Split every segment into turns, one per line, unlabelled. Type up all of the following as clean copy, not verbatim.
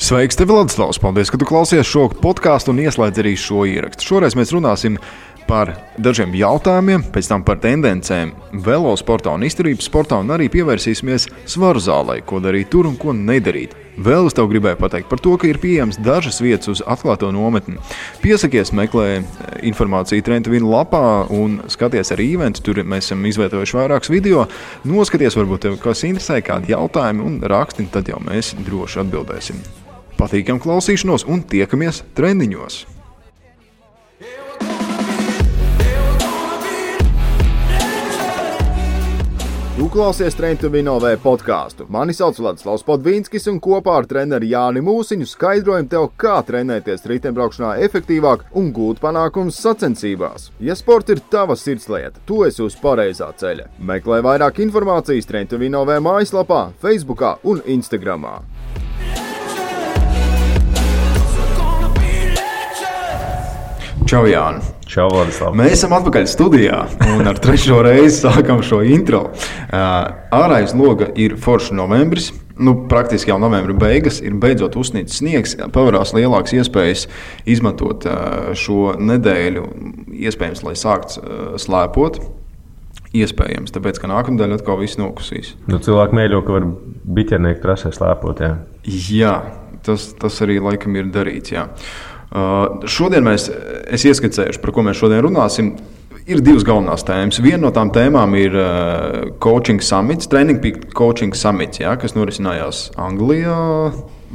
Sveiks, tev Ladislavs! Paldies, ka tu klausies šo podkāstu un ieslēdz arī šo ierakstu. Šoreiz mēs runāsim par dažiem jautājumiem, pēc tam par tendencēm velosportā un izturības sportā un arī pievērsīsimies svaru zālei, ko darīt tur un ko nedarīt. Vēl es tev gribēju pateikt par to, ka ir pieejams dažas vietas uz atklāto nometni. Piesakies, meklē informāciju Trenta Vina lapā un skaties arī eventu. Tur mēs esam izvietojuši vairākus video. Noskaties, varbūt tev kas interesē, kādi jautājumi un raksti, tad jau mēs droši atbildēsim. Patīkam klausīšanos un tiekamies trendiņos! Tu klausies Trenta Vina podkāstu. Mani sauc Ladislavs Podvīnskis un kopā ar treneri Jāni Mūsiņu skaidrojam tev, kā trenēties riteņbraukšanā efektīvāk un gūt panākumus sacensībās. Ja sports ir tava sirdslieta, tu esi uz pareizā ceļa. Meklē vairāk informācijas Trenta Vina mājaslapā, Facebookā un Instagramā. Čau, Jāni!
Čau, Vladislav!
Mēs esam atpakaļ studijā un ar trešo reizi sākam šo intro. Ārā aiz loga ir foršs novembris, praktiski jau novembra beigas, ir beidzot uzsnīts sniegs, pavarās lielākas iespējas izmantot šo nedēļu, iespējams, lai sākts slēpot. Iespējams, tāpēc, ka nākamdēļ atkal viss nokusīs.
Cilvēki mēģo, ka var biķernieku trasē slēpot, jā.
Jā, tas arī laikam ir darīts, jā. Šodien es ieskicējuši, par ko mēs šodien runāsim. Ir divas galvenās tēmas. Viena no tām tēmām ir coaching summits, Training Peak coaching summits, jā, kas norisinājās Anglijā,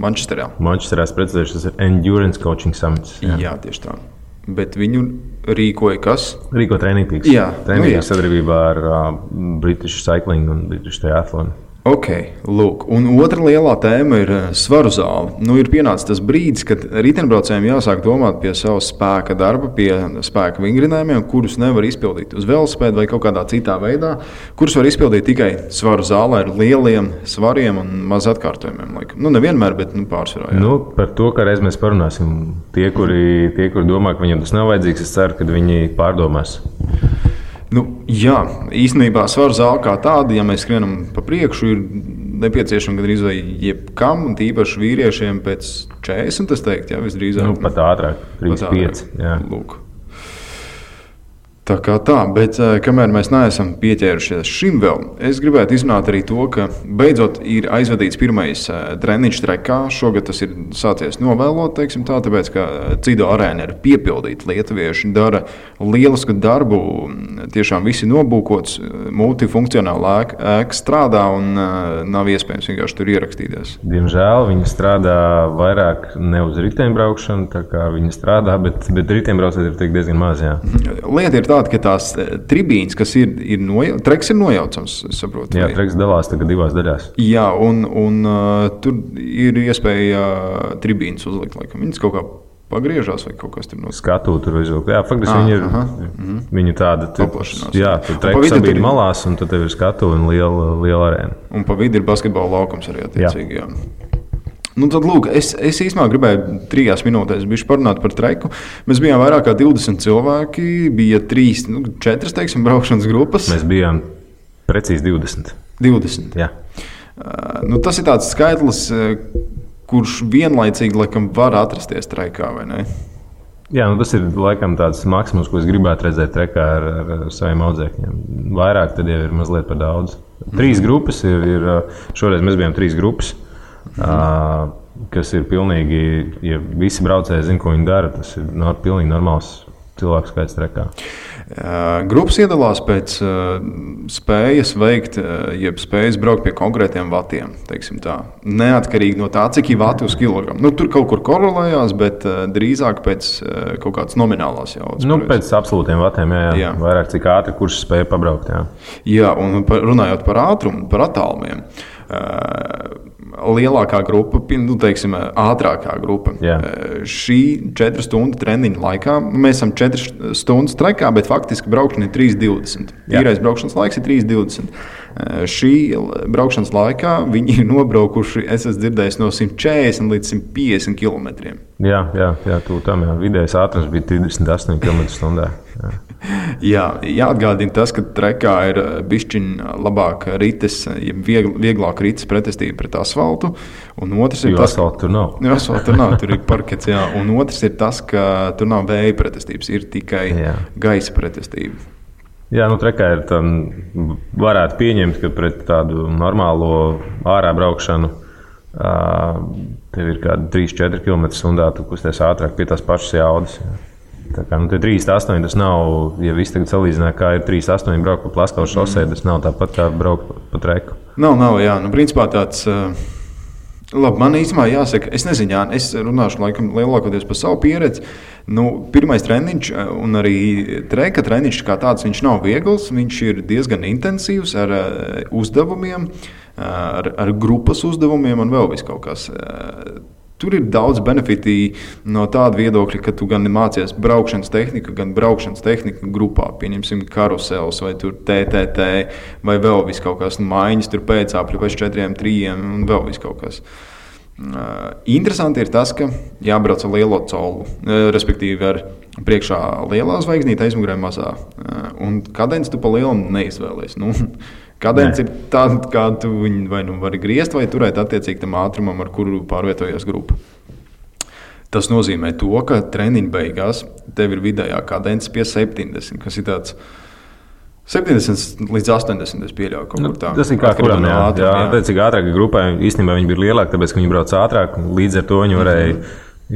Manchesterā.
Manchesterā, es precizēšu, tas ir Endurance coaching summits.
Jā, tieši tā. Bet viņu rīkoja kas?
Rīko Training Peaks.
Jā.
Training Peaks sadarbībā ar British Cycling un British Triathlon.
Ok, lūk. Un otra lielā tēma ir svaru zāle. Ir pienācis tas brīdis, kad riteņbraucējiem jāsāk domāt pie savas spēka darba, pie spēka vingrinājumiem, kurus nevar izpildīt uz velosipēda vai kaut kādā citā veidā, kurus var izpildīt tikai svaru zālē ar lieliem svariem un maz atkārtojumiem. Nevienmēr, bet pārsvarā. Jā.
Par to, ka reiz mēs parunāsim. Tie, kuri domā, ka viņiem tas nav vajadzīgs, es ceru, ka viņi pārdomās.
Jā, īstenībā svaru zāle kā tāda, ja mēs skrienam pa priekšu, ir nepieciešama gandrīz vai jebkam, un tīpaši vīriešiem pēc 40, es teiktu, jā, visdrīzāk.
Pat ātrāk, 35, jā.
Lūk. Tā kā tā, bet kamēr mēs neesam pieķērušies šim vēl, es gribētu izrunāt arī to, ka beidzot ir aizvadīts pirmais treniņš trekā. Šogad tas ir sācies novēlot, teiksim tā, tāpēc, ka Cido arēna ir piepildīta. Lietuvieši dara lielisku darbu, tiešām visi nobūkots, multifunkcionāla ēka strādā un nav iespējams vienkārši tur ierakstīties.
Diemžēl viņi strādā vairāk ne uz riteņbraukšanu, tā kā viņi strādā, bet riteņbraucēji ir diezgan maz, jā.
Lieta ir tāda, ka tās tribīnes, kas treks ir nojaucams, es saprotu.
Jā, treks dalās tagad divās daļās.
Jā, un tur ir iespēja tribīnes uzlikt, laikam. Viņas kaut kā pagriežās vai kaut kas tur no
skatu tur izvilkt. Jā, faktiski viņi tāda
paplašinās.
Jā, tur treks sabīd malās, un tad tev ir skatu un liela arēna.
Un pa vidi ir basketbola laukums arī attiecīgi, jā. Tad, lūk, es īstenībā gribēju 3 minūtēs bišķi parunāt par treku. Mēs bijām vairāk kā 20 cilvēki, bija 4, teiksim, braukšanas grupas.
Mēs bijām precīzi 20.
20?
Jā.
Tas ir tāds skaitlis, kurš vienlaicīgi, laikam, var atrasties trekā, vai ne?
Jā, tas ir, laikam, tāds maksimums, ko es gribētu redzēt trekā ar saviem audzēkņiem. Vairāk tad jau ir mazliet par daudz. 3 grupas ir, šoreiz mēs bijām 3 grupas. Kas ir pilnīgi, ja visi braucēji zina, ko viņi dara, tas ir pilnīgi normāls cilvēku skaits trekā.
Grupas iedalās pēc spējas veikt, jeb spējas braukt pie konkrētiem vatiem, teiksim tā. Neatkarīgi no tā, cik ir vati uz kilogramu. Tur kaut kur korelējās, bet drīzāk pēc kaut kādas nominālās jaudas.
Pēc absolūtiem vatiem, jā. Vairāk cik ātri, kurš spēja pabraukt, jā.
Jā, un runājot par ātrumu, par attālumiem. Lielākā grupa, teiksim, ātrākā grupa. Šī 4 stundu treniņa laikā, mēs esam 4 stundas trekā, bet faktiski braukšana ir 3:20. Tīrais braukšanas laiks ir 3:20. Šī braukšanas laikā viņi ir nobraukuši, es esmu dzirdējis, no 140 līdz 150 km.
Jā, vidējais ātrums bija 38 km/h.
Jā, jāatgādina tas, ka trekā ir bišķiņ labāk rites, vieglāk rites pretestība pret asfaltu. Un otrs ir tas,
asfaltu tur nav.
Asfaltu tur nav, tur ir parkets, jā. Un otrs ir tas, ka tur nav vēja pretestības, ir tikai gaisa pretestība.
Jā, trekā ir varētu pieņemt, ka pret tādu normālo ārā braukšanu tev ir kādi 3-4 km/h, tu kusties ātrāk pie tās pašas jaudas. Tā kā 3,8 tas nav, ja viss tagad salīdzinā, kā ir 3,8 braukt pa Plaskavas šosei, tas nav tāpat kā braukt pa treku.
Nav, jā. Principā tāds, labi, man īstenībā jāsaka, es nezinu, jā, es runāšu laikam lielākoties par savu pieredzi. Pirmais treniņš un arī treka treniņš kā tāds, viņš nav viegls, viņš ir diezgan intensīvs ar uzdevumiem, ar grupas uzdevumiem un vēl vis kaut kas. Tur ir daudz benefiti no tāda viedokļa, ka tu gan mācies braukšanas tehniku, gan braukšanas tehniku grupā. Pieņemsim karusels vai TTT vai vēl vis kaut kas maiņas, tur pēcāpļu pēc 4-3 un vēl vis kaut kas. Interesanti ir tas, ka jābrauc ar lielo colu, respektīvi ar priekšā lielā zvaigznīte, aizmugurē mazā. Un kadenci tu pa lielu neizvēlies. Kadence ir tāda, kā tu viņu vai vari griezt vai turēt attiecīgi tam ātrumam, ar kuru pārvietojas grupa. Tas nozīmē to, ka treniņa beigās tev ir vidējā kadence pie 70, kas ir tāds 70 līdz 80, es pieļauju kaut kur tā.
Tas ir kā kuram, jā. Attiecīgi ātrāk grupai īstenībā viņi bija lielāki, tāpēc, ka viņi brauc ātrāk, līdz ar to viņi varēja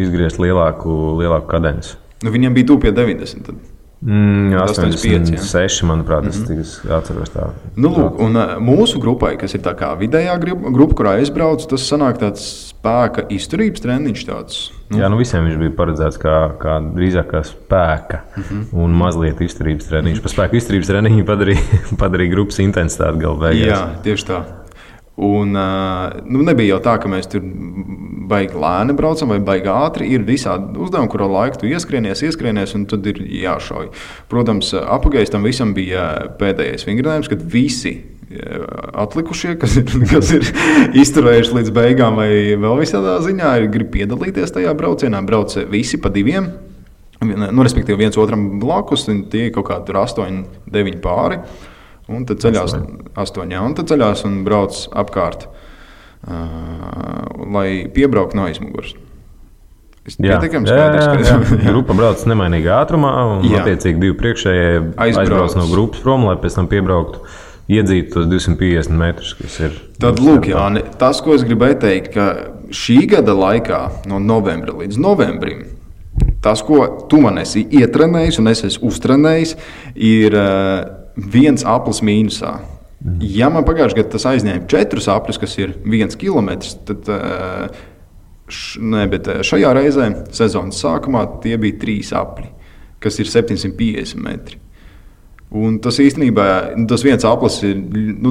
izgriezt lielāku kadenci.
Viņiem bija tuvu pie 90 tad.
86, manuprāt, es atceros tā.
Lūk, un mūsu grupai, kas ir tā kā vidējā grupa, kurā es braucu, tas sanāk tāds spēka izturības treniņš tāds.
Jā, visiem viņš bija paredzēts kā drīzāk kā spēka un mazliet izturības treniņš. Pa spēka izturības treniņu padarīja grupas intensitāti galu beigās.
Jā, tieši tā. Un nebija jau tā, ka mēs tur baigi lēni braucam vai baigi ātri. Ir visādi uzdevumi, kuru laiku tu ieskrienies un tad ir jāšauj. Protams, apagājis tam visam bija pēdējais vingrinājums, kad visi atlikušie, kas ir izturējuši līdz beigām vai vēl visādā ziņā, grib piedalīties tajā braucienā. Brauc visi pa diviem, respektīvi viens otram blakus, un tie kaut kādi 8-9 pāri. Un tad ceļās 8, un tad ceļās un brauc apkārt, lai piebrauktu no aizmugures. Pietiekami skaidrs, ka
grupa brauc nemainīgā ātrumā, un attiecīgi divi priekšējie aizbrauc no grupas prom, lai pēc tam piebrauktu, iedzītu tos 250 metrus, kas ir.
Tad, lūk, Jāni, tas, ko es gribēju teikt, ka šī gada laikā, no novembra līdz novembrim, tas, ko tu man esi ietrenējis un es esmu uztrenējis, ir viens aplis mīnusā. Ja man pagājušajā gadā tas aizņēma 4 apļus, kas ir 1 kilometrs, tad bet šajā reizē sezonas sākumā tie bija 3 apļi, kas ir 750 metri. Un tas īstenībā, tas viens aplis ir,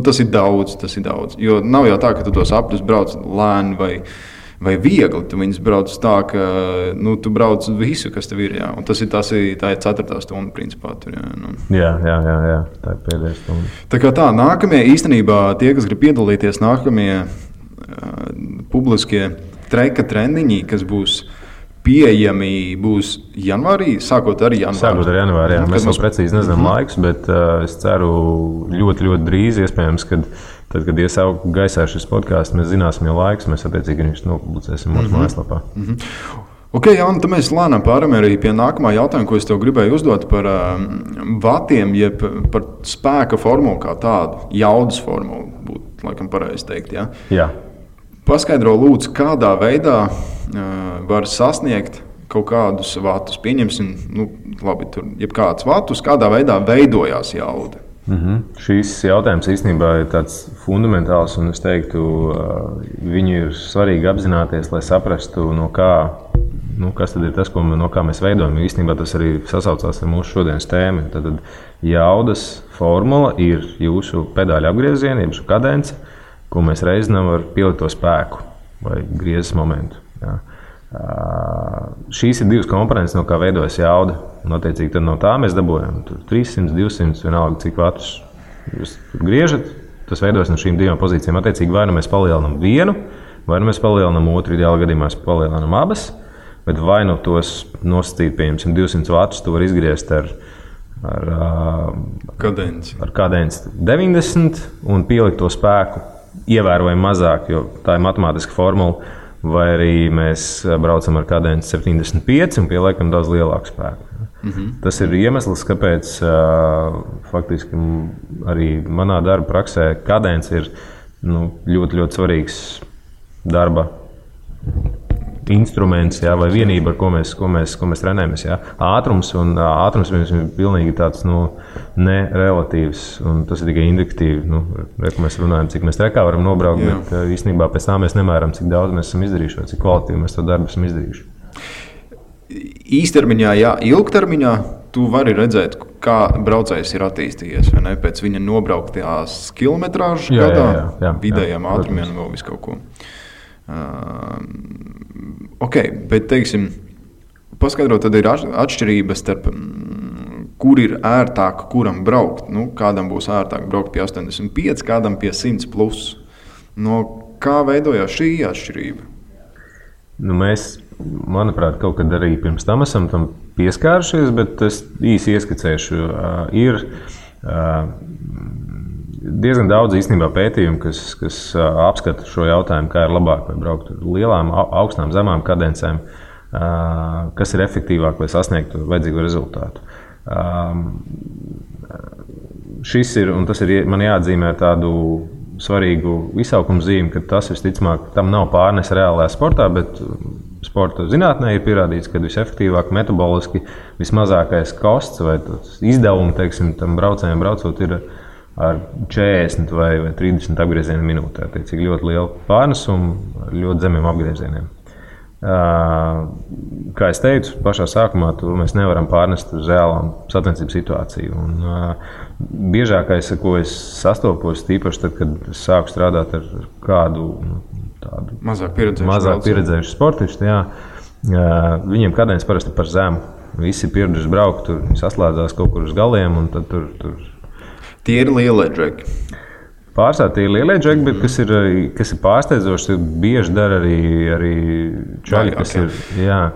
tas ir daudz. Jo nav jau tā, ka tu tos apļus brauc lēni vai viegli. Tu viņus brauc tā, ka tu brauc visu, kas tev ir. Jā. Un tā ir 4. stunda, principā. Tur,
jā. Tā ir pēdējā stunda.
Tā kā tā, nākamie īstenībā tie, kas grib piedalīties, nākamie publiskie treka treniņi, kas būs pieejami, būs janvārī, sākot ar janvāri.
Jā. Mēs vēl precīzi nezinām laikus, bet es ceru ļoti, ļoti drīz, iespējams, tad, kad iesaukt gaisā šis podkāsts, mēs zināsim jau laikus, mēs attiecīgi viņš nopublicēsim mūsu mājaslapā.
Ok, Jāni, tad mēs lēnām pārējām arī pie nākamā jautājuma, ko es tev gribēju uzdot par vatiem, jeb par spēka formulu kā tādu, jaudas formulu, būtu laikam pareizi teikt. Ja?
Jā.
Paskaidro lūdzu, kādā veidā var sasniegt kaut kādus vatus. Pieņemsim, labi, tur jebkādus vatus, kādā veidā veidojās jauda.
Šīs jautājums īstenībā ir tāds fundamentāls, un es teiktu, viņu ir svarīgi apzināties, lai saprastu, no kā, kas tad ir tas, no kā mēs veidojam. Īstenībā tas arī sasaucās ar mūsu šodienas tēmu. Tad jaudas formula ir jūsu pedāļu apgriezieni, jeb kadence, ko mēs reizinām ar pielikto spēku vai griezes momentu. Jā. Šīs ir 2 komponentes, no kā veidojas jauda. Un, attiecīgi, tad no tā mēs dabūjam 300, 200, vienalga, cik vatus jūs griežat. Tas veidojas no šīm 2 pozīcijām. Attiecīgi, vai nu mēs palielinām vienu, vai nu mēs palielinām otru, ideālā gadījumā mēs palielinām abas. Bet vai nu tos nosacīt, pieņemsim, 200 vatus, tu var izgriezt ar kadenci 90 un pielikt to spēku ievērojami mazāk, jo tā ir matemātiska formula, vai arī mēs braucam ar kadenci 75 un pieliekam daudz lielāku spēku. Tas ir iemesls, kāpēc faktiski arī manā darba praksē kadence ir ļoti, ļoti svarīgs darba instruments, vai vienība, ar ko mēs trenējamies. Ātrums mums ir pilnīgi tāds nerelatīvs, un tas ir tikai indikatīvi. Mēs runājam, cik mēs trekā varam nobraukt, bet īstenībā pēc tā mēs nemēram, cik daudz mēs esam izdarījuši, vai cik kvalitīvi mēs to darbu esam izdarījuši.
Īstermiņā, ilgtermiņā tu vari redzēt, kā braucējs ir attīstījies, vai ne? Pēc viņa nobrauktās kilometrāžu gadā, vidējiem ātrumiem un vēl visu kaut ko. Bet, teiksim, paskaidrot, tad ir atšķirības starp, kur ir ērtāk, kuram braukt. Kādam būs ērtāk braukt pie 85, kādam pie 100 plus. Kā veidojās šī atšķirība?
Mēs, manuprāt, kaut kad arī pirms tam esam tam pieskārušies, bet es īsi ieskicēšu. Ir diezgan daudz īstenībā pētījumu, kas apskata šo jautājumu, kā ir labāk vai braukt ar lielām, augstām, zemām kadencēm, kas ir efektīvāk, lai sasniegtu vajadzīgo rezultātu. Šis ir, un tas ir man jāatzīmē tādu svarīgu izsaukumu zīmi, ka tas visticamāk tam nav pārnes reālajā sportā, bet sporta zinātnē ir pierādīts, ka visefektīvāk metaboliski vismazākais kosts vai izdevumi, teiksim, tam braucējiem braucot ir ar 40 vai 30 apgriezienu minūtē. Tiecīgi ļoti liela pārnesuma ar ļoti zemiem apgriezieniem. Kā es teicu, pašā sākumā mēs nevaram pārnest uz reālām sacensību situāciju. Un biežākais, ar ko es sastopos, tīpaši tad, kad es sāku strādāt ar kādu tādu
mazāk
pieredzējušu sportistu, viņiem kadence parasti par zemu. Visi ir pieraduši braukt, tur saslēdzās kaut kur uz galiem, un tad tur.
Tie ir lielie džeki.
Pārsvarā tie ir lielie džeki, bet kas ir pārsteidzoši, bieži dara arī čaļi,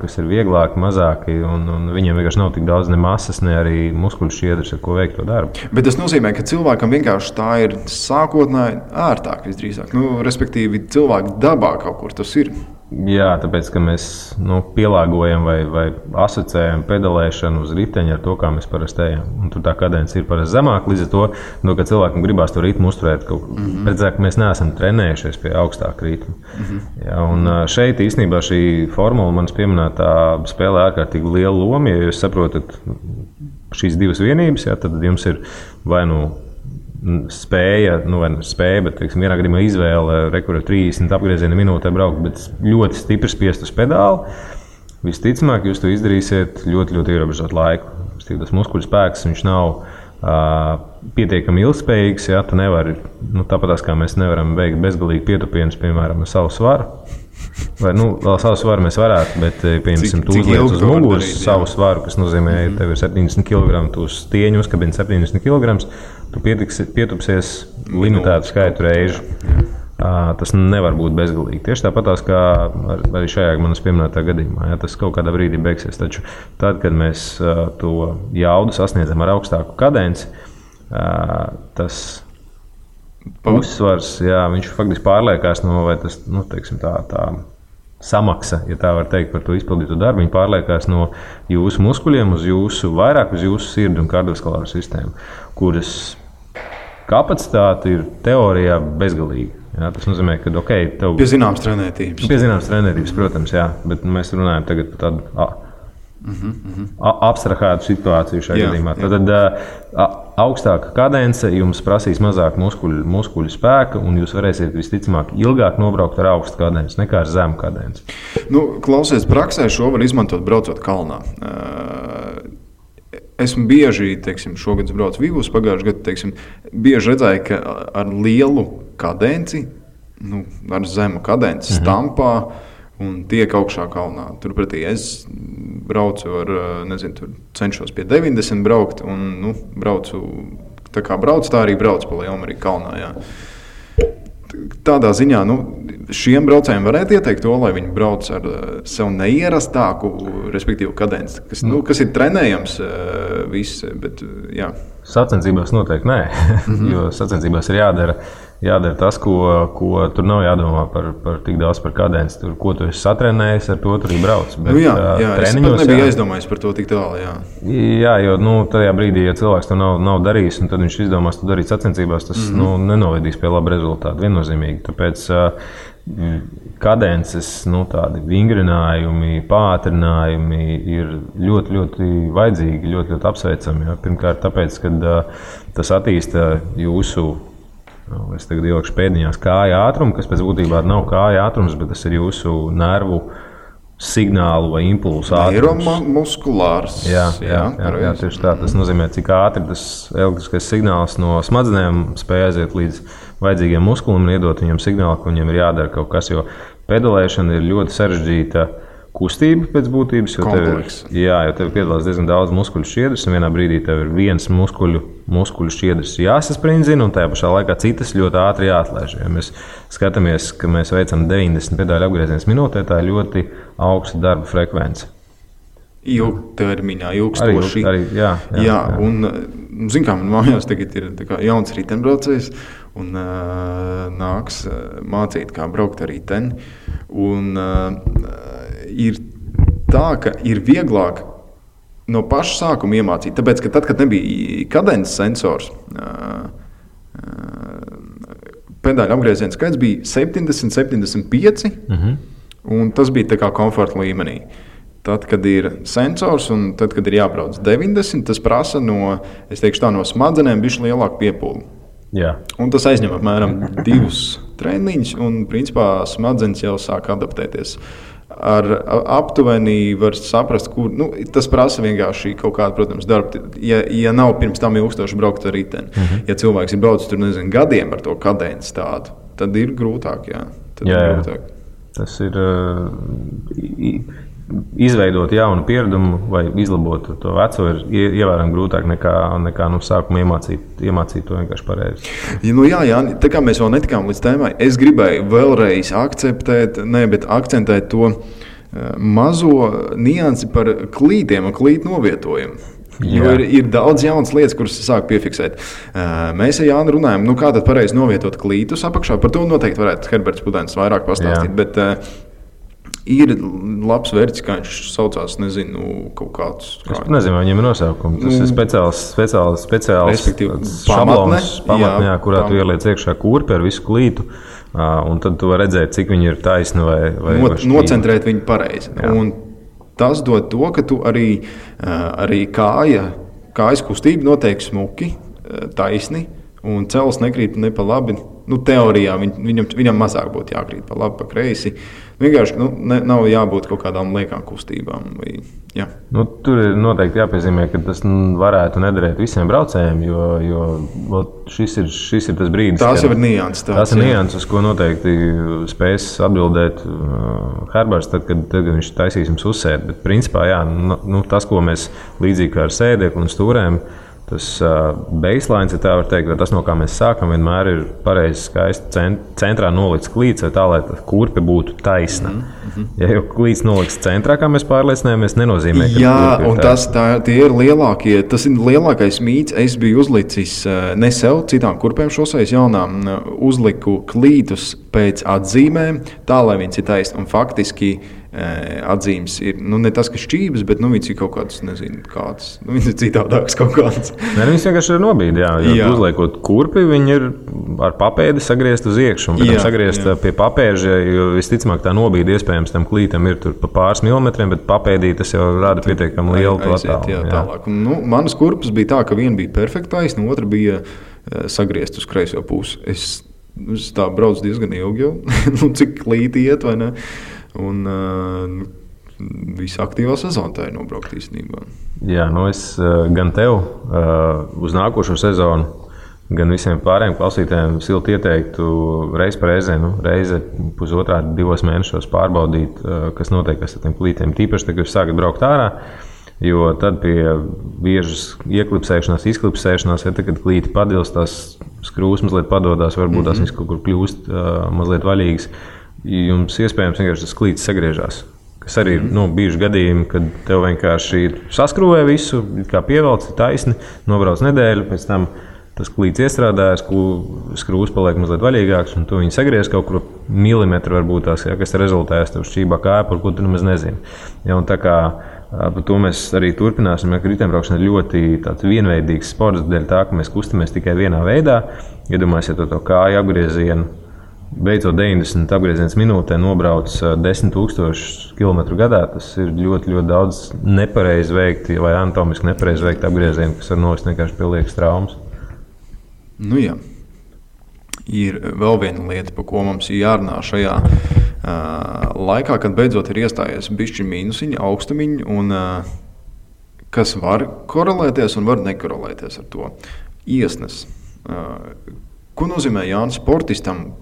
kas ir vieglāki, mazāki, un viņiem vienkārši nav tik daudz ne masas, ne arī muskuļu šķiedras, ar ko veikt to darbu.
Bet tas nozīmē, ka cilvēkam vienkārši tā ir sākotnēji ērtāk visdrīzāk. Respektīvi, cilvēku dabā kaut kur tas ir.
Jā, tāpēc, ka mēs pielāgojam vai asociējam pedalēšanu uz riteņa ar to, kā mēs parasti ejam. Un tur tā kadence ir parasti zemāka, līdz ar to, ka cilvēkam gribās to ritmu uzturēt. Redzēt, ka mēs neesam trenējušies pie augstāka ritma. Jā, un šeit īstenībā šī formula manas pieminētā spēlē ārkārtīgi lielu lomu. Ja jūs saprotat šīs divas vienības, tad jums ir vai spēja, bet vienā gadījumā izvēle rekurēt 30 apgriezienu minūtē braukt, bet ļoti stipri spiest uz pedāli. Visticamāk, jūs to izdarīsiet ļoti, ļoti ierobežot laiku. Tas muskuļu spēks, viņš nav pietiekami ilgspējīgs. Tu nevari, tāpatās kā mēs nevaram veikt bezgalīgi pietupienus, piemēram, ar savu svaru. Vai, vēl savu svaru mēs varētu, bet, piemēram, tu uzliec uz muguras savu svaru, kas nozīmē, ka tev ir 70 kg, tu uz stieņu uzkabini 70 kg, tu pietupsies limitētu skaitu reižu. Tas nevar būt bezgalīgi. Tieši tāpatās kā arī šajā manas pieminētā gadījumā. Tas kaut kādā brīdī beigsies. Taču tad, kad mēs to jaudu sasniedzam ar augstāku kadenci, tas uzsvars, viņš faktiski pārliekās vai tas, teiksim, tā samaksa, ja tā var teikt, par to izpildītu darbu, viņi pārliekās no jūsu muskuļiem vairāk uz jūsu sirdi un kardiovaskulāru sistēmu, kuras kapacitāte ir teorijā bezgalīga. Tas nozīmē, ka tev
pie zināmas trenētības.
Pie zināmas trenētības, protams, bet mēs runājam tagad par tādu abstrahētu situāciju šajā gadījumā. Tad augstāka kadence jums prasīs mazāk muskuļu spēka, un jūs varēsiet visticamāk ilgāk nobraukt ar augstu kadenci nekā ar zemu kadenci.
Klausies, praksē šo var izmantot braucot kalnā. Esmu bieži, šogad braucu Vivus, pagājušajā gadā, bieži redzēju, ka ar lielu kadenci, ar zemu kadenci stampā un tiek augšā kalnā. Turpretī es braucu ar, cenšos pie 90 braukt un, braucu, tā kā braucu, tā arī braucu pa Lielmariju kalnā, jā. tādā ziņā, šiem braucējiem varētu ieteikt to, lai viņi brauc ar sev neierastāku, respektīvi kadenci, kas ir trenējams viss, bet jā.
Sacensībās noteikti nē, jo sacensībās ir jādara tas, ko tur nav jādomā par tik daudz par kadenci. Tur, ko tu esi satrenējis, ar to tur arī brauc. Bet,
jā, es pat nebiju aizdomājis par to tik tālu.
Jā, jo tajā brīdī, ja cilvēks to nav darījis, un tad viņš izdomās to darīt sacensībās, tas nenovedīs pie laba rezultāta viennozīmīgi. Tāpēc kadences, tādi vingrinājumi, pātrinājumi ir ļoti, ļoti vajadzīgi, ļoti, ļoti apsveicami. Ja? Pirmkārt, tāpēc, ka tas attīsta jūsu, es tagad ielikšu pēdiņās, kāja ātrumu, kas pēc būtībā nav kāja ātrums, bet tas ir jūsu nervu signālu vai impulsu ātrums.
Neiromuskulārs.
Jā, tieši tā. Tas nozīmē, cik ātri tas elektriskais signāls no smadzenēm spēj aiziet līdz vajadzīgiem muskulim un iedot viņiem signālu, ka viņiem ir jādara kaut kas, jo pedalēšana ir ļoti sarežģīta kustība pēc būtības, jo tev piedalās diezgan daudz muskuļu šķiedras, un vienā brīdī tev ir viens muskuļu šķiedras jāsasprindzina, un tajā pašā laikā citas ļoti ātri jāatlaiž. Ja mēs skatāmies, ka mēs veicam 90 pedāļu apgriezienus minūtē, tā ir ļoti augsta darba frekvence.
Ilgtermiņā, ilgstoši. Jā. Un, man mājās tagad ir jauns riteņbraucējs, un nāks mācīt, kā braukt ar riteni. Un ir tā, ka ir vieglāk no paša sākuma iemācīt, tāpēc, ka tad, kad nebija kadences sensors, pedāļu apgriezienu skaits bija 70, 75, un tas bija tā kā komforta līmenī. Tad, kad ir sensors un tad, kad ir jābrauc 90, tas prasa no smadzenēm bišķi lielāku piepūli.
Jā. Un
tas aizņem apmēram 2 treniņus, un principā smadzenes jau sāk adaptēties. Ar aptuveni var saprast, kur tas prasa vienkārši kaut kādu, protams, darbu. Ja nav pirms tam ilgstoši braukt ar riteni, ja cilvēks ir braucis tur, gadiem ar to kadenci tādu, tad ir grūtāk, jā.
Grūtāk. Tas ir izveidot jaunu pieredumu vai izlabot to veco ir ievērojami grūtāk nekā no sākuma iemācīt to vienkārši pareizi.
Jā, tā kā mēs vēl netikām līdz tēmai, es gribēju vēlreiz akcentēt to mazo niansi par klītiem un klītu novietojumu. Jo ir daudz jaunas lietas, kuras sāk piefiksēt. Mēs ar Jānu runājam, kā tad pareizi novietot klītus apakšā. Par to noteikti varētu Herberts Pudens vairāk pastāstīt. Bet ir labs vērts, kā viņš saucās, kaut kāds.
Es nezinu, vai viņam ir nosaukums. Tas ir speciāls šablons, pamatnē, kurā tu ieliec iekšā kurpi ar visu klītu. Un tad tu vari redzēt, cik viņi ir taisni vai
nocentrēt viņu pareizi. Un tas dod to, ka tu arī kājas kustība notiek smuki, taisni, un cels nekrīt ne pa labi. Teorijā viņam mazāk būtu jākrīt pa labi, pa kreisi. Vienkārši nav jābūt kaut kādām liekām kustībām.
Tur ir noteikti jāpiezīmē, ka tas varētu nederēt visiem braucējiem, jo šis ir tas brīdis.
Tās jau ir nianses.
Tās ir nianses, ko noteikti spēs atbildēt Herberts, tad, kad viņš taisīs jums uzsēdi. Bet principā, tas, ko mēs līdzīgi kā ar sēdekli un stūrēm, tas baseline, ja tā var teikt, tas, no kā mēs sākam, vienmēr ir pareizi skaisti centrā nolikts klīts, tā, lai kurpe būtu taisna. Ja jau klīts nolikts centrā, kā mēs pārliecinājāmies, nenozīmē, ka
un tie ir lielākie, tas ir lielākais mīts. Es biju uzlicis ne sev, citām kurpēm šoseis jaunām, uzliku klītus pēc atzīmēm, tā, lai viņas ir taisni. Un faktiski atzīmes ir ne tas, ka šķības, bet viņas ir kaut kādas, nezinu, kādas. Viņas ir citādākas kaut kādas.
Viņas vienkārši ir nobīdi, jo uzliekot kurpi, viņi ir ar papēdi sagriezt uz iekšu. Un pēc sagriezt pie papēža, jo visticamāk tā nobīdi iespējams tam klītam ir tur pa pāris milimetriem, bet papēdī tas jau rāda pietiekami lielu attālumu.
Tālāk. Manas kurpes bija tā, ka viena bija perfekta taisna, otra bija sagriezt uz kreiso pusi. Es tā braucu diezgan ilgi jau, cik klīti iet, vai ne? Un visa aktīvā sezona tā ir nobraukt īstenībā.
Jā, es gan tev uz nākošo sezonu, gan visiem pārējiem klausītājiem silti ieteiktu reizi par reizi pusotrā, 2 mēnešos pārbaudīt, kas notiek ar tiem klītiem. Tīpaši, kad jūs sākat braukt ārā, Jo tad pie biežas ieklipsēšanās, izklipsēšanās, ja tad, kad klīti padils, tās skrūves mazliet padodās, varbūt tās viņas kaut kur kļūst mazliet vaļīgas. Jums iespējams vienkārši tas klītis sagriežās. Kas arī ir bijuši gadījumi, kad tev vienkārši saskrūvē visu, kā pievelc, taisni, nobrauc nedēļu, pēc tam tas klīts iestrādājas, skrūves paliek mazliet vaļīgāks, un tu viņu sagriez kaut kur milimetru varbūt tās, kas rezultējas tev šķībā kāja, par ko tu nemaz nezini. Ja, un tā kā par to mēs arī turpināsim, ka riteņbraukšana ir ļoti tāds vienveidīgs sports, dēļ tā, ka mēs kustamies tikai vienā veidā. Iedomājieties to kāju apgriezienu, beidzot 90 apgrieziens minūtē nobrauc 10,000 km gadā. Tas ir ļoti, ļoti daudz nepareizi veikti vai anatomiski nepareizi veikti apgriezieni, kas var novest vienkārši pie liekas traumas.
Nu jā, ir vēl viena lieta, par ko mums ir jārunā šajā laikā, kad beidzot ir iestājies bišķi mīnusiņi, augstumiņi, un kas var korelēties un var nekorelēties ar to. Iesnes. Ko nozīmē Jānis sportistam?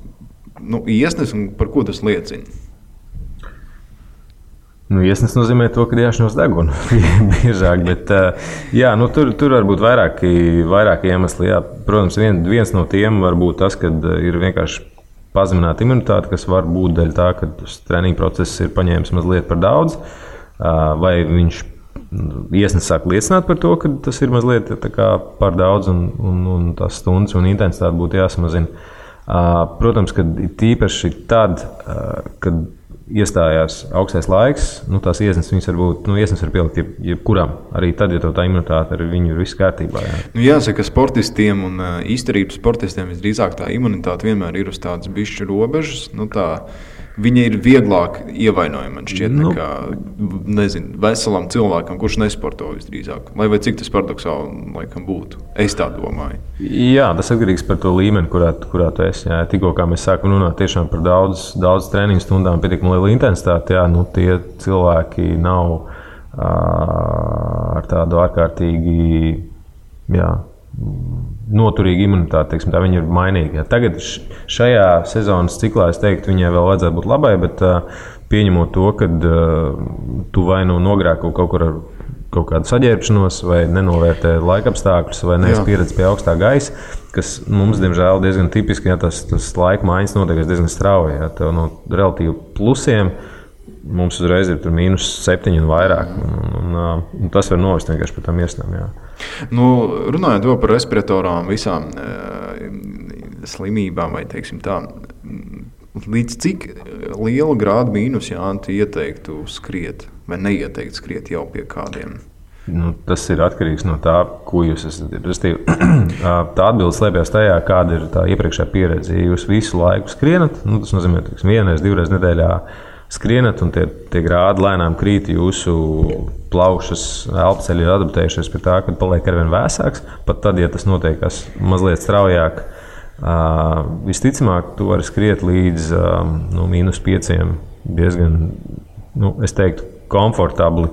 Iesnes un par ko tas liecina?
Iesnes nozīmē to, ka jāšņos degunu biežāk, bet tur var būt vairāki iemesli. Jā. Protams, viens no tiem var būt tas, ka ir vienkārši pazemināta imunitāte, kas var būt dēļ tā, ka treniņu process ir paņēmis mazliet par daudz, vai viņš iesnes sāk liecināt par to, ka tas ir mazliet par daudz un tās stundas un intensitāte būtu jāsamazina. Protams, ka tīpaši tad, kad iestājās augstais laiks, tās iesnes var būt, iesnes var pielikt jebkuram, arī tad, ja tā imunitāte ar viņu ir viss kārtībā. Jā.
Jāsaka, ka sportistiem un izturības sportistiem visdrīzāk tā imunitāte vienmēr ir uz tādas bišķu robežas, viņa ir vieglāk ievainojama, man šķiet, nekā, veselam cilvēkam, kurš nesporto visdrīzāk. Lai vai cik tas paradoksāli laikam būtu. Es tā domāju.
Jā, tas atkarīgs par to līmeni, kurā tu esi. Jā. Tikko kā mēs sākam runāt tiešām par daudz treniņu stundām, pietiekami lielu intensitāti, tie cilvēki nav ar tādu ārkārtīgi, noturīga imunitāte, tā viņi ir mainīgi. Tagad šajā sezonas ciklā es teiktu, viņai vēl vajadzētu būt labai, bet pieņemot to, ka tu vai nogrēko kaut kur ar kaut kādu saģērbšanos, vai nenovērtē laikapstākļus, vai neesi pieredzējis pie augstā gaisa, kas mums, diemžēl, diezgan tipiski, tas laika maiņas notiek diezgan strauji. Tev no relatīvi plusiem mums uzreiz ir -7 un vairāk. Un tas var novest vienkārši par tām iesnām.
Runājot vēl par respiratorām, visām slimībām, vai teiksim tā, līdz cik liela grāda mīnus tu ieteiktu skriet vai neieteiktu skriet jau pie kādiem?
Tas ir atkarīgs no tā, ko jūs esat. Tā atbilde slēpjas tajā, kāda ir tā iepriekšējā pieredze. Ja jūs visu laiku skrienat, tas nozīmē, ka vienreiz, divreiz nedēļā skrienat, un tie grādi lēnām krīt, jūsu plaušas, elpceļi ir adaptējušies pie tā, ka paliek arvien vēsāks. Pat tad, ja tas notiek mazliet straujāk, visticamāk, tu vari skriet līdz -5 diezgan, es teiktu, komfortabli,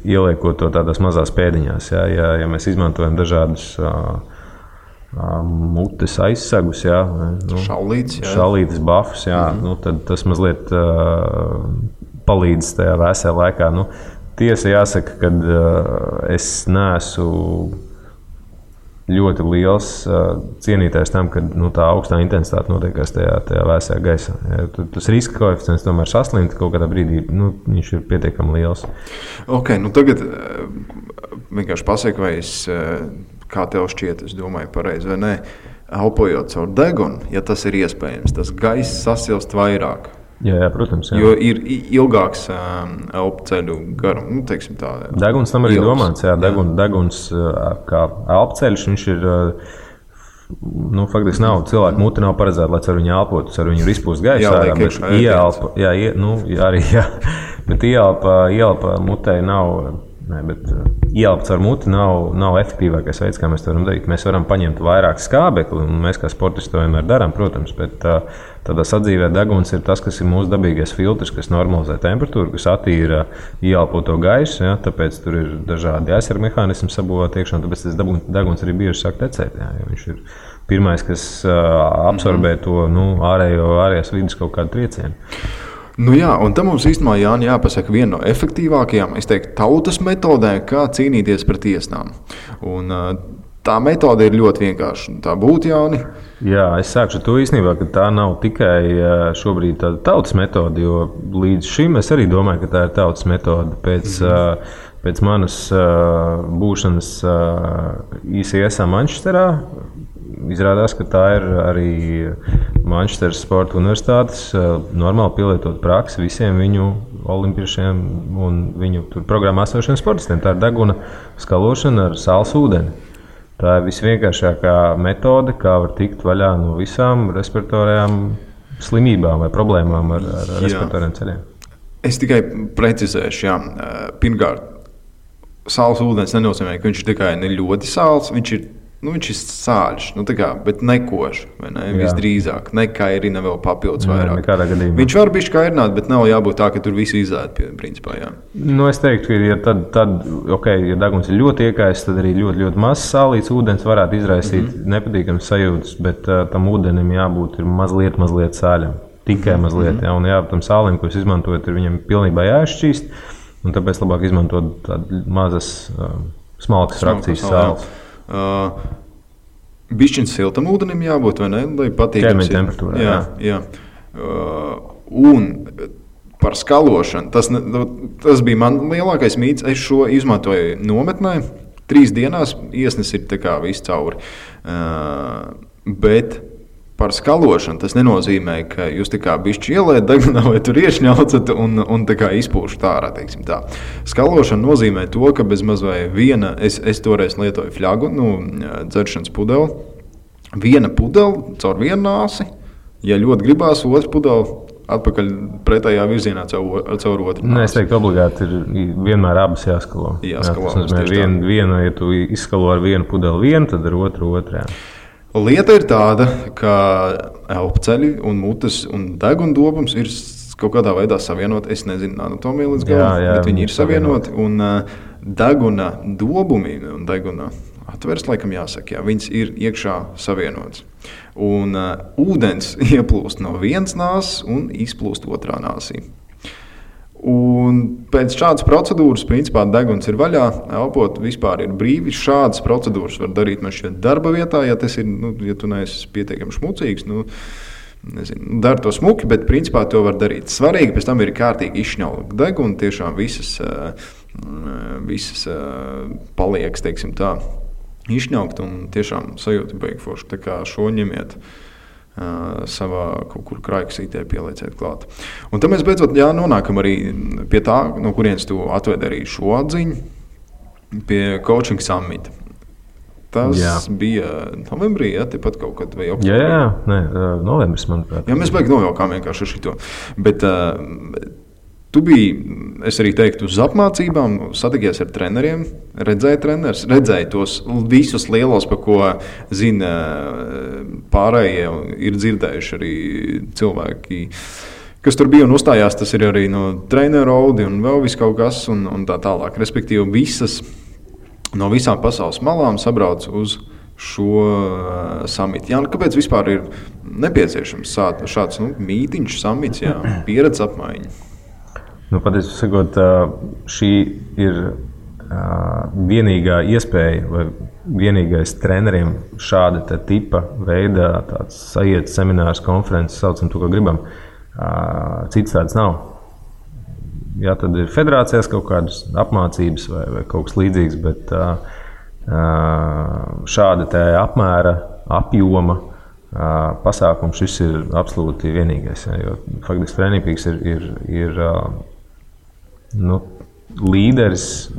ieliekot to tādās mazās pēdiņās. Ja mēs izmantojam dažādus mutes aizsegus, šallītes, bafus, tad tas mazliet palīdz tajā vēsā laikā. Tiesa jāsaka, ka es neesmu ļoti liels cienītājs tam, ka tā augstā intensitāte notiekās tajā vēsajā gaisā. Tas riska koeficients tomēr saslimt kaut kādā brīdī, viņš ir pietiekami liels.
Tagad vienkārši pasaka, vai kā tev šķiet, es domāju pareizi vai nē, elpojot caur degunu, ja tas ir iespējams, tas gaiss sasilst vairāk.
Jā, protams. Jā.
Jo ir ilgāks elpceļu garums, teiksim tā.
Deguns tam arī domāts, deguns kā elpceļš, viņš ir, faktiski nav, cilvēku muti nav paredzēta, lai ar viņu elpotu, ar viņu ir izpūst gaisa ārā, bet ieelpa mutei nav. Bet ieelpa caur muti nav efektīvākais veids, kā mēs to varam darīt. Mēs varam paņemt vairāk skābekli, un mēs kā sportisti to vienmēr darām, protams, bet tādā sadzīvē deguns ir tas, kas ir mūsu dabīgais filtrs, kas normalizē temperatūru, kas attīra ieelpoto gaisu, tāpēc tur ir dažādi aizsarga mehānismi sabūvēti iekšā, tāpēc tas deguns arī bieži sāk tecēt, jo viņš ir pirmais, kas absorbē to ārējās vidas kaut kādu triecienu.
Nu jā, un tam mums īstenībā Jāni jāpasaka viena no efektīvākajām, es teiktu, tautas metodēm, kā cīnīties pret tiesnām. Un tā metode ir ļoti vienkārša. Tā būtu, Jāni.
Jā, es sākšu ar to īstenībā, ka tā nav tikai šobrīd tāda tautas metode, jo līdz šim es arī domāju, ka tā ir tautas metode. Pēc manas būšanas ICS Manchesterā izrādās, ka tā ir arī Manchesteras Sporta Universitātes normāli pielietot praksi visiem viņu olimpiešiem un viņu programmā esošiem sportistiem. Tā ir deguna skalošana ar sāls ūdeni. Tā ir visvienkāršākā metode, kā var tikt vaļā no visām respiratorajām slimībām vai problēmām ar respiratoriem ceļiem. Es
tikai precizēšu, jā. Pirmkārt, sāls ūdens nenozīmē, ka viņš ir tikai ne ļoti sāls, viņš ir sāļš, bet nekošs. Ne? Visdrīzāk, nekairina vēl papildus vairāk. Viņš var būt kairināt, bet nav jābūt tā, ka tur viss izēd.
Es teiktu, ka ja deguns ir ļoti iekaists, tad arī ļoti, ļoti mazs sālīts ūdens varētu izraisīt nepatīkamas sajūtas, bet tam ūdenim jābūt mazliet sāļam. Tikai mazliet. Ja? Un tam sālim, ko jūs izmantojat, ir viņam pilnībā jāizšķīst, un tāpēc labāk izmantot tādas mazas, smalkas frakcijas sāles.
Bišķiņš siltam ūdenim jābūt, vai ne? Lai patīkams
ir. Temperatūrā.
Jā. Un par skalošanu, tas bija man lielākais mīts. Es šo izmantoju nometnē. 3 dienās iesnes ir tā kā viss cauri. Bet par skalošanu tas nenozīmē, ka jūs tā kā bišķi ielējat degunā vai tur iešņaucat un tā kā izpūšat ārā, teiksim tā. Skalošana nozīmē to, ka bez maz vai viena, es toreiz lietoju fļagu, dzeršanas pudeli, viena pudeli caur vienu nāsi, ja ļoti gribās, otru pudeli atpakaļ pretējā virzienā caur otru nāsi.
Es teiktu, obligāti ir vienmēr abas jāskalo. Tas nozīmē, viena, ja tu izskalo ar vienu pudeli vienu, tad ar otru otrā.
Lieta ir tāda, ka elpceļi un mutes un degundobrums ir kaut kādā veidā savienoti. Es nezinu anatomiju līdz galam, bet viņi ir savienoti. Un deguna dobumi un deguna atveres, laikam jāsaka, viņas ir iekšā savienotas. Un ūdens ieplūst no vienas nāses un izplūst otrā nāsī. Un pēc šādas procedūras, principā, deguns ir vaļā, elpot vispār ir brīvi. Šādas procedūras var darīt man šķiet darba vietā, ja tas ir, ja tu neesi pietiekami šmucīgs, dari to smuki, bet principā to var darīt. Svarīgi pēc tam ir kārtīgi izšņaukt degunu, tiešām visas paliekas, teiksim tā, izšņaukt un tiešām sajūta beigforši. Tā kā šo ņemiet savā kaut kur krājkasītē pielieciet klāt. Un tad mēs beidzot nonākam arī pie tā, no kurienes tu atvedi arī šo atziņu, pie Coaching Summit. Tas bija novembrī, tepat kaut kad vai oktobrī?
Novembris, manuprāt.
Mēs beig nojaukām vienkārši ar šito. Bet tu biji, es arī teiktu, uz apmācībām, satikies ar treneriem, redzēji tos visus lielos, par ko zina pārējie, ir dzirdējuši arī cilvēki, kas tur bija un uzstājās. Tas ir arī no treneru audi un vēl viss kaut kas un tā tālāk. Respektīvi, no visām pasaules malām sabrauc uz šo samitu. Kāpēc vispār ir nepieciešams šāds mītiņš, samits, pieredzes apmaiņa?
Patiesībā sakot, šī ir vienīgā iespēja vai vienīgais treneriem šāda tipa veidā tāds sajiet seminārs, konferences, saucam to, ko gribam. Cits tāds nav. Tad ir federācijās kaut kādas apmācības vai kaut kas līdzīgs, bet šāda te apmēra, apjoma pasākums šis ir absolūti vienīgais. Jo faktiski Training ir līderis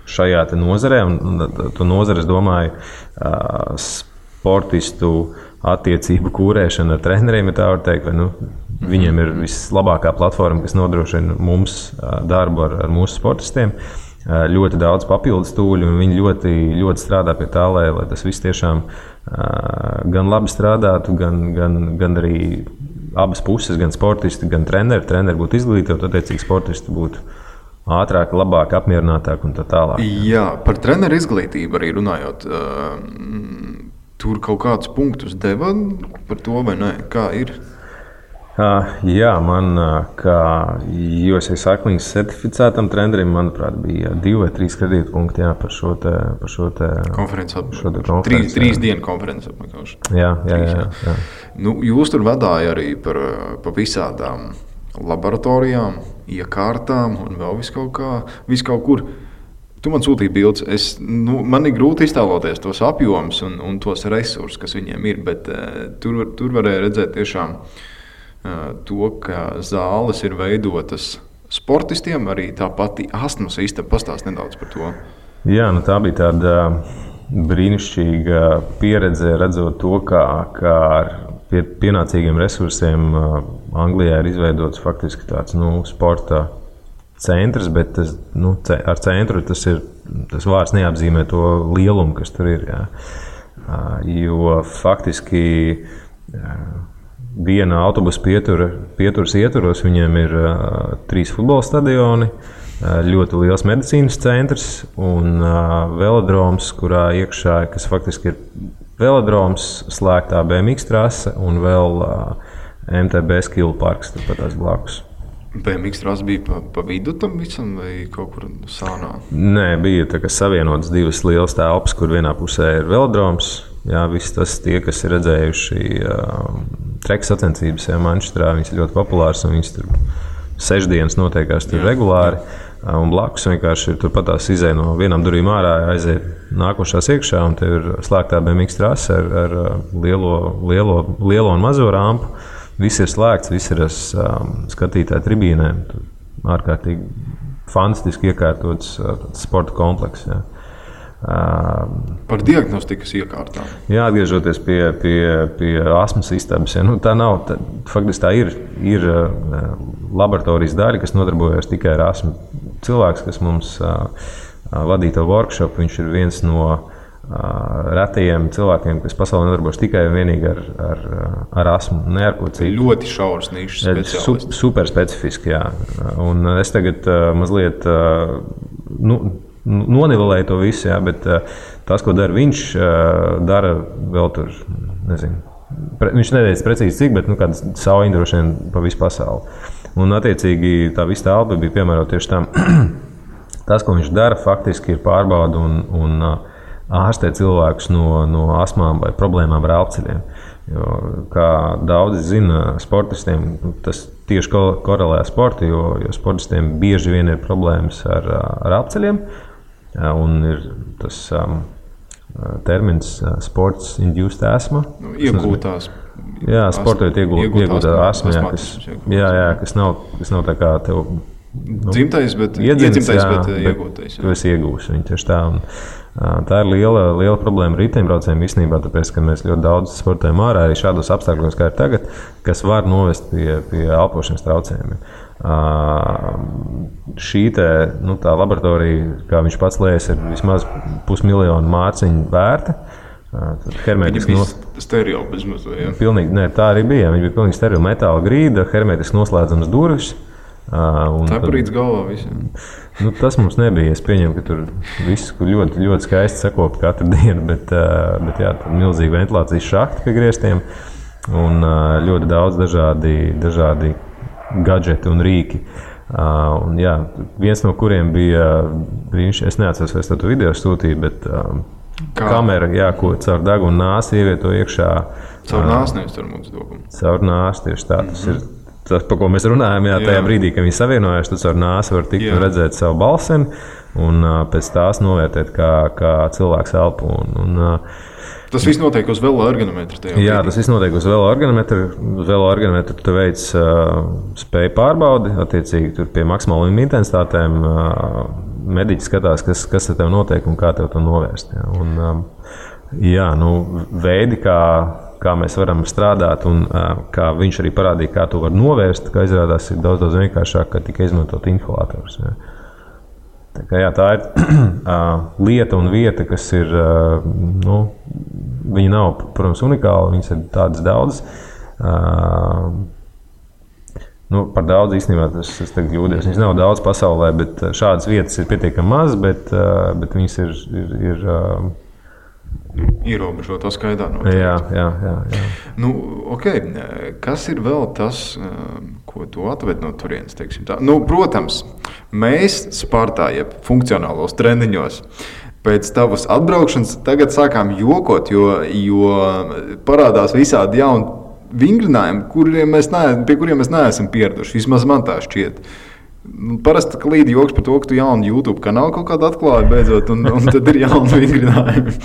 šajā nozarē, un to nozare, es domāju, sportistu attiecību kūrēšana ar treneriem, ja tā var teikt, viņiem ir vislabākā platforma, kas nodrošina mums darbu ar mūsu sportistiem. Ļoti daudz papildus tūļu, un viņi ļoti, ļoti strādā pie tā, lai tas viss tiešām gan labi strādātu, gan arī abas puses, gan sportisti, gan treneri. Treneri būtu izglītoti, attiecīgi sportisti būtu ātrāk, labāk, apmierinātāk un tā tālāk.
Jā, par treneru izglītību arī runājot. Tur kaut kādus punktus deva par to, vai ne? Kā ir?
Jā, man kā USA Cycling certificētam trenerim, manuprāt, bija 2 vai 3 kredītpunkti par šo te
konferenci. 3 dienu konferenci apmeklēšanu.
Jā.
Nu, jūs tur vadāja arī par visādām laboratorijām, iekārtām un vēl visu kaut kur. Tu man sūtīji bildes. Man ir grūti iztēloties tos apjomus un tos resursus, kas viņiem ir, bet tur varēja redzēt tiešām to, ka zāles ir veidotas sportistiem, arī tā pati astmas istaba. Pastāst nedaudz par to.
Jā, tā bija tāda brīnišķīga pieredze, redzot to, kā ar pienācīgiem resursiem Anglijā ir izveidots faktiski tāds sporta centrs, bet ar centru tas vārds neapzīmē to lielumu, kas tur ir. Jā. Jo faktiski viena autobusa pieturas ietvaros viņiem ir 3 futbola stadioni, ļoti liels medicīnas centrs un velodroms, kurā iekšā, kas faktiski ir velodroms, slēgtā BMX trase un vēl MTB skill parks turpat tās blakus.
BMX trase bija pa vidu tam visam vai kaut kur sānā?
Nē, bija tā, ka savienotas 2 lielas telpas, kur vienā pusē ir velodroms. Jā, viss tas tie, kas ir redzējuši treka sacensības Manchesterā, viņas ir ļoti populāras un viņas tur 6 dienas notiekās tur regulāri. Un blakus vienkārši ir turpat tās izēja no vienām durvīm ārā, aiziet nākošās iekšā un te ir slēgtā BMX trase ar lielo un mazo rampu. Viss ir slēgts, viss ir skatītāju tribīnēm. Ārkārtīgi fantastiski iekārtots sporta komplekss. Jā.
Par diagnostikas iekārtām.
Jā, atgriežoties pie astmas istabas. Ja, faktiski tā ir laboratorijas daļa, kas nodarbojas tikai ar astmu. Cilvēks, kas mums vadīja to workshop, viņš ir viens no retajiem cilvēkiem, kas pasaulē nodarbojas tikai un vienīgi ar astmu, ne ar ko citu.
Ļoti šauras nišas speciālisti.
Super specifiski, jā. Un es tagad mazliet nonivelēju to visu, jā, bet tas, ko dara viņš, dara vēl tur, nezinu. Viņš neteica precīzi cik, bet kāds savu droši vien pa visu pasauli. Un attiecīgi tā visa telpa bija piemērota tieši tam. Tas, ko viņš dara, faktiski ir pārbauda un ārstē cilvēkus no astmām vai problēmām ar elpceļiem. Jo, kā daudzi zina, sportistiem tas tieši korelē ar sportu, jo sportistiem bieži vien ir problēmas ar elpceļiem. Un ir tas termins sports induced asthma.
Iegūtās.
Jā, sportojot iegūtā astma, kas nav tā kā tev
dzimtais, bet iegūtais.
Tu esi iegūs viņu tieši tā. Un, tā ir liela problēma riteņbraucējiem īstenībā, tāpēc, ka mēs ļoti daudz sportojam ārā arī šādos apstākļos, kā ir tagad, kas var novest pie elpošanas traucējumiem. Šī tā laboratorija, kā viņš pats lēs, ir vismaz 500 000 mārciņu vērta.
Viņa bija sterila bezmazliet, ja?
Pilnīgi, ne, tā arī bija. Viņa bija pilnīgi sterila metāla grīda, hermetiski noslēdzams durvis.
Tā parīdz galvā visiem.
Tas mums nebija. Es pieņemu, ka tur viss ļoti, ļoti skaisti sakopta katru dienu, bet jā, milzīgi ventilācijas šahti pie griestiem un ļoti daudz dažādi gadžeti un rīki. Un, jā, viens no kuriem bija brīnišķīgi, es neatceros, vai es to video sūtīju, bet kamera, jā, ko caur degunu nāsi ievieto iekšā.
Caur nāsi, nevis caur mūsu dokumu.
Caur nāsi, tieši tā. Tas ir tas, par ko mēs runājam, jā, tajā brīdī, kad viņi savienojās, tad caur nāsi var tikt un redzēt savu balseni un pēc tās novērtēt, kā cilvēks elpo.
Tas viss notiek uz veloergonometra.
Jā, tas viss notiek uz veloergonometra. Uz veloergonometra tu veic spēju pārbaudi, attiecīgi tur pie maksimālajām intensitātēm mediķi skatās, kas ar tev notiek un kā tev to novērst. Jā. Veidi, kā mēs varam strādāt un kā viņš arī parādīja, kā to var novērst, kā izrādās ir daudz vienkāršāk, ka tikai izmantot inhalators. Jā. Tā ir lieta un vieta, kas ir, viņa nav, protams, unikāla, viņas ir tādas daudzas. Par daudz īstenībā es tagad jūdies. Viņas nav daudz pasaulē, bet šādas vietas ir pietiekami maz, bet viņas ir
ierobežotā skaitā noteikti.
Jā.
Nu, okay. Kas ir vēl tas, ko tu atved no turienes, teiksim tā? Nu, protams, mēs Spartā, jeb funkcionālos treniņos, pēc tavas atbraukšanas tagad sākām jokot, jo parādās visādi jauni vingrinājumi, pie kuriem mēs neesam pieraduši. Vismaz man tā šķiet. Parasti klīd joks par to, ka tu jaunu YouTube kanālu kaut kādu atklāji beidzot, un tad ir jauni vingrinājumi.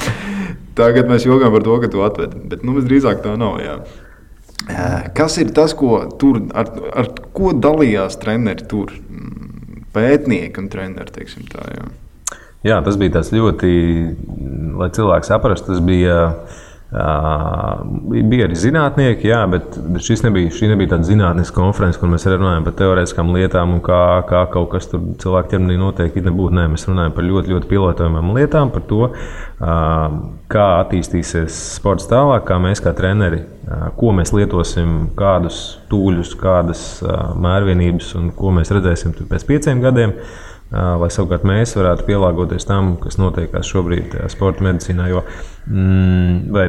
Tagad mēs jokām par to, ka tu atvedi, bet visdrīzāk tā nav. Jā. Kas ir tas, ko tur, ar ko dalījās treneri tur? Pētnieki un treneri, teiksim tā, jā.
Jā, tas bija tāds ļoti, lai cilvēks saprastu, tas bija arī zinātnieki, jā, bet šī nebija tāda zinātniska konference, kur mēs runājam par teorētiskām lietām un kā kaut kas tur cilvēku ķermenī notiek. Nē, mēs runājam par ļoti, ļoti pilotojumām lietām, par to, kā attīstīsies sports tālāk, kā mēs kā treneri, ko mēs lietosim, kādus tūļus, kādas mērvienības un ko mēs redzēsim pēc 5 gadiem. Lai savukārt mēs varētu pielāgoties tam, kas notiekās šobrīd sporta medicīnā, vai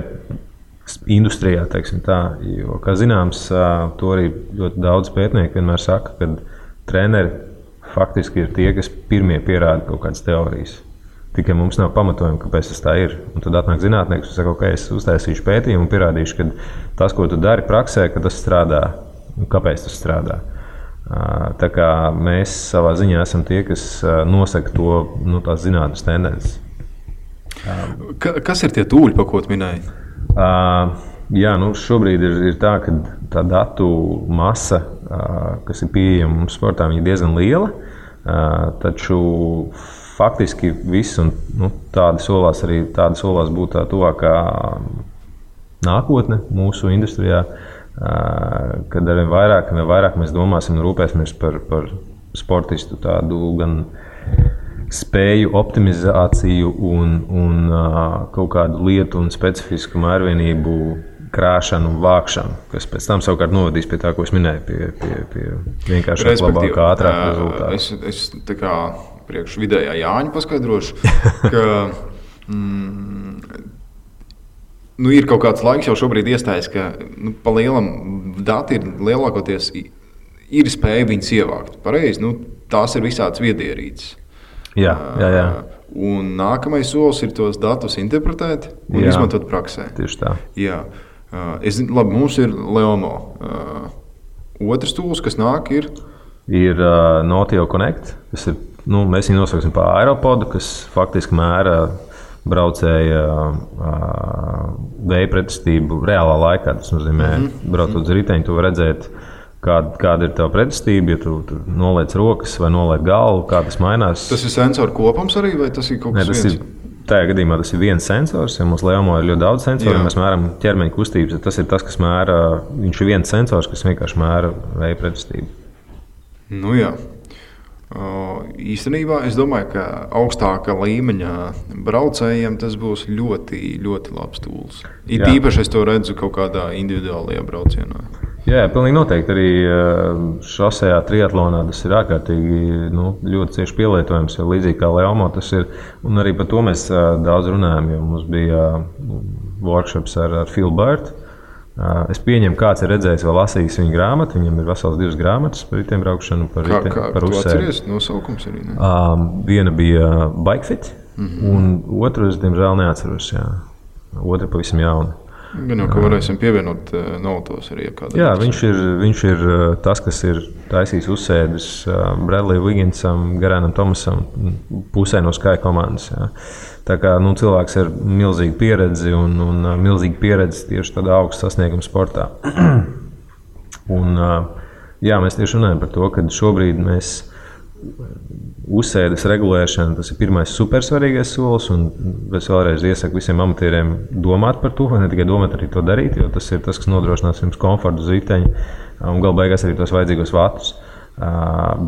industrijā, teiksim tā. Jo, kā zināms, to arī ļoti daudz pētnieku vienmēr saka, ka treneri faktiski ir tie, kas pirmie pierāda kaut kādas teorijas. Tikai mums nav pamatojumi, kāpēc tas tā ir. Un tad atnāk zinātnieks un saka, ok, es uztaisīšu pētījumu un pierādīšu, ka tas, ko tu dari praksē, ka tas strādā un kāpēc tas strādā. Tā kā mēs savā ziņā esam tie, kas nosaka to, tās zinātnes tendences.
Kas ir tie tūļi, pa ko tu minēji?
Jā, šobrīd ir tā, ka tā datu masa, kas ir pieejama mums sportā, ir diezgan liela. Taču faktiski viss, un tādi solās būt tā tuvākā nākotne mūsu industrijā. Kad arvien vairāk mēs domāsim un rūpēsimies par sportistu tādu gan spēju optimizāciju un kaut kādu lietu un specifisku mērvienību krāšanu un vākšanu, kas pēc tam savukārt novadīs pie tā, ko es minēju, pie vienkāršāk, labākā, ātrāka rezultāta.
Es tā kā priekš vidējā Jāņa paskaidrošu, ka ir kaut kāds laiks jau šobrīd iestājas, ka pa lielam dati ir lielākoties ir spēja viņus ievākt. Pareizi, tās ir visādas viedierīces.
Jā.
Un nākamais solis ir tos datus interpretēt un izmantot praksē.
Tieši tā.
Jā. Mums ir Leomo. Otrs tūls, kas nāk, ir
Notio Connect. Tas ir, mēs viņu nosauksim par Aeropodu, kas faktiski mēra braucēja vēja pretestību reālā laikā. Tas nozīmē, braucot uz riteņu, tu vari redzēt, kāda ir tava pretestība, ja tu noliec rokas vai noliec galvu, kā tas mainās.
Tas ir sensoru kopums arī, vai tas ir kaut kas viens?
Tajā gadījumā tas ir viens sensors, ja mums Leomo ir ļoti daudz sensoru, mēs mēram ķermeņa kustības, tas ir tas, kas mēra, viņš ir viens sensors, kas vienkārši mēra vēja pretestību.
Jā. Īstenībā es domāju, ka augstāka līmeņa braucējiem tas būs ļoti, ļoti labs tūls. Īpaši es to redzu kaut kādā individuālajā braucienā.
Jā, pilnīgi noteikti. Arī šosejā triatlonā tas ir ārkārtīgi ļoti cieši pielietojams, jo līdzīgi kā Leomo tas ir. Un arī par to mēs daudz runājam, jo mums bija workshops ar Phil Burt. Es pieņemu, kāds ir redzējis vai lasījis viņa grāmatu. Viņam ir vesels 2 grāmatas par ritiem braukšanu, par uzsēdi.
Atceries nosaukums arī? Ne?
Viena bija Bikefit, un otru es diemžēl neatceros. Jā. Otra pavisam jauna.
Gan jau, ka varēsim pievienot notos arī.
Jā, viņš ir tas, kas ir taisījis uzsēdis Bradley Wigginsam, Garanam Thomasam, pusē no Sky komandas. Jā. Tā kā cilvēks ir milzīga pieredze un milzīga pieredze tieši tādā augsta sasnieguma sportā. Un, mēs tieši runājam par to, ka šobrīd mēs uzsēdes regulēšana, tas ir pirmais supersvarīgais solis, un es vēlreiz iesaku visiem amatieriem domāt par to, vai ne tikai domāt, arī to darīt, jo tas ir tas, kas nodrošinās jums komfortu uz riteņa un galu beigās arī tos vajadzīgos vatus.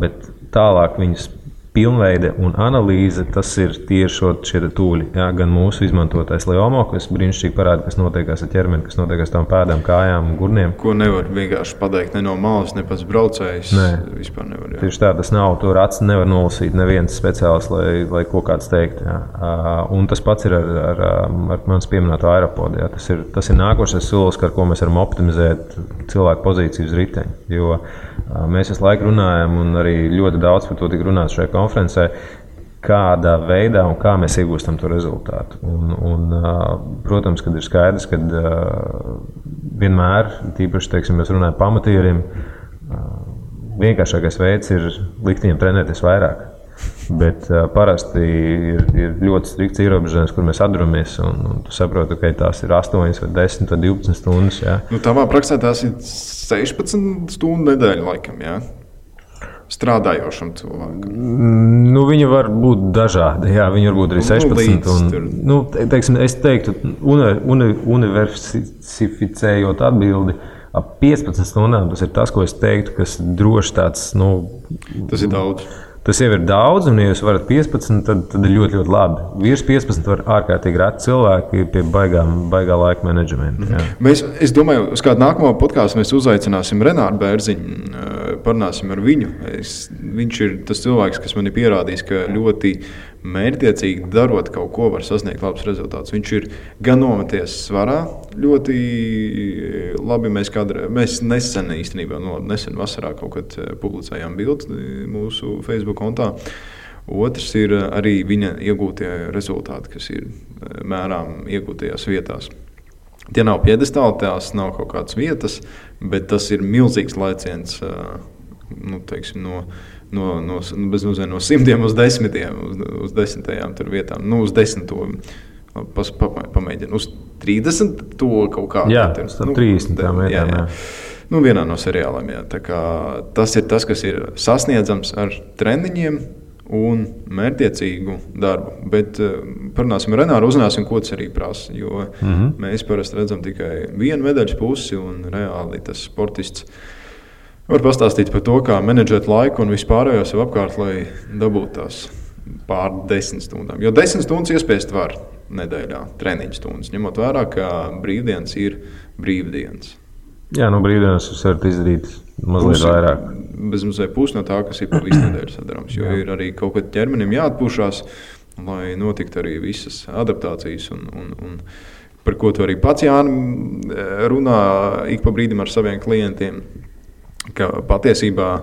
Bet tālāk viņus pilnveide un analīze, tas ir tieši šie tūļi. Jā, gan mūsu izmantotais Leomo, kas brīnišķīgi parāda, kas notiekās ar ķermeni, kas notiekās tām pēdām, kājām, gurniem.
Ko nevar vienkārši pateikt ne no malas, ne pats braucējs. Vispār nevar. Jā.
Tieši tā, tas nav, tur acis nevar nolasīt neviens speciāls, lai ko kāds teikt. Jā. Un tas pats ir ar manas pieminēto aeropodu. Jā. Tas ir nākošais solis, ar ko mēs varam optimizēt cilvēku pozīciju uz riteņa. Jo mēs visu laiku runājam, un arī ļoti daudz par to tika runāts šajā konferencē, kādā veidā un kā mēs iegūstam to rezultātu. Protams, kad ir skaidrs, ka vienmēr, tīpaši, teiksim, mēs runājam pamatieriem, vienkāršākais veids ir likt viņiem trenēties vairāk. Bet parasti ir ļoti strikts ierobežojums, kur mēs atduramies, un tu saproti, ka tās ir 8 vai 10 vai 12 stundas. Jā.
Tavā praksē tās ir 16 stundu nedēļa laikam, jā? Strādājošam cilvēkam.
Viņi var būt dažādi, jā, viņi var būt arī 16. Teiksim, es teiktu, universificējot atbildi, ap 15 stundām tas ir tas, ko es teiktu, kas droši tāds,
Tas ir daudz.
Tas jau ir daudz, un, ja jūs varat 15, tad ir ļoti, ļoti labi. Virs 15 var ārkārtīgi reti cilvēki pie baigā laika menedžmenta.
Es domāju, uz kādu nākamo podkāstu mēs uzaicināsim Renāru Bērziņu, parunāsim ar viņu. Viņš ir tas cilvēks, kas man ir pierādījis, ka ļoti mērķtiecīgi darot kaut ko var sasniegt labus rezultātus. Viņš ir gan nometies svarā, ļoti labi. Mēs nesen īstenībā, nesen vasarā kaut kad publicējām bildes mūsu Facebook kontā. Otrs ir arī viņa iegūtie rezultāti, kas ir mērām iegūtajās vietās. Tie nav piedestāli, tās nav kaut kādas vietas, bet tas ir milzīgs laiciens, teiksim, no 100 uz 10, uz 10 tur vietām, uz 10 pamēģinu, uz 30 to kaut kādā.
Jā, tas 30 tām vietām, jā.
Vienā no seriāliem, jā. Tā kā tas ir tas, kas ir sasniedzams ar treniņiem un mērķtiecīgu darbu. Bet parunāsim ar Renāru, uzzināsim, ko tas arī prasa, jo mēs parasti redzam tikai vienu medaļas pusi, un reāli tas sportists var pastāstīt par to, kā menedžēt laiku un vispārējo sev apkārt, lai dabūtu tās pār 10 stundām. Jo 10 stundas iespiest var nedēļā, treniņu stundas, ņemot vērā, ka brīvdienas ir brīvdienas.
Jā, brīvdienas jūs varat izdarīt mazliet vairāk.
Bezmazliet pusi no tā, kas ir pa visu nedēļu sadarāms, jo ir arī kaut kad ķermenim jāatpūšās, lai notiktu arī visas adaptācijas un par ko tu arī pats, Jāni, runā ik pa brīdim ar saviem klientiem, ka patiesībā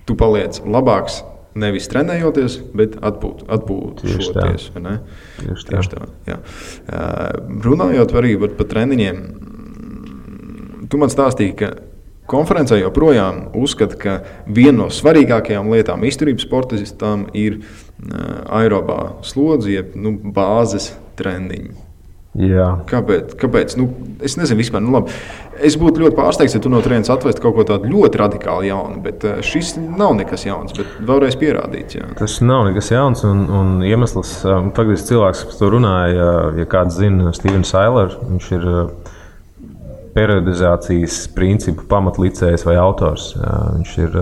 tu paliec labāks nevis trenējoties, bet atpūšoties. Tieši tā. Jā. Runājot arī par treniņiem, tu man stāstīji, ka konferencē joprojām uzskata, ka viena no svarīgākajām lietām izturības sportistam ir aerobā slodze, jeb bāzes treniņi.
Jā.
Kāpēc? Es nezinu vispār. Labi. Es būtu ļoti pārsteigts, ja tu no turienes atvestu kaut ko tādu ļoti radikāli jaunu, bet šis nav nekas jauns, bet vēlreiz pierādīts. Jā.
Tas nav nekas jauns, un iemesls, faktiski cilvēks, kas to runāja, ja kāds zina Stevens Sailer, viņš ir periodizācijas principu pamatlicējs vai autors. Viņš ir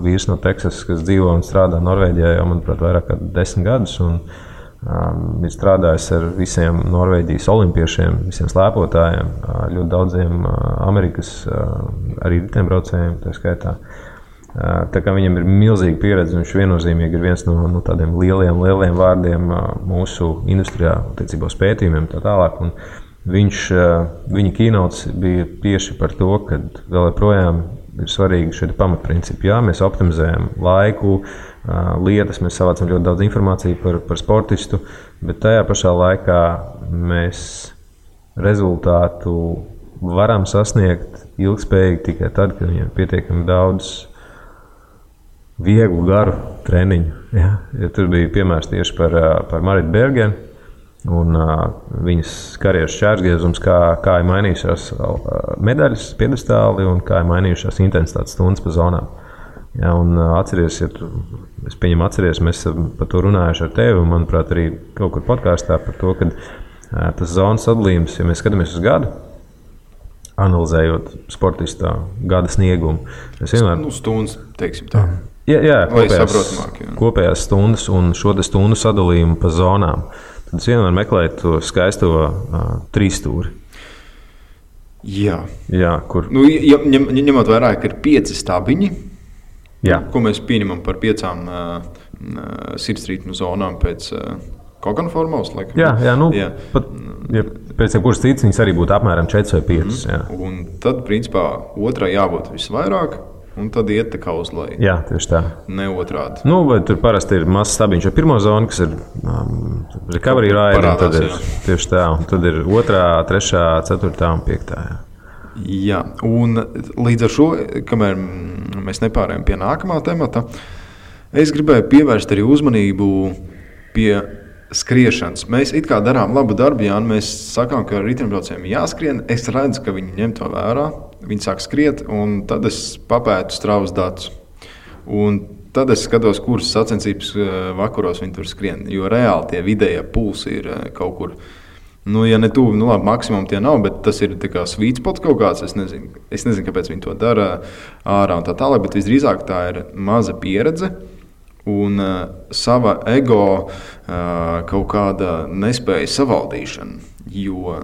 vīrs no Teksasas, kas dzīvo un strādā Norvēģijā jau, manuprāt, vairāk kā 10 gadus. Ir strādājis ar visiem Norvēģijas olimpiešiem, visiem slēpotājiem, ļoti daudziem Amerikas arī riteņbraucējiem, tā skaitā. Tā kā viņam ir milzīga pieredze, viņš viennozīmīgi ir viens no tādiem lieliem vārdiem mūsu industrijā, attiecībā uz pētījumiem tā tālāk. Un viņa keynotes bija tieši par to, ka vēl joprojām ir svarīgi šie pamatprincipi. Jā, mēs optimizējam laiku, lietas, mēs savācam ļoti daudz informāciju par sportistu, bet tajā pašā laikā mēs rezultātu varam sasniegt ilgspējīgi tikai tad, kad viņiem ir pietiekami daudz vieglu, garu treniņu. Ja, tur bija piemērs tieši par Maritu Bergenu un viņas karjeras šķērsgriezums, kā ir mainījušās medaļas piedestāli un kā ir mainījušās intensitātes stundas pa zonām. Ja, un atceries, mēs par to runājuši ar tevi, un, manuprāt, arī kaut kur podkāstā par to, ka tas zonas sadalījums, ja mēs skatāmies uz gadu, analizējot sportistā gada sniegumu.
Stundas, teiksim tā.
Jā,
saprotamāk.
Kopējās stundas un šo stundu sadalījumu pa zonām. Tad es vienmēr meklēju to skaisto trīsstūri.
Jā,
kur.
Ņemot vērā, ka ir 5 stabiņi, ko mēs pieņemam par 5 sirdsrītmu zonām pēc Kokana formulas.
Pēc kuras citas viņas arī būtu apmēram 4 vai 5.
Un tad, principā, otrai jābūt visvairāk. Un tad iet tā kā uz leju.
Jā, tieši tā.
Ne otrādi.
Vai tur parasti ir mazs stabiņš ar pirmo zonu, kas ir recovery ride, tad ir tieši tā. Un tad ir 2., 3., 4. un 5.
Jā, un līdz ar šo, kamēr mēs nepārējām pie nākamā temata, es gribēju pievērst arī uzmanību pie skriešanas. Mēs it kā darām labu darbu, Jāni, mēs sakām, ka riteņbraucējiem jāskrien. Es redzu, ka viņi ņem to vērā. Viņi sāk skriet, un tad es papētu Strava datus. Un tad es skatos, kuras sacensības vakaros viņi tur skrien. Jo reāli tie vidējie pulsi ir kaut kur. Ja ne tuvu, labi, maksimum tie nav, bet tas ir sweet spot kaut kāds. Es nezinu, kāpēc viņi to dara ārā un tā tālāk, bet visdrīzāk tā ir maza pieredze. Un sava ego kaut kāda nespēja savaldīšana. Jo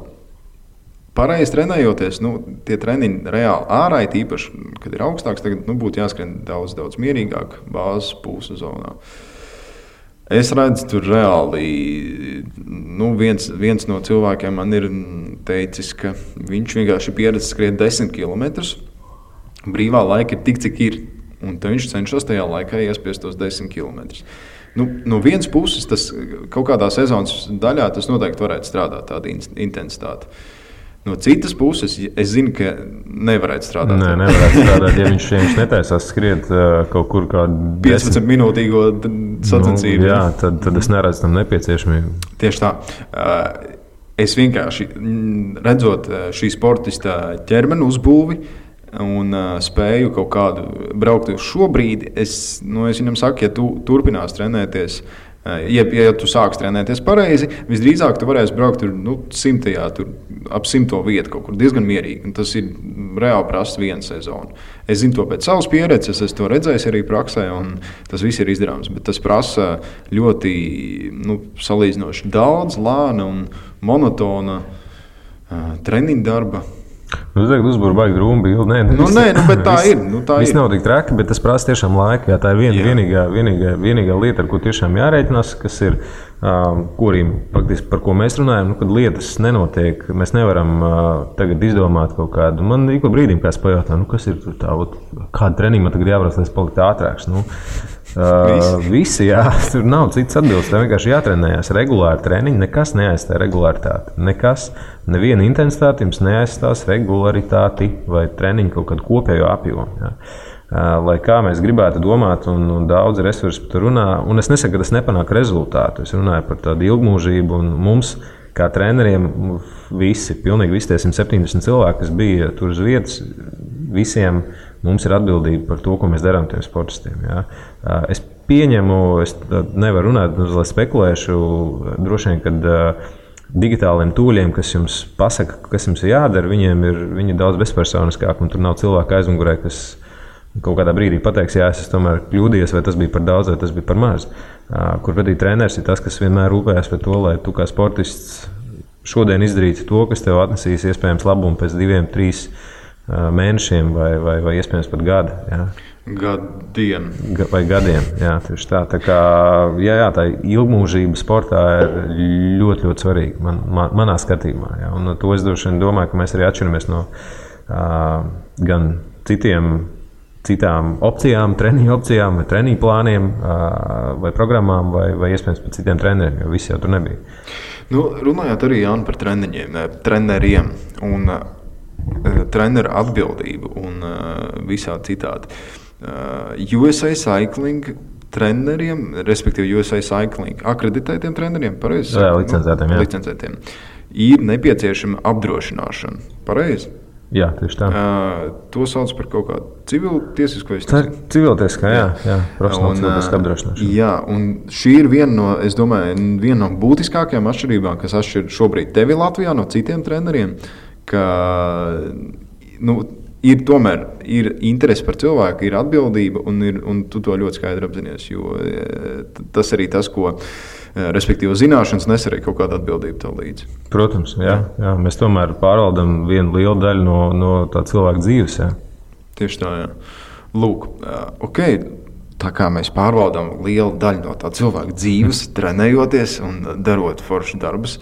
pareizi trenējoties, tie treniņi reāli ārā, īpaši, kad ir augstāks, tagad būtu jāskrien daudz, daudz mierīgāk bāzes pulsa zonā. Es redzu, tur reāli viens no cilvēkiem man ir teicis, ka viņš vienkārši pieredz skriet 10 km. Brīvā laika ir tik, cik ir. Un tad viņš cenšas tajā laikā iespiest tos 10 km. No vienas puses, tas kaut kādā sezonas daļā tas noteikti varētu strādāt, tāda intensitāte. No citas puses, es zinu, ka nevarētu strādāt.
Nē, nevarētu strādāt, ja viņš netaisās skriet kaut kur kādu
15-minūtīgo sacensību.
Jā, tad es neredzu tam nepieciešamību.
Tieši tā. Es vienkārši redzot šī sportista ķermeni uzbūvi, un spēju kaut kādu braukt uz šo brīdi, es viņam saku, ja tu turpinās trenēties, ja tu sāks trenēties pareizi, visdrīzāk tu varēsi braukt tur, 100. tur ap 100. vietu kaut kur diezgan mierīgi. Un tas ir reāli prasa viena sezona. Es zinu to pēc savas pieredzes, es to redzēju arī praksē, un tas viss ir izdarāms. Bet tas prasa ļoti salīdzinoši daudz, lēna un monotona treniņu darba.
Tu tagad uzbūri baigi drūmu bildi.
Nē, bet tā ir.
Viss nav tik traki, bet tas prasa tiešām laiku. Tā ir vienīgā lieta, ar ko tiešām jārēķinās, kas ir, par ko mēs runājam, kad lietas nenotiek. Mēs nevaram tagad izdomāt kaut kādu. Man ik pa brīdim kāds pajautā, kas ir tā, kāda treniņa man tagad jābrauc, lai es paliktu ātrāks. Visi, jā, tur nav cits atbildes. Tev vienkārši jātrenējās regulāri treniņi, nekas neaizstāja regularitāti. Neviena intensitāte jums neaizstās regularitāti vai treniņu kaut kādu kopējo apjomu. Jā. Lai kā mēs gribētu domāt, un daudz resursu par to runā, un es nesaku, ka tas nepanāk rezultātu. Es runāju par tādu ilgmūžību, un mums, kā treneriem, pilnīgi visi tie 170 cilvēki, kas bija tur uz vietas, visiem mums ir atbildība par to, ko mēs darām tiem sportistiem. Jā. Es pieņemu, es nevaru runāt, lai spekulēšu, droši vien, kad digitāliem tūļiem, kas jums pasaka, kas jums ir jādara, viņi ir daudz bezpersoniskāk, un tur nav cilvēka aizmugurē, kas kaut kādā brīdī pateiks, jā, es tomēr kļūdījos, vai tas bija par daudz, vai tas bija par maz. Kur pretī treneris ir tas, kas vienmēr rūpējas par to, lai tu kā sportists šodien izdarītu to, kas tev atnesīs iespējams labumu pēc 2-3 mēnešiem vai iespējams pat gada. Jā.
Gadiem.
Vai gadiem, jā, tieši tā. Tā kā, tā ilgmūžība sportā ir ļoti, ļoti svarīga manā skatījumā. Jā. Un to es droši vien domāju, ka mēs arī atšķiramies no gan citām opcijām, treniņu opcijām, vai treniņu plāniem, vai programmām, vai iespējams pat citiem treneriem, jo visi jau tur nebija.
Runājot arī, Jāni, par treneriem un treneru atbildību un visā citādi. USA Cycling treneriem, respektīvi USA Cycling akreditētiem treneriem, pareizi?
Jā,
licencētiem. Ir nepieciešama apdrošināšana, pareizi?
Jā, tieši tā.
To sauc par kaut kādu civiltiesisko.
Tā ir civiltieskā, jā, profesionāla civiltieskā apdrošināšana.
Jā, un šī ir viena no būtiskākajām atšķirībām, kas atšķir šobrīd tevi Latvijā no citiem treneriem, ka ir interese par cilvēku, ir atbildība, un tu to ļoti skaidri apzinies. Jo tas arī tas, ko respektīvi zināšanas nes arī kaut kāda atbildība tev līdzi.
Protams, jā. Mēs tomēr pārvaldam vienu lielu daļu no tā cilvēka dzīves. Jā.
Tieši tā, jā. Lūk, ok. Tā kā mēs pārvaldām lielu daļu no tā cilvēka dzīves, trenējoties un darot foršus darbus,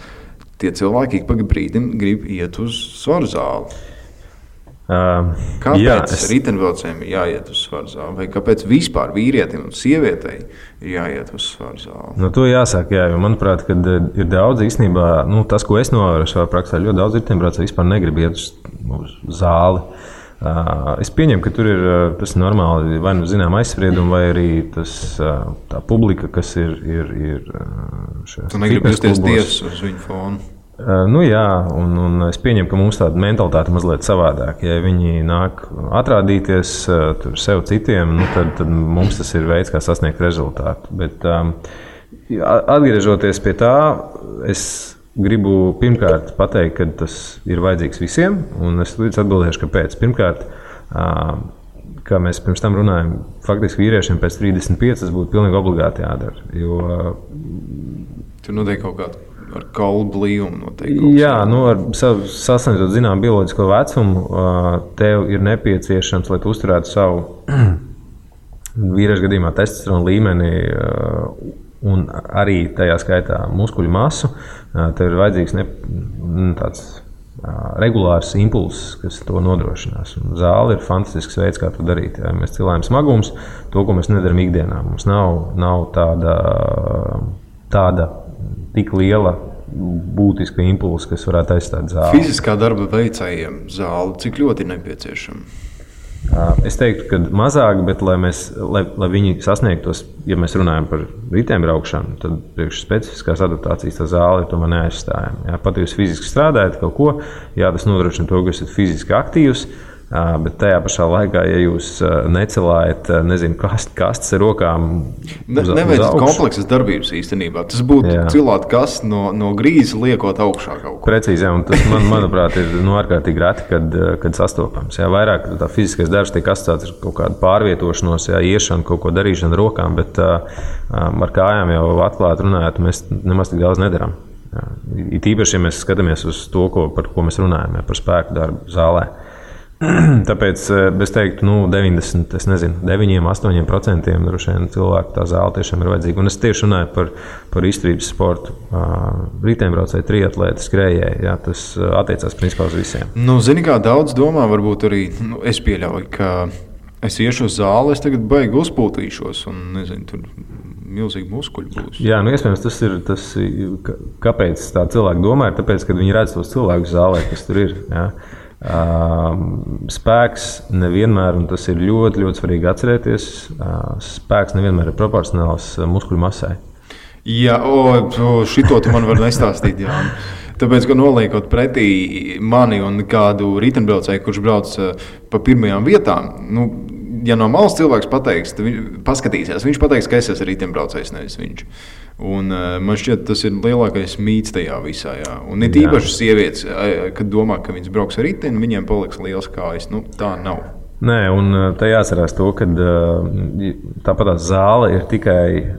tie cilvēki ik pa brīdim grib iet uz svaru zāli. Kāpēc riteņbraucējiem ir jāiet uz svaru zāli? Vai kāpēc vispār vīrietim un sievietei ir jāiet uz svaru zāli?
No to jāsāk, jā, jo manuprāt, kad ir daudz īstenībā, tas, ko es novēroju savā praksē, ļoti daudz riteņbraucēju vispār negrib iet uz zāli. Es pieņemu, ka tur ir tas normāli, vai nu zinām aizspriedumi, vai arī tā publika, kas ir šajās
tu negribi justies tiesas uz viņu fonu?
Jā, un es pieņemu, ka mums tāda mentalitāte mazliet savādāk. Ja viņi nāk atrādīties tur sev citiem, tad mums tas ir veids, kā sasniegt rezultātu. Bet atgriežoties pie tā, es gribu pirmkārt pateikt, ka tas ir vajadzīgs visiem, un es līdz atbildēšu, kāpēc. Pirmkārt, kā mēs pirms tam runājam, faktiski vīriešiem pēc 35 tas būtu pilnīgi obligāti jādara. Jo
tur notiek kaut kāda ar kaulu blīvumu noteikti.
Jā, ar sasniedzot zinām bioloģisko vecumu, tev ir nepieciešams, lai tu uzturētu savu vīriešu gadījumā testosterona līmeni un arī tajā skaitā muskuļu masu, tev ir vajadzīgs tāds regulārs impulss, kas to nodrošinās. Un zāle ir fantastisks veids, kā to darīt. Ja mēs cilājam smagums, to, ko mēs nedaram ikdienā. Mums nav tāda tik liela būtiska impulsa, kas varētu aizstāt zāli.
Fiziskā darba veicējiem zāle cik ļoti ir nepieciešama?
Es teiktu, ka mazāk, bet lai viņi sasniegtos, ja mēs runājam par riteņbraukšanu, tad priekš specifiskās adaptācijas tā zāle ir tomēr neaizstājama. Pat ja jūs fiziski strādājat kaut ko, tas nodrošina to, ka esat fiziski aktīvs, bet tajā pašā laikā, ja jūs necelājat, kastes ar rokām
neveicat kompleksas darbības īstenībā. Tas būtu cilāt kastes no grīzes liekot augšā kaut ko.
Precīzi, jā, un tas, manuprāt, ir ārkārtīgi reti, kad sastopams. Jā, vairāk tā fiziskais darbs tiek asociēts ar kaut kādu pārvietošanos, iešanu, kaut ko darīšanu ar rokām, bet ar kājām jau atklāti runājot, mēs nemaz tik daudz nedarām. It īpaši, ja mēs skatāmies uz to, par ko mēs runājam, par spēku darbu zālē. Tāpēc es teiktu, 9-8% droši vien cilvēku tā zāle tiešām ir vajadzīga. Un es tieši runāju par izturības sportu. Riteņbraucēji, triatlēti, skrējēji. Jā, tas attiecās principā uz visiem.
Zini, kā daudz domā, varbūt arī es pieļauju, ka es iešu uz zāli, es tagad baigi uzpūtīšos un nezinu, tur milzīgi muskuļi būs.
Jā, iespējams, tas ir, kāpēc tā cilvēki domā, ir tāpēc, ka viņi redz tos cilvēkus zālē, kas tur ir. Jā. Spēks nevienmēr, un tas ir ļoti, ļoti svarīgi atcerēties, spēks nevienmēr ir proporcionāls muskuļu masai.
Jā, šito tu man var nestāstīt, jā. Tāpēc, ka noliekot pretī mani un kādu riteņbraucēju, kurš brauc pa pirmajām vietām, ja no malas cilvēks paskatīsies, viņš pateiks, ka es esmu riteņbraucējs, nevis viņš. Un man šķiet, tas ir lielākais mīts tajā visā. Jā. Un ir īpaši sievietes, kad domā, ka viņas brauks ar riteni, viņiem paliks liels kājas. Tā nav.
Nē, un te jāatcerās to, ka tāpat zāle ir tikai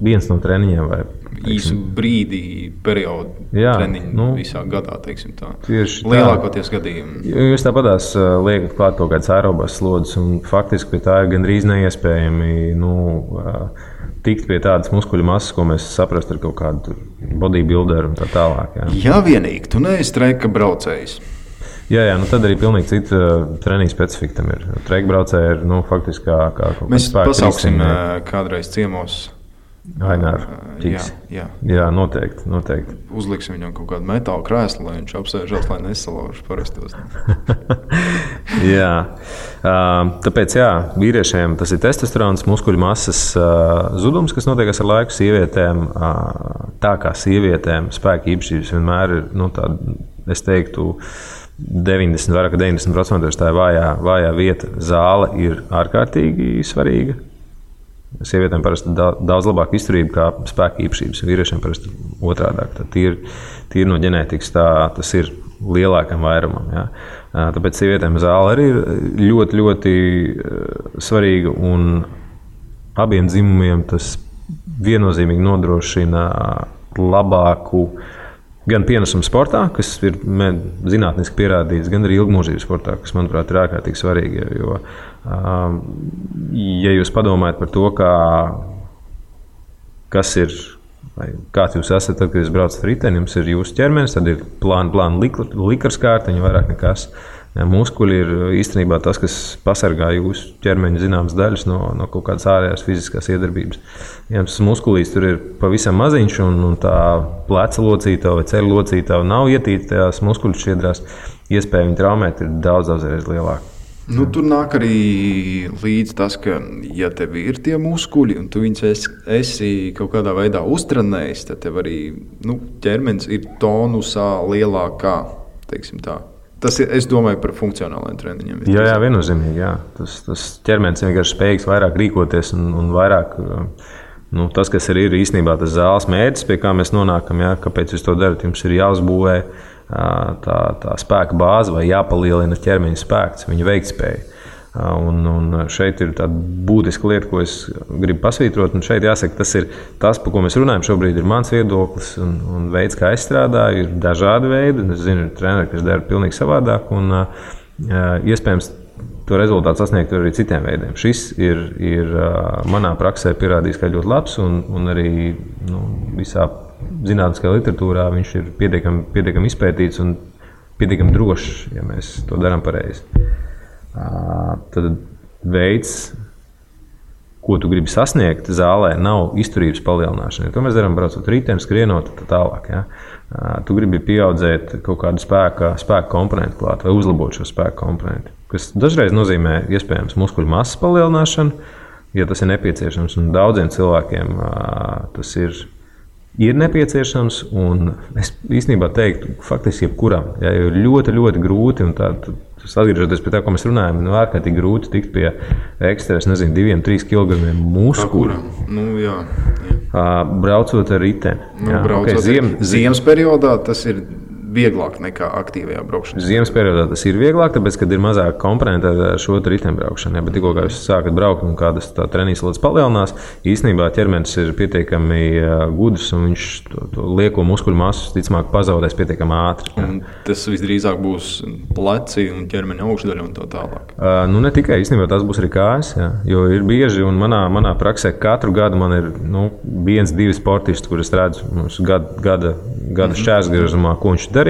viens no treniņiem. Vai,
īsu brīdi, periodu treniņu visā gadā, teiksim tā. Lielākoties gadījumi.
Jūs tāpatās liekat klāt kaut kādas aerobās slodzes, un faktiski pie tā ir gandrīz neiespējami tikt pie tādas muskuļu masas, ko mēs saprastu ar kaut kādu bodybuilderu un tā tālāk.
Jā, vienīgi, tu neesi treka braucējs.
Jā, tad arī pilnīgi cita treniņa specifika tam ir. Treka braucēji ir faktiski kā kaut kāds
mēs pasauksim kādreiz ciemos.
Aināru ķiks. Jā, noteikti.
Uzliksim viņam kaut kādu metāla krēslu, lai viņš apsēžās, lai nesalauž parastos.
Jā. Tāpēc, vīriešiem tas ir testosterons, muskuļu masas zudums, kas notiek ar laiku. Sievietēm, tā kā sievietēm spēka īpašības vienmēr ir, tāda, es teiktu, 90% tā ir vājā vieta. Zāle ir ārkārtīgi svarīga. Sievietēm parasti daudz labāka izturība kā spēka īpašības, vīriešiem parasti otrādāk. Tīri no ģenētikas tas ir lielākam vairumam. Ja. Tāpēc sievietēm zāle arī ir ļoti, ļoti svarīga, un abiem dzimumiem tas viennozīmīgi nodrošina labāku gan pienesumu sportā, kas ir zinātniski pierādīts, gan arī ilgmūžības sportā, kas, manuprāt, ir ārkārtīgi svarīgi. Jo, ja jūs padomājat par to, kas ir, kāds jūs esat, tad, kad jūs braucat ar riteni, jums ir jūsu ķermenis, tad ir plāna likarskārtiņa, vairāk nekas. Muskuļi ir īstenībā tas, kas pasargā jūsu ķermeņa zināmas daļas no kaut kādas ārējās fiziskās iedarbības. Ja tas muskulīs tur ir pavisam maziņš, un tā pleca locītava vai ceļa locītava nav ietīta tajās muskuļu šķiedrās, iespēja viņu traumēt ir daudz reiz lielāka.
Tur nāk arī līdz tas, ka, ja tev ir tie muskuļi un tu viņus esi kaut kādā veidā uztrenējis, tad tev arī ķermenis ir tonusā lielākā, teiksim tā. Tas ir, es domāju, par funkcionāliem treniņiem.
Jā, viennozīmīgi. Jā. Tas ķermenis vienkārši spējīgs vairāk rīkoties un vairāk. Tas, kas ir īstenībā tas zāles mērķis, pie kā mēs nonākam, kāpēc jūs to darat, jums ir jāuzbūvē tā spēka bāze vai jāpalielina ķermeņa spēks, viņa veiktspēja. Un šeit ir tāda būtiska lieta, ko es gribu pasvītrot. Un šeit jāsaka, tas ir tas, par ko mēs runājam šobrīd, ir mans viedoklis un veids, kā es strādāju. Ir dažādi veidi. Es zinu, ir treneri, kas dara pilnīgi savādāk. Un iespējams, to rezultātu sasniegt arī citiem veidiem. Šis ir manā praksē pierādījis, ka ļoti labs un arī visā zinātniskajā literatūrā viņš ir pietiekami izpētīts un pietiekami drošs, ja mēs to darām pareizi. Tad veids, ko tu gribi sasniegt zālē, nav izturības palielināšana. To mēs darām braucot riteni, skrienot tā tālāk. Ja? Tu gribi pieaudzēt kaut kādu spēka komponentu klāt vai uzlabot šo spēka komponentu, kas dažreiz nozīmē iespējams muskuļu masas palielināšanu, ja tas ir nepieciešams. Un daudziem cilvēkiem tas ir nepieciešams, un es īstenībā teiktu, faktiski jebkuram, jo ir ļoti, ļoti grūti, un atgriežoties pie tā, ko mēs runājam, ārkārtīgi grūti tikt pie ekstra, 2-3 kg muskuļu.
Jā.
Braucot ar riteni.
Ziemas periodā tas ir vieglāk nekā aktīvajā braukšanā.
Ziemas periodā tas ir vieglāk, tāpēc, kad ir mazāk komponenti ar šo riteņbraukšanu. Bet tikko jūs sākat braukt un kādas treniņas lodes palielinās, īstenībā ķermenis ir pietiekami gudrs un viņš to lieko muskuļu masu ticamāk pazaudēs pietiekami ātri.
Un tas visdrīzāk būs pleci un ķermeņa augšdaļa un tā tālāk.
Ne tikai, īstenībā tās būs arī kājas, jo ir bieži, un manā praksē katru gadu man ir 1-2 sportisti, kurus redzu gada šķērsgriezumā, ko viņš darīs.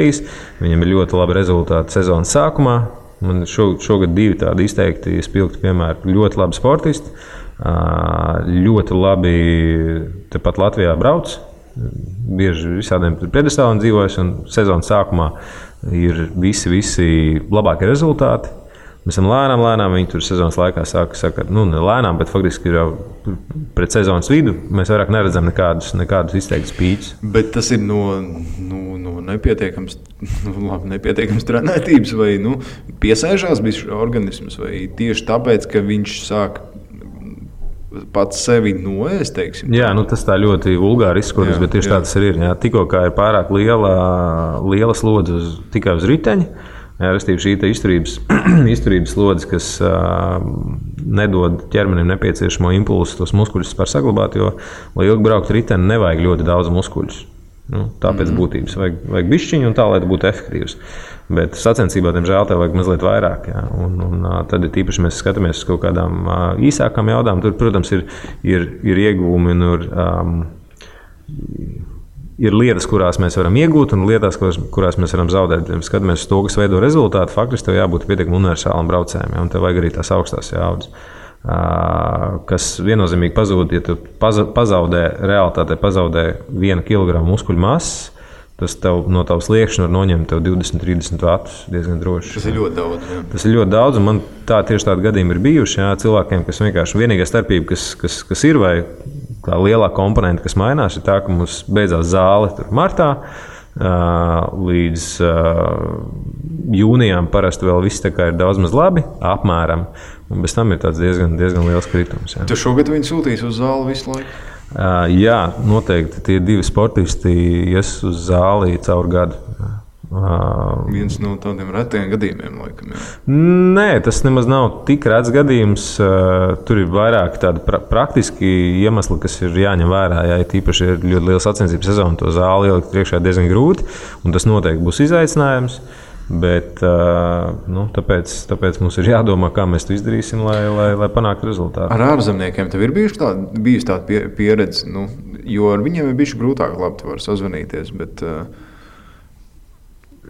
Viņam ir ļoti labi rezultāti sezonas sākumā. Man šogad 2 tādi izteikti spilgti piemēri. Ļoti labi sportisti, ļoti labi tepat Latvijā brauc. Bieži visādiem piedestāliem dzīvojas, un sezonas sākumā ir visi labākie rezultāti. Mēs esam lēnām, viņi tur sezonas laikā saka, ne lēnām, bet faktiski ir jau pret sezonas vidu. Mēs vairāk neredzam nekādus izteiktus pīķus.
Bet tas ir no nepietiekams trenētības vai piesēžās bijis organisms, vai tieši tāpēc, ka viņš sāk pats sevi noēst, teiksim?
Jā, tas tā ļoti vulgāri izskatās, bet tieši tā tas ir. Jā. Tikko kā ir pārāk liela slodze tikai uz riteņa, restīvi šī izturības slodze, kas nedod ķermenim nepieciešamo impulsu tos muskuļus var saglabāt, jo, lai ilgi braukt riteni, nevajag ļoti daudz muskuļus. Tāpēc būtības vajag bišķiņu un tā, lai tas būtu efektīvs. Bet sacensībā, diemžēl, tev vajag mazliet vairāk. Jā. Un tad tīpaši mēs skatāmies uz kaut kādām īsākām jaudām. Tur, protams, ir ieguvumi un ir lietas, kurās mēs varam iegūt, un lietas, kurās mēs varam zaudēt. Ja skatāmies uz to, kas veido rezultātu, faktiski tev jābūt pietiekami universālam braucējam, un tev vajag arī tās augstās jaudas, kas viennozīmīgi pazūd, ja tu pazaudē 1 kg muskuļu masas, tas tev no tavas liekšņa var noņemt 20-30 vatus diezgan droši.
Tas ir ļoti daudz. Jā.
Tas ir ļoti daudz, un man tieši tādi gadījumi ir bijuši. Jā, cilvēkiem, kas vienkārši vienīgā starpība, kas ir, vai tā lielā komponenta, kas mainās, ir tā, ka mums beidzās zāle martā. Līdz jūnijām parasti vēl viss ir daudz maz labi, apmēram. Un bez tam ir tāds diezgan liels kritums. Jā.
Tu šogad viņu sūtīsi uz zāli visu laiku?
Jā, noteikti tie 2 sportisti ies uz zāli caur gadu.
Viens no tādiem retiem gadījumiem, laikam. Jā.
Nē, tas nemaz nav tik rets gadījums. Tur ir vairāk tādi praktiski iemesli, kas ir jāņem vērā. Ja tīpaši ir ļoti liela sacensību sezona, to zāli ielikt priekšā diezgan grūti, un tas noteikti būs izaicinājums. Bet, tāpēc mums ir jādomā, kā mēs to izdarīsim, lai panāktu rezultātu.
Ar ārzemniekiem tev ir bijusi tāda pieredze, jo ar viņiem ir bijuši grūtāk, labi, tu vari sazvanīties, bet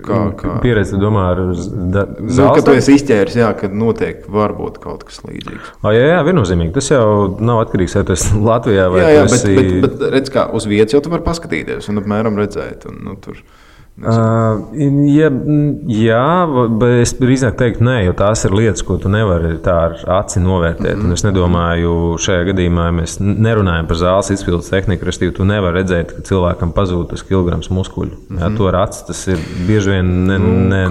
kā?
Pieredze, domā, ar
zāles? Kad tu esi izķēris, jā, kad noteikti var būt kaut kas līdzīgs.
Jā, viennozīmīgi. Tas jau nav atkarīgs, vai tu esi Latvijā vai
jā, bet redz, kā uz vietas jau tu vari paskatīties un apmēram redzēt. Un, tur...
Jā, bet es drīzāk teiktu, nē, jo tās ir lietas, ko tu nevari tā ar aci novērtēt. Un es nedomāju, šajā gadījumā mēs nerunājam par zāles izpildes tehniku, respektīvi, tu nevari redzēt, ka cilvēkam pazūd tas kilograms muskuļu. Jā, to ar aci tas ir bieži vien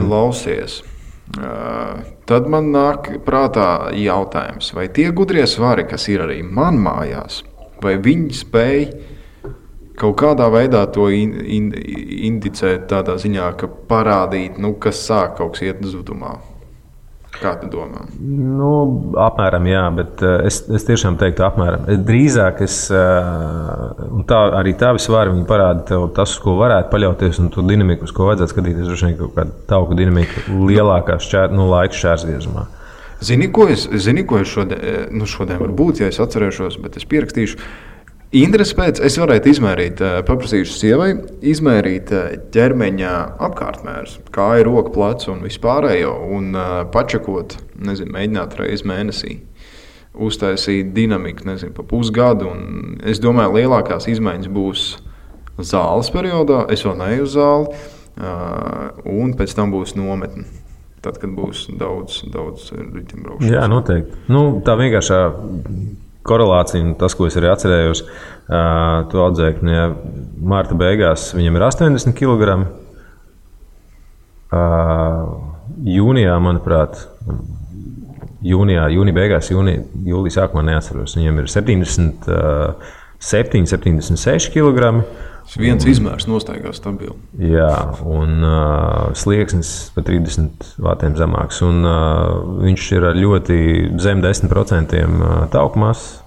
Klausies. Tad man nāk prātā jautājums, vai tie gudrie svari, kas ir arī man mājās, vai viņi spēj kaut kādā veidā to indicēt tādā ziņā, ka parādīt, kas sāk kaut kas iet zudumā. Kā tu domā?
Apmēram jā, bet es tiešām teiktu apmēram. Drīzāk un arī tavi svari viņi parāda tev tas, uz ko varētu paļauties, un to dinamiku, uz ko vajadzētu skatīties, droši vien kaut kāda tauku dinamika lielākā laika šķērsgriezumā.
Zini, ko es šodien varbūt, ja es atcerēšos, bet es pierakstīšu. Interesi pēc es varētu izmērīt, paprasīšu sievai, izmērīt ķermeņa apkārtmērus, kāja, roka, plecu un vispārējo, un pačakot, mēģināt reizi mēnesī, uztaisīt dinamiku, pa pusgadu, un es domāju, lielākās izmaiņas būs zāles periodā, es vēl neeju uz zāli, un pēc tam būs nometne. Tad, kad būs daudz ritimbraukšanas.
Jā, noteikti. Tā vienkāršā korelācija, un tas, ko es arī atcerējos, tu audzēkņi, marta beigās viņam ir 80 kg. Jūnijā, manuprāt, jūnija beigās, jūlija sākumā neatceros, viņam ir 77, 76 kg.
Viens izmērs nostaigā stabili.
Jā, un slieksnis pa 30 vatiem zemāks. Un viņš ir ļoti zem 10% tauku masas.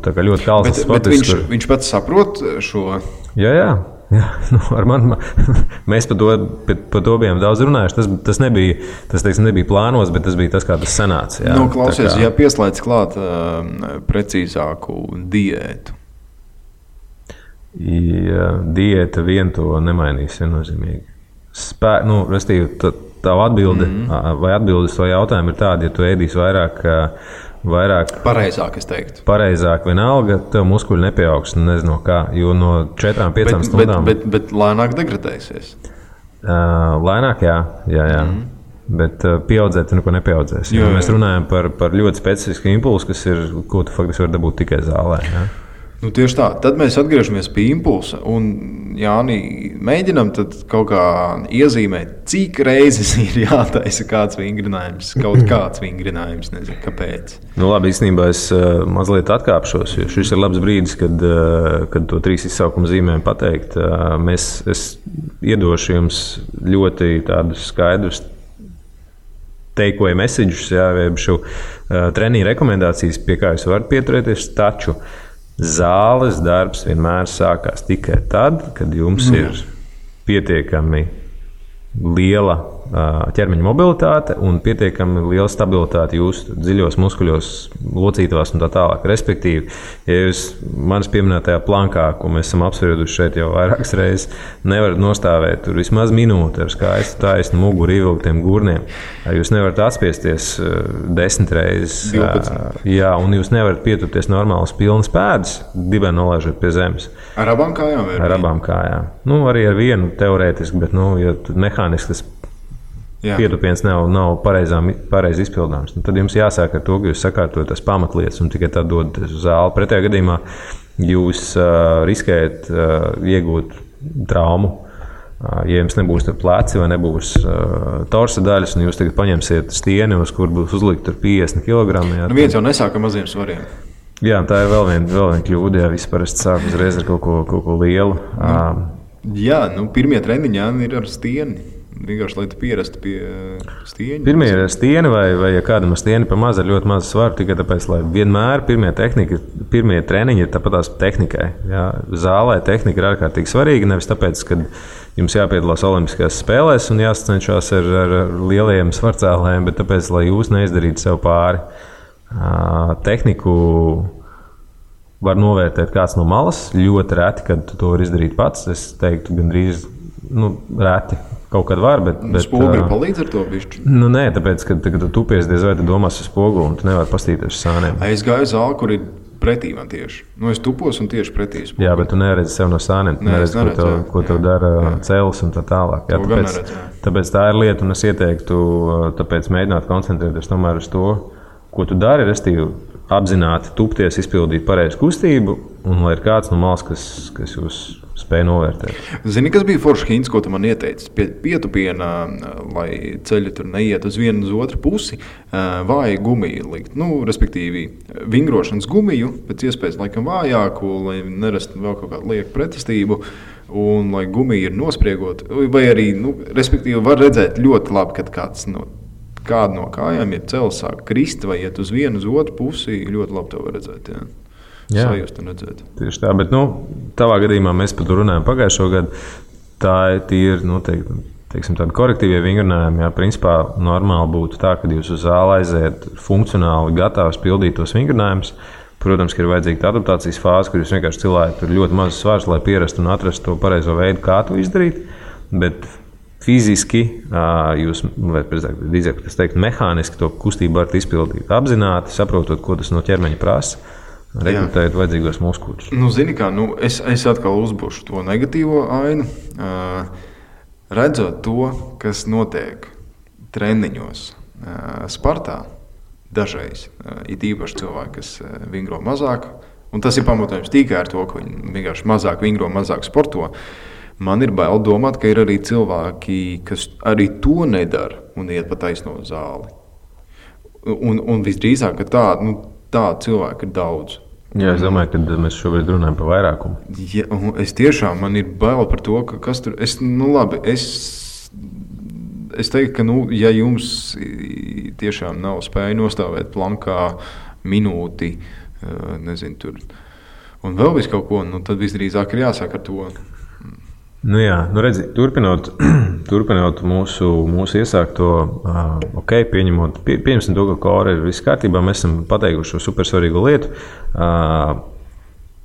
Tā kā ļoti kalns sportists.
Bet viņš pats saprot šo?
Jā. Mēs par to bijām daudz runājuši. Tas nebija plānos, bet tas bija tas, kā tas sanāca. Jā.
Klausies, ja pieslēdz klāt precīzāku diētu.
Diēta vien to nemainīs viennozīmīgi. Restīvi, tavu atbildi vai atbildes to jautājumu ir tāda, ja tu ēdīsi vairāk
pareizāk, es teiktu.
Pareizāk vienalga, tev muskuļi nepieaugs, nezinu kā, jo no 4-5 stundām.
Bet lēnāk degradēsies.
Lēnāk, jā. Bet pieaudzēt, tu neko nepieaudzēsi. Mēs runājam par ļoti specifisku impulsu, ko tu faktiski vari dabūt tikai zālē. Jā.
Tieši tā. Tad mēs atgriežamies pie impulsa. Un, Jāni, mēģinām kaut kā iezīmēt, cik reizes ir jātaisa kāds vingrinājums, kaut kāds vingrinājums, nezinu, kāpēc.
Labi, īstenībā es mazliet atkāpšos, jo šis ir labs brīdis, kad to 3 izsaukuma zīmēm pateikt. Es iedošu jums ļoti tādus skaidrus take-away messages, šo treniņu rekomendācijas, pie kā jūs varat pieturēties, taču zāles darbs vienmēr sākās tikai tad, kad jums ir pietiekami liela ķermeņa mobilitāte un pietiekami liela stabilitāte jūsu dziļos muskuļos, locītavās un tā tālāk. Respektīvi, ja jūs manis pieminētajā plankā, ko mēs esam apsprieduši šeit jau vairākas reizes, nevarat nostāvēt tur vismaz minūti ar skaistu taisnu muguru ievilktiem gurniem, jūs nevarat atspiesties 10 reizes,
12.
Jā, un jūs nevarat pieturties normālas pilnas pēdas, dibeni nolaižot pie zemes.
Ar abām kājām?
Ar abām kājām. Arī ar vienu teorētiski, bet ja mehāniski tas pietupiens nav pareizi izpildāms. Tad jums jāsāk ar to, ka jūs sakārtojat tās pamatlietas un tikai tad dodaties uz zāli. Pretējā gadījumā jūs riskējat iegūt traumu. Ja jums nebūs pleci vai nebūs torsa daļas, un jūs tagad paņemsiet stieni, uz kur būs uzlikt 50 kg.
Viens jau nesāk ar maziem svariem.
Jā, tā ir vēl viena kļūda. Jā, visi parasti sāk uzreiz ar kaut ko lielu.
Jā, pirmie treniņi ir ar stieni. Vienkārši, lai tu pierastu pie stieņa.
Pirmie ir stieni, vai ja kādam ir stieni pa maz, ar ļoti mazu svaru, tikai tāpēc, lai vienmēr pirmie treniņi ir tāpat tās tehnikai. Jā. Zālē tehnika ir ārkārtīgi svarīga, nevis tāpēc, ka jums jāpiedalās Olimpiskajās spēlēs un jāsacenšās ar lielajiem svarcēlējiem, bet tāpēc, lai jūs neizdarītu sev pāri. Tehniku var novērtēt kāds no malas, ļoti reti, kad tu to var izdarīt pats. Es teiktu, gandrīz reti kaut kad var, bet
spoguli palīdz ar to bišķi?
Nē, tāpēc, kad tu tupies, diez vai tu domās uz spoguli un tu nevari pastīties uz sāniem.
Es gāju zāli, kur ir pretī man tieši. Es tupos un tieši pretī spoguli.
Jā, bet tu neredzi sev no sāniem. Tu neredzi, ko tev dara cēlis un tā tālāk. Jā, tāpēc tā ir lieta, un es ieteiktu mēģināt koncentrēties tomēr uz to, ko tu dari, restīvi apzināti tupties, izpildīt pareizu kustību, un lai ir kāds no malas, kas jūs spēj novērtēt.
Zini, kas bija foršs hints, ko tu man ieteici? Pietupienā, lai ceļi tur neiet uz vienu uz otru pusi, vāju gumiju likt. Respektīvi, vingrošanas gumiju, pēc iespējas laikam vājāku, lai nerastu vēl kaut kādu lieku pretestību, un lai gumija ir nospriegot, vai arī, respektīvi, var redzēt ļoti labi, kad kāda no kājām ir cels sāk krist vai iet uz vienu uz otru pusi, ļoti labi to var redzēt, jā. Sajust un redzēt.
Tieši tā, bet tavā gadījumā mēs par to runājam pagājušo gadu. Tā ir teiksim, tādi korektīvie vingrinājumi. Jā, principā normāli būtu tā, ka jūs uz zāli aiziet funkcionāli gatavs pildīt tos vingrinājumus. Protams, ka ir vajadzīga adaptācijas fāze, kur jūs vienkārši cilājat tur ļoti mazus svārus, lai pierastu un atrastu to pareizo veidu, kā to izdarīt. Bet fiziski jūs, vai drīzāk mehāniski to kustību varat izpildīt. Apzināti, saprotot, ko tas no ķermeņa prasa. Rekrutēt vajadzīgos muskuļus.
Zini kā, es atkal uzbūšu to negatīvo ainu. Redzot to, kas notiek treniņos Spartā, dažreiz, it īpaši cilvēki, kas vingro mazāk, un tas ir pamatojums tikai ar to, ka viņi vienkārši mazāk vingro, mazāk sporto. Man ir bail domāt, ka ir arī cilvēki, kas arī to nedara un iet pa taisno zāli. Un visdrīzāk, ka tādu cilvēku ir daudz.
Jā, es domāju, ka mēs šobrīd runājam par vairākumu.
Ja, es tiešām, man ir bail par to, ka kas tur... Es teiktu, ka, ja jums tiešām nav spēja nostāvēt plankā minūti, nezinu, tur, un vēl visu kaut ko, tad visdrīzāk ir jāsāk ar to.
Redzi, turpinot mūsu iesākto, pieņemsim to, ka kora ir viss kārtībā, mēs esam pateikuši šo supersvarīgo lietu.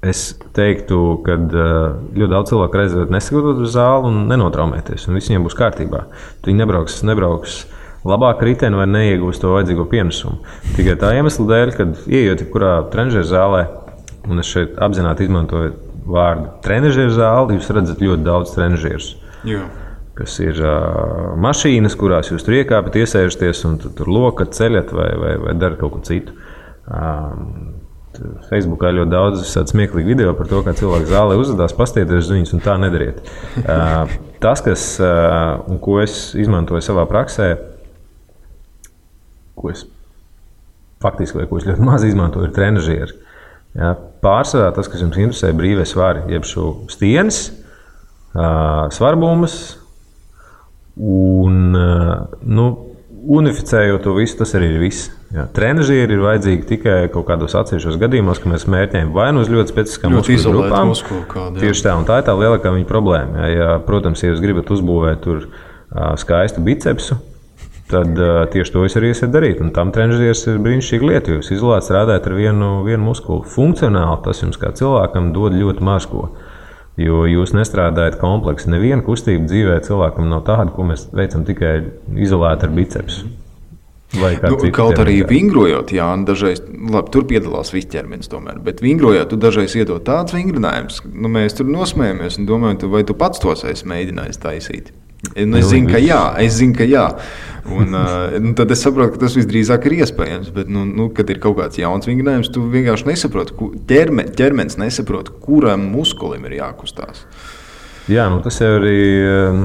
Es teiktu, ka ļoti daudz cilvēku reizē nesagatavot uz zāli un nenotraumēties, un viss viņiem būs kārtībā. Viņi nebrauks labāk riteni vai neiegūs to vajadzīgo pienesumu. Tikai tā iemesla dēļ, kad ieejot jebkurā trenižera zālē, un es šeit apzināti izmantoju vārdu trenižera zāli, jūs redzat ļoti daudz trenižerus. Kas ir mašīnas, kurās jūs tur iekāpjat, iesēžaties un tur lokat, ceļat vai darat kaut ko citu. Facebookā ļoti daudz smieklīgi video par to, kā cilvēki zālē uzvedās, pastieties uz viņus un tā nedariet. Tas, ko es izmantoju savā praksē, ko es ļoti maz izmantoju, ir trenižeri. Jā, pārsvarā tas, kas jums interesē, brīvie svari, jeb šo stienes, svarbumus un unificējot to visu, tas arī ir viss. Trenižieri ir vajadzīgi tikai kaut kādos atsevišķos gadījumos, ka mēs mērķējam vai uz ļoti specifiskām muskuļu grupām. Tieši tā, un tā ir tā lielākā viņa problēma. Protams, ja jūs gribat uzbūvēt tur skaistu bicepsu, tad tieši to es arī esmu darīt. Un tam trenižieris ir brīnišķīga lieta, jo jūs izolēti strādājat ar vienu muskuli. Funkcionāli tas jums kā cilvēkam dod ļoti maz ko, jo jūs nestrādājat kompleksi. Neviena kustība dzīvē cilvēkam nav tāda, ko mēs veicam tikai izolēti ar bicepsu.
Kaut arī vingrojot, dažreiz, labi, tur piedalās viss ķermenis tomēr, bet vingrojot, tu dažreiz iedod tāds vingrinājumus, mēs tur nosmējamies un domājam, vai tu pats tos esi mēģinājis taisīt. Es zinu, ka jā. Un tad es saprotu, ka tas visdrīzāk ir iespējams, bet, kad ir kaut kāds jauns vingrinājums, tu vienkārši nesaproti, ķermenis nesaprot, kuram muskulim ir jākustās.
Jā, tas jau arī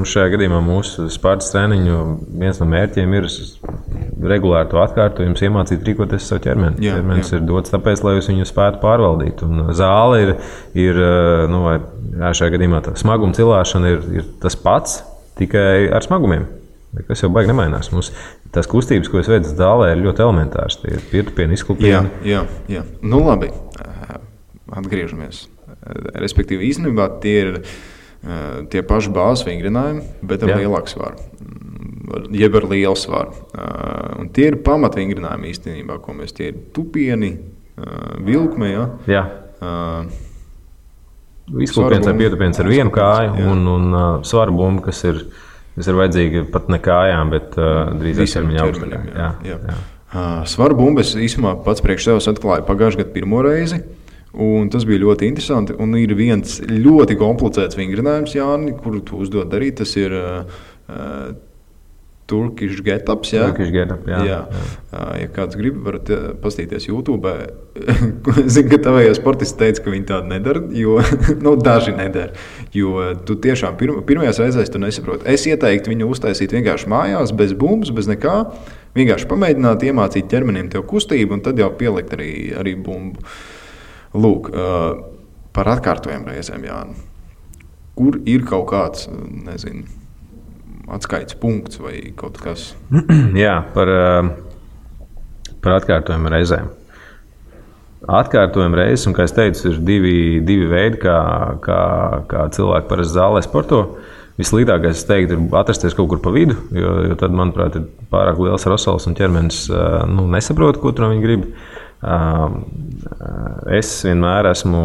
šajā gadījumā mūsu Spartas treniņu viens no mērķiem ir regulāri to atkārtojums, iemācīt rīkoties savu ķermeni. Ķermenis ir dots tāpēc, lai jūs viņu spētu pārvaldīt. Un zāle ir šajā gadījumā tā smaguma cilāšana ir tas pats. tikai ar smagumiem. Kas jau baigi nemainās. Mums tās kustības, ko es veicu zālē, ir ļoti elementāras. Tie ir pietupieni, izklupieni.
Jā. Nu labi, atgriežamies. Respektīvi, īstenībā tie ir tie paši bāzes vingrinājumi, bet ar lielāku svaru. Jeb ar lielu svaru. Un tie ir pamatvingrinājumi īstenībā, ko mēs tie ir tupieni, vilkme,
Jā. Izklupiens ar pietupiens ar vienu kāju un svaru bumbu, kas ir vajadzīga pat ne kājām, bet drīzāk ķermeņa augšdaļā. Jā.
Svaru bumbu es īstenībā pats priekš sevis atklāju pagājušajā gadā pirmo reizi. Un tas bija ļoti interesanti. Un ir viens ļoti komplicēts vingrinājums, Jāni, kuru tu uzdod darīt. Tas ir Turkish Get-ups.
Turkish Get-up, jā.
Ja kāds grib, varat pastīties YouTube. Zinu, ka tavējie sportisti teica, ka viņi tādu nedara, jo daži nedara. Jo tu tiešām pirmajās reizēs tu nesaproti. Es ieteiktu viņu uztaisīt vienkārši mājās, bez bumbas, bez nekā. Vienkārši pamēģināt iemācīt ķermenim tev kustību un tad jau pielikt arī bumbu. Lūk, par atkārtojumu reizēm, Jāni. Kur ir kaut kāds, nezinu, atskaites punkts vai kaut kas?
Jā, par atkārtojumu reizēm. Atkārtojumu reizes, un kā es teicu, ir divi veidi, kā cilvēki parasti zālē sporto. Vislīdākais, es teiktu, ir atrasties kaut kur pa vidu, jo tad, manuprāt, ir pārāk liels rosals un ķermenis nesaprot, ko tur viņi grib. Es vienmēr esmu,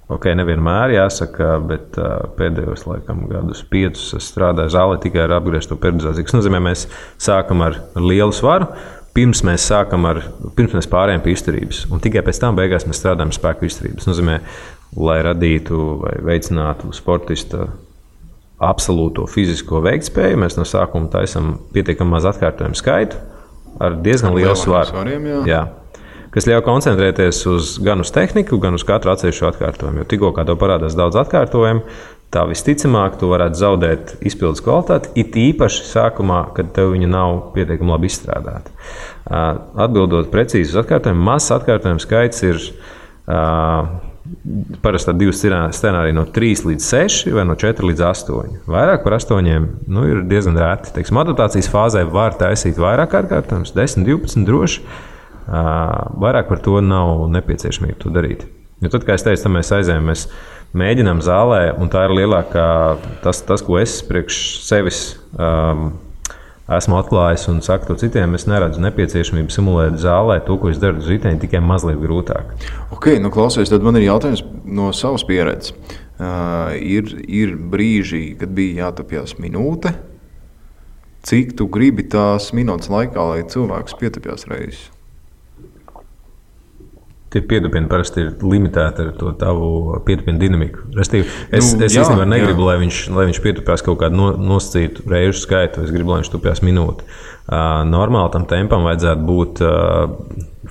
nevienmēr jāsaka, bet pēdējos laikam gadus 5 es strādāju zālē tikai ar apgriezto periodizāciju. Tas nozīmē, mēs sākam ar lielu svaru, pirms mēs pārējām pie izturības, un tikai pēc tam beigās mēs strādājam spēku izturības. Tas nozīmē, lai radītu vai veicinātu sportista absolūto fizisko veiktspēju, mēs no sākuma taisam pietiekami maz atkārtojumu skaitu ar diezgan lielu svaru. Jā. Kas ļauj koncentrēties gan uz tehniku, gan uz katru atsevišķu atkārtojumu. Jo tikko kā tev parādās daudz atkārtojumu, tā visticamāk tu varētu zaudēt izpildes kvalitāti, it īpaši sākumā, kad tev viņa nav pietiekami labi izstrādāta. Atbildot precīzi uz atkārtojumu, mazs atkārtojumu skaits ir parasti tādi 2 scenāriji no 3 līdz 6 vai no 4 līdz 8. Vairāk par 8 ir diezgan rēti. Teiksim, adaptācijas fāzē var taisīt vairāk atkārtojumus, 10, 12 droši. Vairāk par to nav nepieciešamība to darīt. Jo tad, kā es teicu, mēs aizējām, mēs mēģinām zālē, un tā ir lielākā, tas ko es priekš sevis esmu atklājis un saku to citiem, es neredzu nepieciešamību simulēt zālē to, ko es daru uz riteņa, tikai mazliet grūtāk.
Klausies, tad man ir jautājums no savas pieredzes. Ir brīži, kad bija jātapjās minūte. Cik tu gribi tās minūtes laikā, lai cilvēks pietapjās reizes?
Tie pietupieni parasti ir limitēti ar to tavu pietupienu dinamiku. Es īstenībā negribu, lai viņš pietupjās kaut kādu nosacītu reižu skaitu. Es gribu, lai viņš tupjās minūti. Normāli tam tempam vajadzētu būt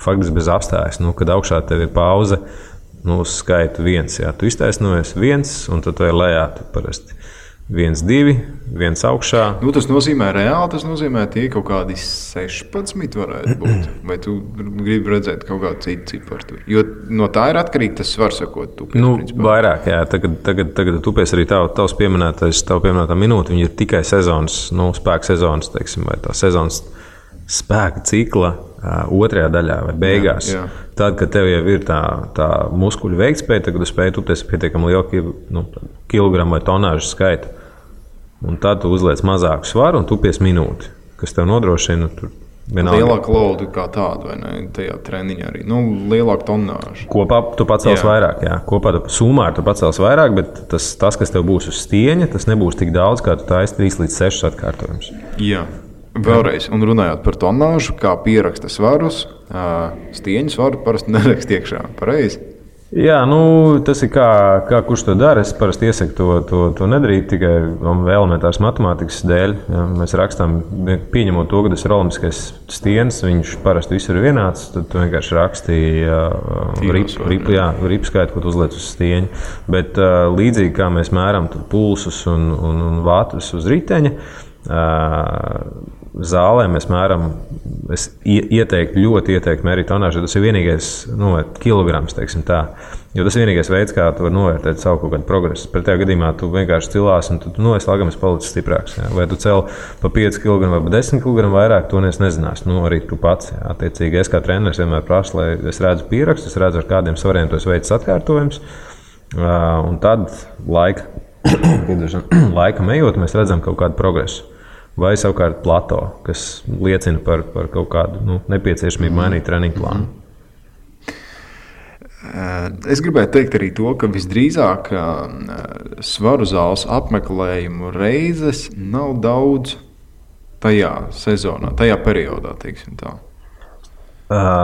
faktiski bez apstājas. Kad augšā tev ir pauze, uz skaitu 1. Jā, tu iztaisnojies 1, un tad tu ir lejā parasti 1, 2, 1 augšā.
Tas nozīmē reāli, tas nozīmē tie kaut kādi 16 varētu būt. Vai tu gribi redzēt kaut kādu citu ciparu? Jo no tā ir atkarīgi tas svars, ko tu tupies.
Vairāk, jā. Tagad tupies arī tavs pieminētā minūte. Viņi ir tikai sezonas, spēka sezonas, teiksim, vai tā sezonas spēka cikla otrajā daļā vai beigās. Jā. Tad, kad tev jau ir tā muskuļu veiktspēja, tad, kad tu spēj tupties pietiekami lielu kilogramu vai tonāžu skaitu. Un tad tu uzliec mazāku svaru un tupies minūti, kas tev nodrošina
lielāku lodu kā tādu, vai ne? Tajā treniņā arī. Lielāku tonāžu.
Kopā tu pacels vairāk, jā. Kopā sumā tu pacels vairāk, bet tas, kas tev būs uz stieņa, tas nebūs tik daudz, kā tu taisi 3 līdz 6 atkārtojumus.
Jā. Vēlreiz, un runājot par tonāžu, kā pieraksta svarus, stieņu svaru parasti nerakst iekšā. Pareizi?
Jā, tas ir kā kurš to dara. Es parasti iesaku to nedarīt tikai elementāras matemātikas dēļ. Ja, mēs rakstām, pieņemot to, ka tas ir olimpiskais stiens, viņš parasti visur ir vienāds, tad tu vienkārši rakstīji ripu skaitu, ko tu uzliec uz stieņa. Bet līdzīgi kā mēs mēram pulsus un vātrus uz riteņa, Zālē mēs mēram, es ļoti ieteiktu mērīt tonāžu, tas ir vienīgais kilograms, teiksim tā. Jo tas ir vienīgais veids, kā tu vari novērtēt savu kaut kādu progresu. Pretējā gadījumā tu vienkārši cilās un tu esi lagams palicis stiprāks. Jā. Vai tu cel pa 5 kg vai pa 10 kg vairāk, to nezinās. Arī tu pats. Jā. Attiecīgi, es kā treneris vienmēr prasu, lai es redzu pierakstu, es redzu, ar kādiem svariem tu esi veicis atkārtojums. Un tad laikam ejot, mēs redzam kaut kādu progresu. Vai savukārt plato, kas liecina par kaut kādu nepieciešamību mainīt treniņu plānu.
Es gribētu teikt arī to, ka visdrīzāk svaru zāles apmeklējumu reizes nav daudz tajā sezonā, tajā periodā, teiksim tā.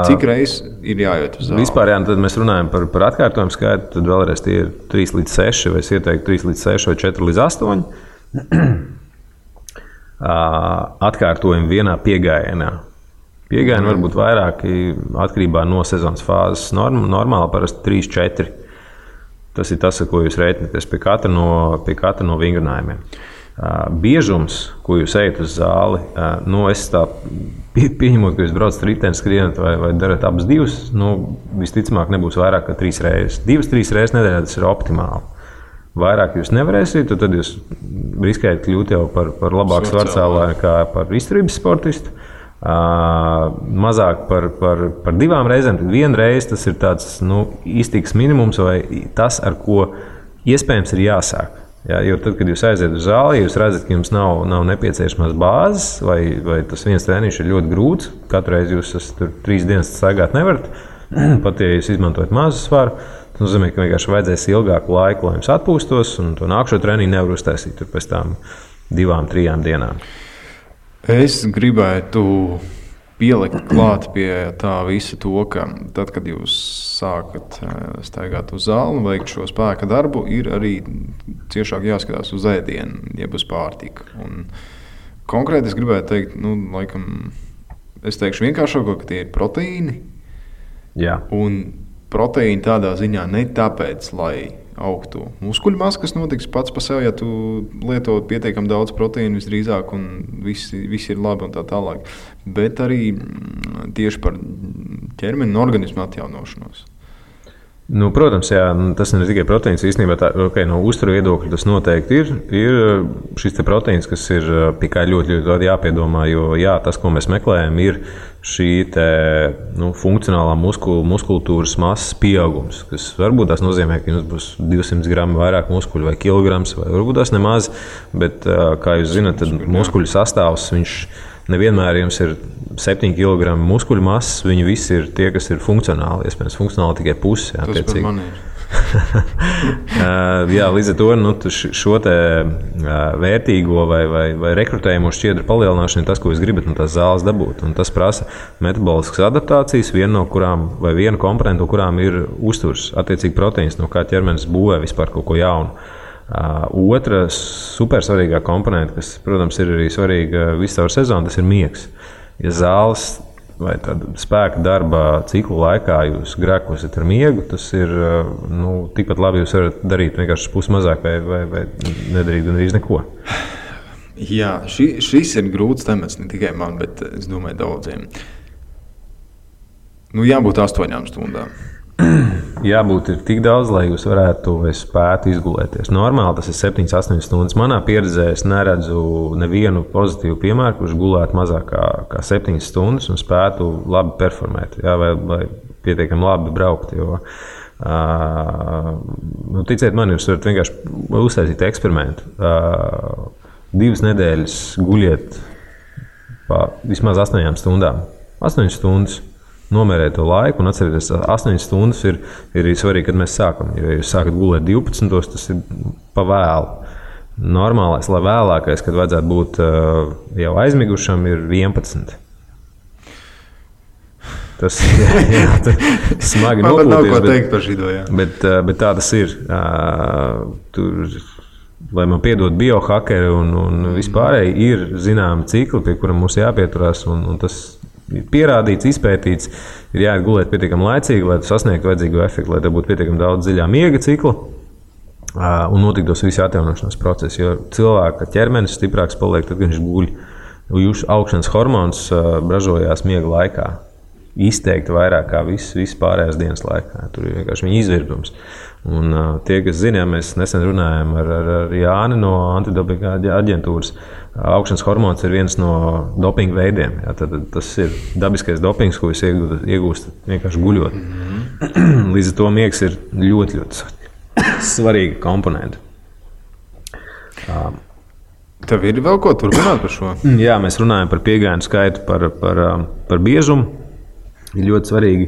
Cik reizes ir jāiet uz zāli?
Vispār, jā, tad mēs runājam par atkārtojumu skaitu, tad vēlreiz tie ir 3 līdz 6, vai es ieteiktu 3 līdz 6 vai 4 līdz 8. Atkārtojumi vienā piegājienā. Pieejami var būt vairāki atkarībā no sezonas fāzes. Normāli parasti 3-4. Tas ir tas, ar ko jūs rēķināties pie katra no vingrinājumiem. Biežums, ko jūs ejat uz zāli, es tā pieņemot, ka jūs braucat ritenis, skrienat vai darat abas divas, visticamāk nebūs vairāk kā 3 reizes. 2-3 reizes nedēļā tas ir optimāli. Vairāk jūs nevarēsiet, tad jūs riskējat kļūt jau par labāku svarcēlāju kā par izturības sportistu. Mazāk par 2 reizēm, tad 1 reize tas ir tāds iztiks minimums vai tas, ar ko iespējams ir jāsāk. Ja, jo tad, kad jūs aiziet uz zāli, jūs redzat, ka jums nav nepieciešamās bāzes vai tas viens treniņš ir ļoti grūts. Katru reizi jūs tur 3 dienas staigāt nevarat, pat ja jūs izmantojat mazu svaru. Tas nozīmē, ka vienkārši vajadzēs ilgāku laiku, lai jums atpūstos, un to nākšo treniņu nevar uztaisīt pēc tām 2-3 dienām.
Es gribētu pielikt klāt pie tā visa to, ka tad, kad jūs sākat staigāt uz zāli un veikt šo spēka darbu, ir arī ciešāk jāskatās uz ēdienu, jeb uz pārtiku. Un konkrēti es gribētu teikt, laikam, es teikšu vienkāršāko, ka tie ir proteīni.
Jā.
Un proteīni tādā ziņā ne tāpēc, lai augtu muskuļu masa, kas notiks pats par sevi, ja tu lieto pietiekami daudz proteīnu visdrīzāk un viss ir labi un tā tālāk. Bet arī tieši par ķermeni un organismu atjaunošanos.
Protams, jā, tas ne tikai proteīns. Īstenībā no uzturu viedokļa tas noteikti ir šis proteīns, kas ir pie kā ļoti jāpiedomā. Jo jā, tas, ko mēs meklējam, ir šī funkcionālā muskultūras masas pieaugums. Kas varbūt tas nozīmē, ka jums būs 200 gramu vairāk muskuļu vai kilograms, vai varbūt tas nemaz. Bet, kā jūs zināt, tad muskuļu sastāvs nevienmēr jums ir 7 kg muskuļu masas, viņi visi ir tie, kas ir funkcionāli. Iespējams, funkcionāli tikai pusi. Jā,
tas par mani ir.
Jā, līdz ar to šo vērtīgo vai rekrutējumu šķiedru palielināšanu ir tas, ko jūs gribat no tās zāles dabūt. Un tas prasa metaboliskas adaptācijas, viena komponenta, no kurām ir uzturs, attiecīgi proteīns, no kā ķermenis būvē vispār kaut ko jaunu. Otra supersvarīgā komponenta, kas, protams, ir arī svarīga visu caur sezonu, tas ir miegs. Ja zāles vai spēka darba ciklu laikā jūs grēkosiet ar miegu, tas ir tikpat labi jūs varat darīt vienkārši pusmazāk vai nedarīt gandrīz neko.
Jā, šis ir grūts temats ne tikai man, bet es domāju daudziem. Jābūt 8 stundām.
Jābūt ir tik daudz, lai jūs varētu spētu izgulēties. Normāli tas ir 7-8 stundas. Manā pieredzē es neredzu nevienu pozitīvu piemēru, kurš gulētu mazāk kā 7 stundas un spētu labi performēt, jā, vai pietiekami labi braukt. Jo, ticiet man, jūs varat vienkārši uztaisīt eksperimentu. 2 nedēļas guļiet pa vismaz 8 stundām. 8 stundas. Nomērēt to laiku un atcerieties, 8 stundas ir svarīgi, kad mēs sākam. Ja jūs sākat gulēt 12, tas ir pa vēlu. Normālais, lai vēlākais, kad vajadzētu būt jau aizmigušam, ir 11. Tas smagi nopūties.
Man nav ko teikt par šito, jā.
Bet tā tas ir. Lai man piedod biohakeri un vispārēji, ir zināmi cikli, pie kuriem mums jāpieturās, un tas ir pierādīts, izpētīts, ir jāiet gulēt pietiekami laicīgi, lai sasniegtu vajadzīgo efektu, lai te būtu pietiekami daudz dziļā miega cikla. un notiktos visi atjaunošanās procesi, jo cilvēka ķermenis stiprāks paliek, tad, kad viņš guļ. Jūsu augšanas hormons ražojās miega laikā. Izteikti vairāk kā viss pārējās dienas laikā. Tur ir vienkārši viņa izvirdums. Un tie, kas zina, mēs nesen runājām ar Jāni no antidopinga aģentūras, augšanas hormons ir viens no dopinga veidiem. Jā, tad tas ir dabiskais dopings, ko jūs iegūstat vienkārši guļot. Līdz ar to miegs ir ļoti, ļoti svarīga komponenta.
Tev ir vēl ko turpināt par šo?
Jā, mēs runājam par piegājienu skaitu, par biežumu. Ir ļoti svarīgi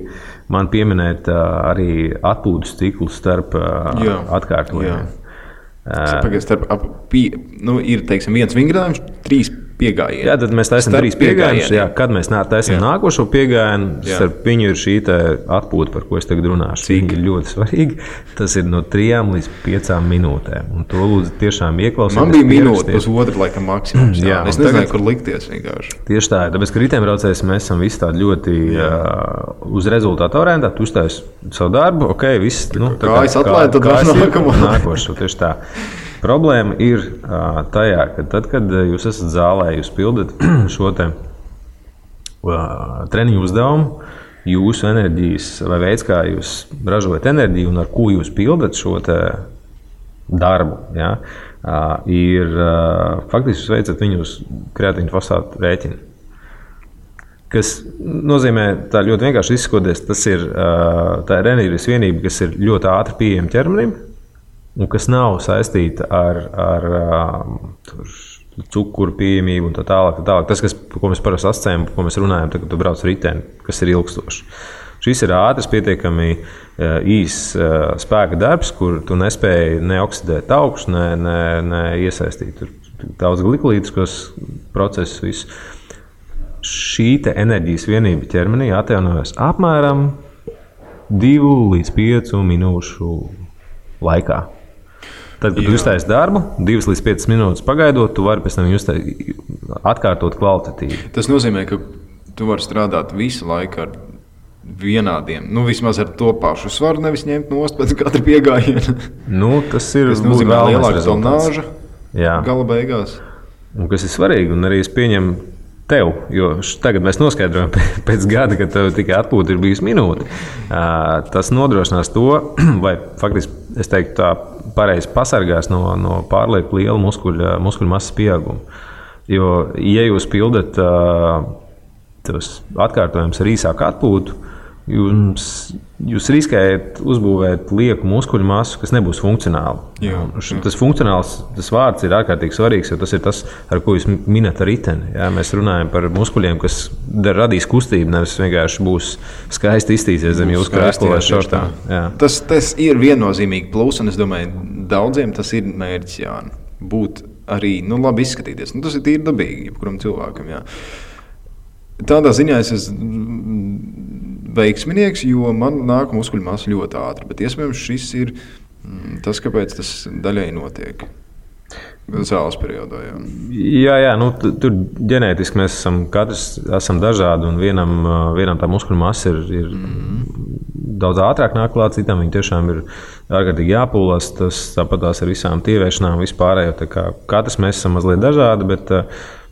man pieminēt arī atpūtas ciklu starp atkārtojumiem.
Ir, teiksim, viens vingrinājums, 3 piegājieni.
Jā, tad mēs taisam 3 piegājienus. Jā, kad mēs taisam nākošo piegājienu, starp viņu ir šī atpūta, par ko es tagad runāšu. Viņa ir ļoti svarīga. Tas ir no 3 līdz 5 minūtēm. Un to lūdzu tiešām ieklausīties.
Man bija minūte, pusotra laikam maksimums. Jā, es nezināju, kur likties vienkārši.
Tieši tā, tāpēc, ka riteņbraucējs mēs esam visi tādi ļoti uz rezultātu orientēti. Tu uztais savu darbu, ok, viss.
Kājas atlaid, tad
nākošo. Tieši tā. Problēma ir tajā, ka tad, kad jūs esat zālē, jūs pildat šo treniņu uzdevumu, jūsu enerģijas vai veids, kā jūs ražojat enerģiju un ar ko jūs pildat šo darbu, ja, ir faktiski jūs veicat viņu uz kreatīnu fosfātu rēķinu. Kas nozīmē, tā ļoti vienkārši izsakoties, tas ir tā enerģijas vienība, kas ir ļoti ātri pieejama ķermenim, un kas nav saistīta ar cukuru pieejamību un tā tālāk. Tas, ko mēs parasti asociējam, ko mēs runājam, tad, kad tu brauc riteni, kas ir ilgstošs. Šis ir ātrs, pietiekami īss spēka darbs, kur tu nespēji neoksidēt augstu, ne iesaistīt daudz glikolītiskos procesus. Visu. Šī enerģijas vienība ķermenī atjaunojas apmēram 2 līdz 5 minūšu laikā. Tad, kad tu uztaisi darbu, 2 līdz 5 minūtes pagaidot, tu vari pēc tam atkārtot kvalitatīvi.
Tas nozīmē, ka tu vari strādāt visu laiku ar vienādiem, vismaz ar to pašu svaru, nevis ņemt nost pēc katra piegājiena.
Tas ir
nozīmē lielāka tonāža gala beigās.
Un kas ir svarīgi, un arī es pieņemu tev, jo tagad mēs noskaidrojam pēc gada, kad tev tikai atpūta ir bijusi minūte. Tas nodrošinās to, vai faktiski, es teiktu, tā pareizi pasargās no pārlieku liela muskuļu masas pieauguma. Jo, ja jūs pildat tos atkārtojumus ar īsāku atpūtu, jūs riskējat uzbūvēt lieku muskuļu masu, kas nebūs funkcionāla. Tas funkcionāls vārds ir ārkārtīgi svarīgs, jo tas ir tas, ar ko jūs minat ar riteni. Jā, mēs runājam par muskuļiem, kas radīs kustību, nevis vienkārši būs skaisti iztīsies zem jūsu krēsla vai šortā.
Tas ir viennozīmīgi plus, un es domāju, daudziem tas ir mērķis, būt arī labi izskatīties. Tas ir tīri dabīgi, jebkuram cilvēkam. Jā. Tādā ziņā es esmu veiksminieks, jo man nāk muskuļu masa ļoti ātri, bet iespējams šis ir tas, kāpēc tas daļai notiek zāles periodā.
Jā, tur ģenētiski mēs katrs esam dažādi, un vienam tā muskuļu masa ir daudz ātrāk nāk klāt, citam viņi tiešām ir ārkārtīgi jāpūlās, tas tāpatās ar visām tieviešanām, vispārējo, katrs mēs esam mazliet dažādi, bet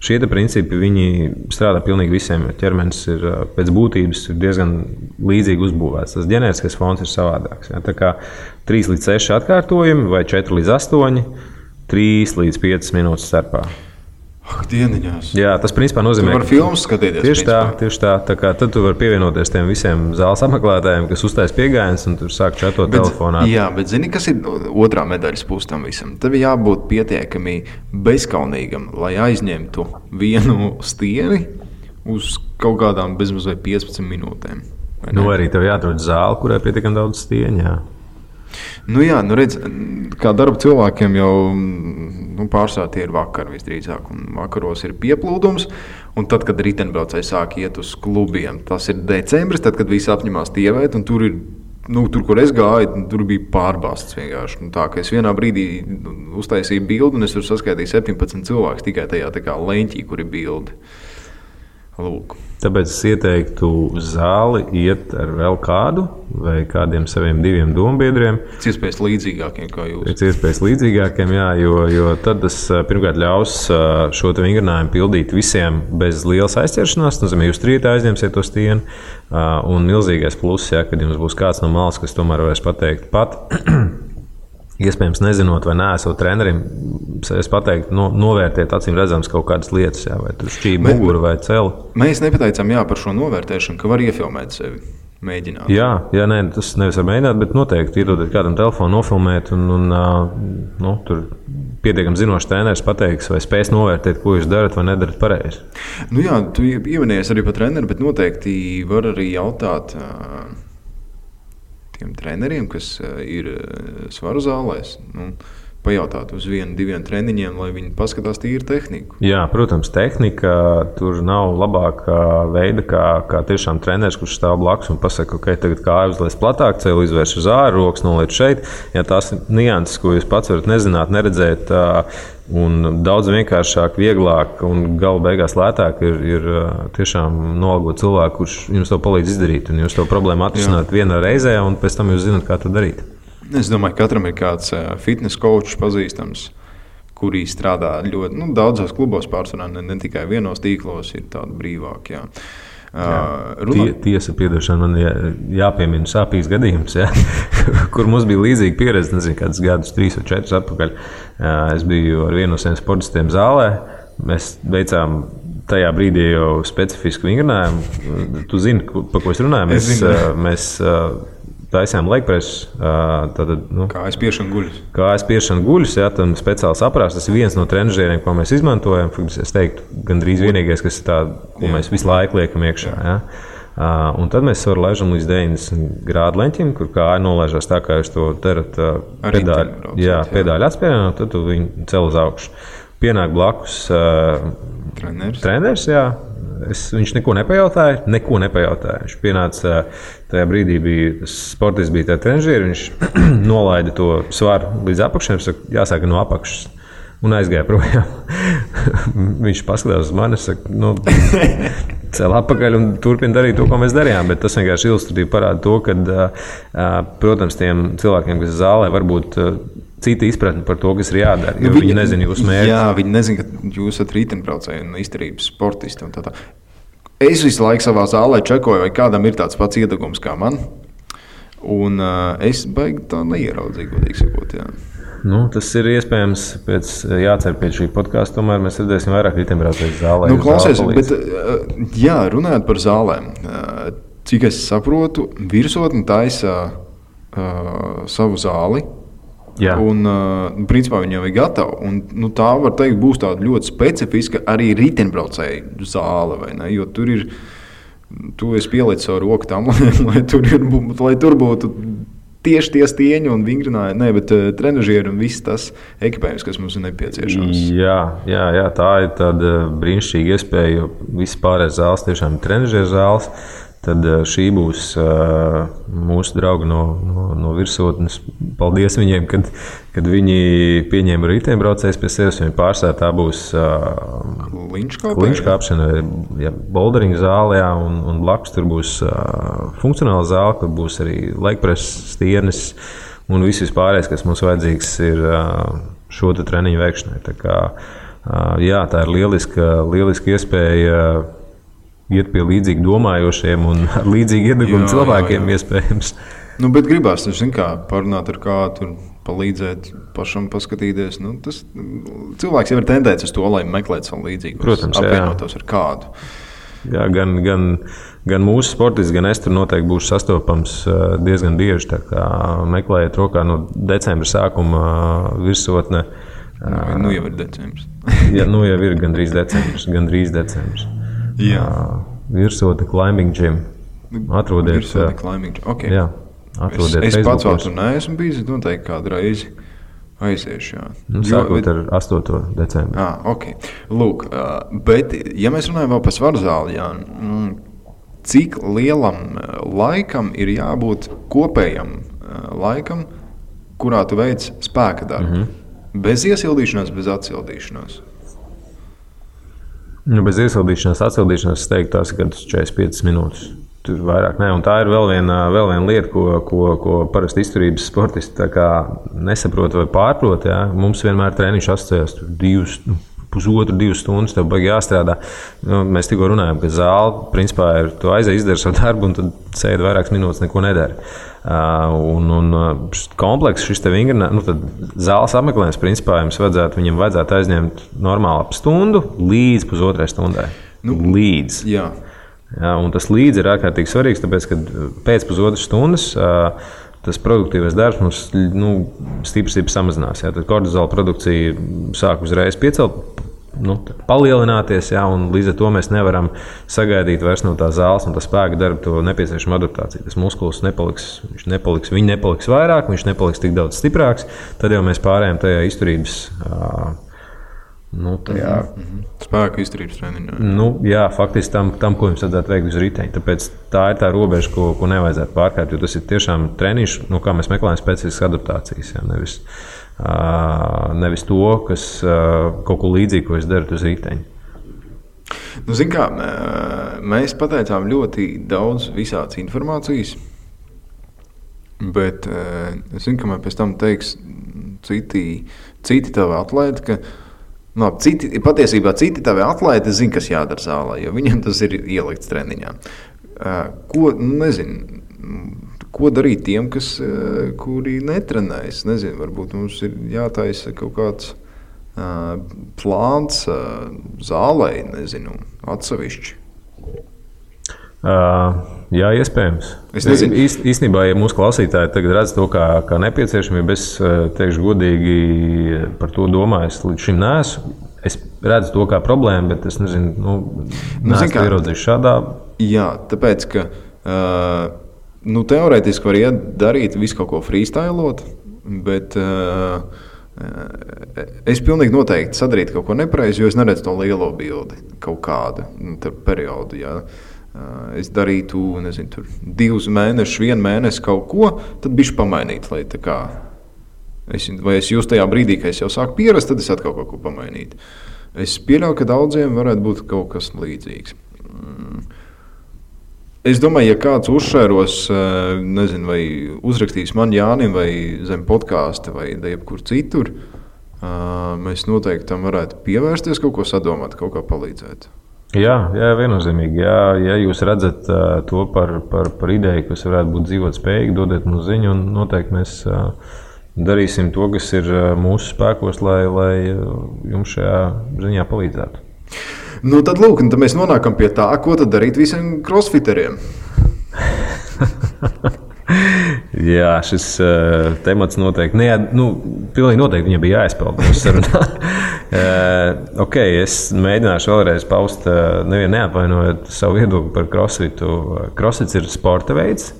šie principi viņi strādā pilnīgi visiem. Ķermenis ir pēc būtības diezgan līdzīgi uzbūvēts. Tas ģenētiskais fons ir savādāks. Tā kā 3 līdz 6 atkārtojumi vai 4 līdz 8, 3 līdz 5 minūtes starpā.
Dieniņās.
Jā, tas principā nozīmē,
ka tu vari filmas skatīties.
Tieši tā. Tad tu vari pievienoties tiem visiem zāles apmeklētājiem, kas uztais piegājienus un tur sāk čatot telefonā.
Jā, bet zini, kas ir otrā medaļas puse tam visam? Tev jābūt pietiekami bezkaunīgam, lai aizņemtu vienu stieni uz kaut kādām bezmazliet 15 minūtēm.
Arī tev jāatrod zāle, kurai pietiekami daudz stieņu.
Redz, kā darba cilvēkiem jau pārsvarā tie ir vakari visdrīzāk, un vakaros ir pieplūdums, un tad, kad riteņbraucēji sāk iet uz klubiem, tas ir decembris, tad, kad visi apņemās tievēt, un tur ir, tur, kur es gāju, tur bija pārbāsts vienkārši. Tā, ka es vienā brīdī uztaisīju bildi, un es tur saskaitīju 17 cilvēkus tikai tajā tā kā leņķī, kur ir bildi. Lūk.
Tāpēc es ieteiktu uz zāli iet ar vēl kādu vai kādiem saviem 2 dombiedriem.
Pēc iespējas līdzīgākiem kā jūs.
Pēc iespējas līdzīgākiem, jā, jo tad tas pirmkārt ļaus šo vingrinājumu pildīt visiem bez lielas aizķeršanās. Nozīmē, jūs trītā aizņemsiet to stieni. Un milzīgais pluss, ja, kad jums būs kāds no malas, kas tomēr varēs pateikt pat. Iespējams, nezinot, vai neesot trenerim, es pateiktu, novērtēt acīm redzams kaut kādas lietas, jā, vai tur šķība muguru vai celi.
Mēs nepateicām par šo novērtēšanu, ka var iefilmēt sevi, mēģināt.
Jā, nē, tas nevis var mēģināt, bet noteikti iedodot kādam telefonu, nofilmēt, un tur pietiekami zinošs treneris pateiks, vai spēs novērtēt, ko jūs darat vai nedarat pareizi.
Nu jā, tu ievinies arī par treneri, bet noteikti var arī jautāt tiem treneriem, kas ir svaru zālēs, pajautāt uz 1-2 treniņiem, lai viņi paskatās tīri tehniku.
Jā, protams, tehnika tur nav labākā veida, kā tiešām treneris, kurš stāv blakus un pasaka, ok, tagad kāju uzliec platāk, celu izvērš uz āru, rokas noliec šeit. Ja tās ir nianses, ko jūs pats varat nezināt, neredzēt, un daudz vienkāršāk, vieglāk un gala beigās lētāk ir tiešām nolgot cilvēku, kurš jums to palīdz izdarīt, un jūs to problēmu atrisināt vienā reizē, un pēc tam jūs zināt, kā to darīt.
Es domāju, ka katram ir kāds fitness coach pazīstams, kurī strādā ļoti daudzos klubos, pārsvarā ne tikai vienos tīklos, ir tādi brīvāki.
Tiesa, piedošana, man jāpiemina sāpīgs gadījums, kur mums bija līdzīga pieredze, nezinu, kādus gadus, 3 vai 4 atpakaļ. Es biju ar vienu no saviem sportistiem zālē, mēs veicām tajā brīdī jau specifisku vingrinājumu. Tu zini, par ko es runāju? Mēs taisām legpresu.
Kājas piešana guļus.
Kājas piešana guļus, jā, tam speciāls aprāsts. Tas ir viens no trenažieriem, ko mēs izmantojam. Es teiktu, gandrīz vienīgais, kas ir tāda, ko mēs visu laiku liekam iekšā. Jā. Un tad mēs varam laižam līdz 90 grādu leņķim, kur kāja nolaižās tā, kā jūs to darat pedāļu atspērienā, tad tu viņu cel uz augšu. Pienāk blakus treneris, jā. Viņš neko nepajautāja. Viņš pienāca tajā brīdī, sportists bija tajā trenažieri, viņš nolaida to svaru līdz apakšiem, saka, jāsāk no apakšas, un aizgāja projām. Viņš paskatās uz mani, saka, cel atpakaļ un turpina darīt to, ko mēs darījām, bet tas vienkārši ilustratīvi parāda to, ka, protams, tiem cilvēkiem, kas zālē, varbūt cita izpratne par to, kas ir jādara, jo viņi nezina jūsu mērķi.
Jā, viņi nezina, ka jūs esat riteņbraucēji un izturības sportisti un tā. Es visu laiku savā zālē čekoju, vai kādam ir tāds pats iedegums kā man, un es baigi tā neieraudzīju, godīgi sakot, jā.
Tas ir iespējams, jācer pēc šī podkāsta, tomēr mēs redzēsim vairāk riteņbraucēju zālē.
Klausies, bet runājot par zālēm, cik es saprotu, virsotne taisa savu zāli. Jā. Un, principā, viņa jau ir gatava. Un, tā, var teikt, būs tāda ļoti specifiska arī riteņbraucēju zāle. Vai ne? Jo tur ir, tu esi pielicis savu roku tam, lai tur būtu tieši tie stieņi un vingrinājumi, bet trenažieri un viss tas ekipējums, kas mums ir nepieciešams.
Jā, tā ir tāda brīnišķīga iespēja, jo viss pārējais zāles tiešām ir trenažieru zāles. Tad šī būs mūsu draugi no virsotnes. Paldies viņiem, kad viņi pieņēma riteņbraucējus pie sevis. Viņi pārstāv tā būs kliņškāpšana, boulderinga zāle, un blakus tur būs funkcionāla zāle, kur būs arī legpreses, stienes un viss pārējais, kas mums vajadzīgs ir šo treniņu veikšanai. Tā kā, tā ir lieliska iespēja iet pie līdzīgi domājošiem un ar līdzīgi iedegumu cilvēkiem iespējams.
Bet gribās, parunāt ar kādu, palīdzēt pašam paskatīties. Tas cilvēks jau ir tendēts uz to, lai meklētu savu līdzīgu.
Protams,
apvienotos ar kādu.
Jā, gan mūsu sportists, gan es tur noteikti būšu sastopams diezgan bieži. Tā kā meklējiet rokā no decembra sākuma virsotne.
Jau ir decembris.
Jā, jau ir gandrīz decembris.
Jā.
Virsotne climbing gym. Atrodiet.
Virsotne climbing gym. Okay.
Jā, atrodiet.
Es pats vēl tur neesmu bijis, noteikti kādu reizi aiziešu.
Sākot ar 8. decembri.
Okay. Lūk, bet, ja mēs runājam vēl par svaru zāli, cik lielam laikam ir jābūt kopējam laikam, kurā tu veic spēka darbu? Bez iesildīšanās, bez atsildīšanās.
Bez iesildīšanās, atsildīšanās, es teiktu, tās ir 45 minūtes. Tur vairāk ne. Un tā ir vēl viena lieta, ko parasti izturības sportisti nesaprot vai pārprot. Ja? Mums vienmēr treniņš asociējas 1,5–2 stundas, tev baigi jāstrādā. Mēs tikko runājam, ka zāle, principā, ir tu aizies, izdari savu darbu, un tad sēdi vairākas minūtes, neko nedari. Un komplekss šis te vingrinājums, tad zāles apmeklējums, principā, viņam vajadzētu aizņemt normāli ap stundu līdz pusotrai stundai. Līdz.
Jā.
Jā, un tas līdz ir ārkārtīgi svarīgs, tāpēc, ka pēc pusotras stundas tas produktīvais darbs mums stipri samazinās. Jā. Tad kortizola produkcija sāk uzreiz palielināties, jā, un līdz ar to mēs nevaram sagaidīt vairs no tā zāles un tā spēka darba to nepieciešamo adaptāciju. Tas muskulis viņi nepaliks vairāk, viņš nepaliks tik daudz stiprāks, tad jau mēs pārējām tajā izturības
spēku izturības treniņā.
Jā, faktiski tam, ko jums vajadzētu veikt uz riteņa. Tāpēc tā ir tā robeža, ko nevajadzētu pārkāpt, jo tas ir tiešām treniņš, kā mēs meklējam specifiskas adaptācijas, jā, nevis to, kas kaut ko līdzīgu, ko es daru uz riteņa.
Zin kā, mēs pateicām ļoti daudz visādas informācijas, bet es zinu, ka man pēc tam teiks citi tavi atlēti, ka patiesībā citi tavi atlēti zina, kas jādara zālē, jo viņam tas ir ielikts treniņā. Ko darīt tiem, kuri netrenējas? Nezinu, varbūt mums ir jātaisa kaut kāds plāns zālē, nezinu, atsevišķi.
Jā, iespējams.
Es nezinu.
Īstenībā, ja mūsu klausītāji tagad redz to kā nepieciešamību, es teikšu godīgi par to domāju, es līdz šim neesmu. Es redzu to kā problēmu, bet es nezinu, neesmu ieraudzījis šādā. Jā,
tāpēc, ka teorētiski var darīt visu kaut ko freestylot, bet es pilnīgi noteikti sadarītu kaut ko nepareizi, jo es neredzu to lielo bildi kaut kādu periodu, jā. Es darītu, nezinu, tur 2 mēnešus, 1 mēnesi kaut ko, tad bišķi pamainīt, lai tā kā vai es jūs tajā brīdī, ka es jau sāku pierast, tad es atkal kaut ko pamainītu. Es pieļauju, ka daudziem varētu būt kaut kas līdzīgs. Es domāju, ja kāds uzšēros, nezinu, vai uzrakstīs man Jānim vai zem podkāsta vai jebkur citur, mēs noteikti tam varētu pievērsties, kaut ko sadomāt, kaut kā palīdzēt.
Jā, viennozīmīgi. Ja jūs redzat to par ideju, kas varētu būt dzīvot spējīgi, dodiet mums ziņu, un noteikti mēs darīsim to, kas ir mūsu spēkos, lai jums šajā ziņā palīdzētu.
Tad lūk, tad mēs nonākam pie tā, ko tad darīt visiem crossfiteriem.
Jā, šis temats noteikti, pilnīgi noteikti viņam bija jāizpeld mūsu sarunā. Es mēģināšu vēlreiz paust, neapvainojot savu viedokli par crossfitu. Crossfits ir sporta veids.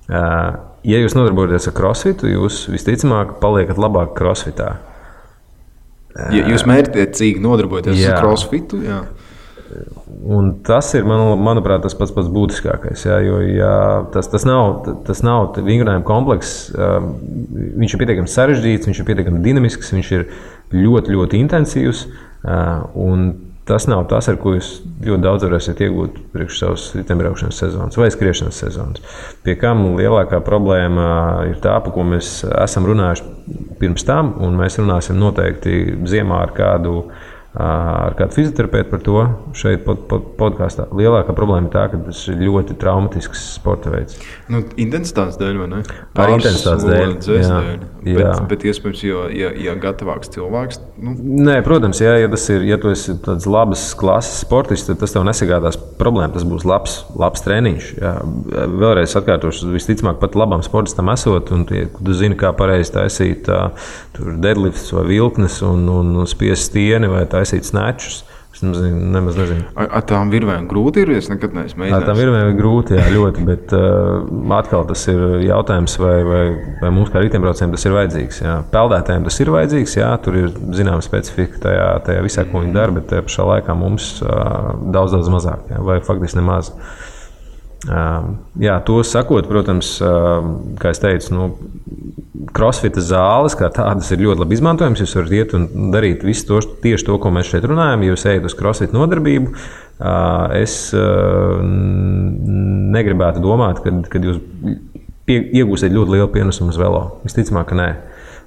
Ja jūs nodarbojaties ar crossfitu, jūs visticamāk paliekat labāk crossfitā.
Ja jūs mērķtiecīgi nodarbojaties ar crossfitu, jā.
Un tas ir, manuprāt, tas pats būtiskākais. Jā, jo tas nav vingrinājuma komplekss. Viņš ir pietiekami sarežģīts, viņš ir pietiekami dinamisks, viņš ir ļoti, ļoti intensīvs. Un tas nav tas, ar ko jūs ļoti daudz varēsiet iegūt priekš savas riteņbraukšanas sezonas vai skriešanas sezonas. Pie kam lielākā problēma ir tā, par ko mēs esam runājuši pirms tam, un mēs runāsim noteikti ziemā ar kādu fizioterapeitu par to šeit podkāstā. Lielākā problēma ir tā, ka tas ir ļoti traumatisks sporta veids.
Intensitātes dēļ, vai ne?
Ar intensitātes dēļ.
Bet iespējams, ja gatavāks cilvēks.
Nē, protams, ja tu esi tāds labas klases sportists, tad tas tev nesagādās problēmu. Tas būs labs treniņš. Jā. Vēlreiz atkārtošu, visticamāk pat labam sportistam esot, un tu zini, kā pareizi taisīt deadlifts vai vilknes un spiest stieni vai taisīt snatchus. Es nemaz nezinu.
Ar tām virvēm grūti ir? Es nekad neesmu mēģinājis.
Ar tām virvēm ir grūti, jā, ļoti, bet atkal tas ir jautājums, vai mums kā riteņbraucējiem tas ir vajadzīgs. Jā. Peldētājiem tas ir vajadzīgs, jā, tur ir zināma specifika tajā visā, ko viņi dara, bet pašā laikā mums daudz mazāk, jā, vai faktiski nemaz. Jā, to sakot, protams, kā es teicu, crossfita zāles kā tādas ir ļoti labi izmantojams. Jūs varat iet un darīt visu tieši to, ko mēs šeit runājam. Jūs ejat uz crossfita nodarbību. Es negribētu domāt, ka jūs iegūsiet ļoti lielu pienesumu uz velo. Visticamāk, ka nē.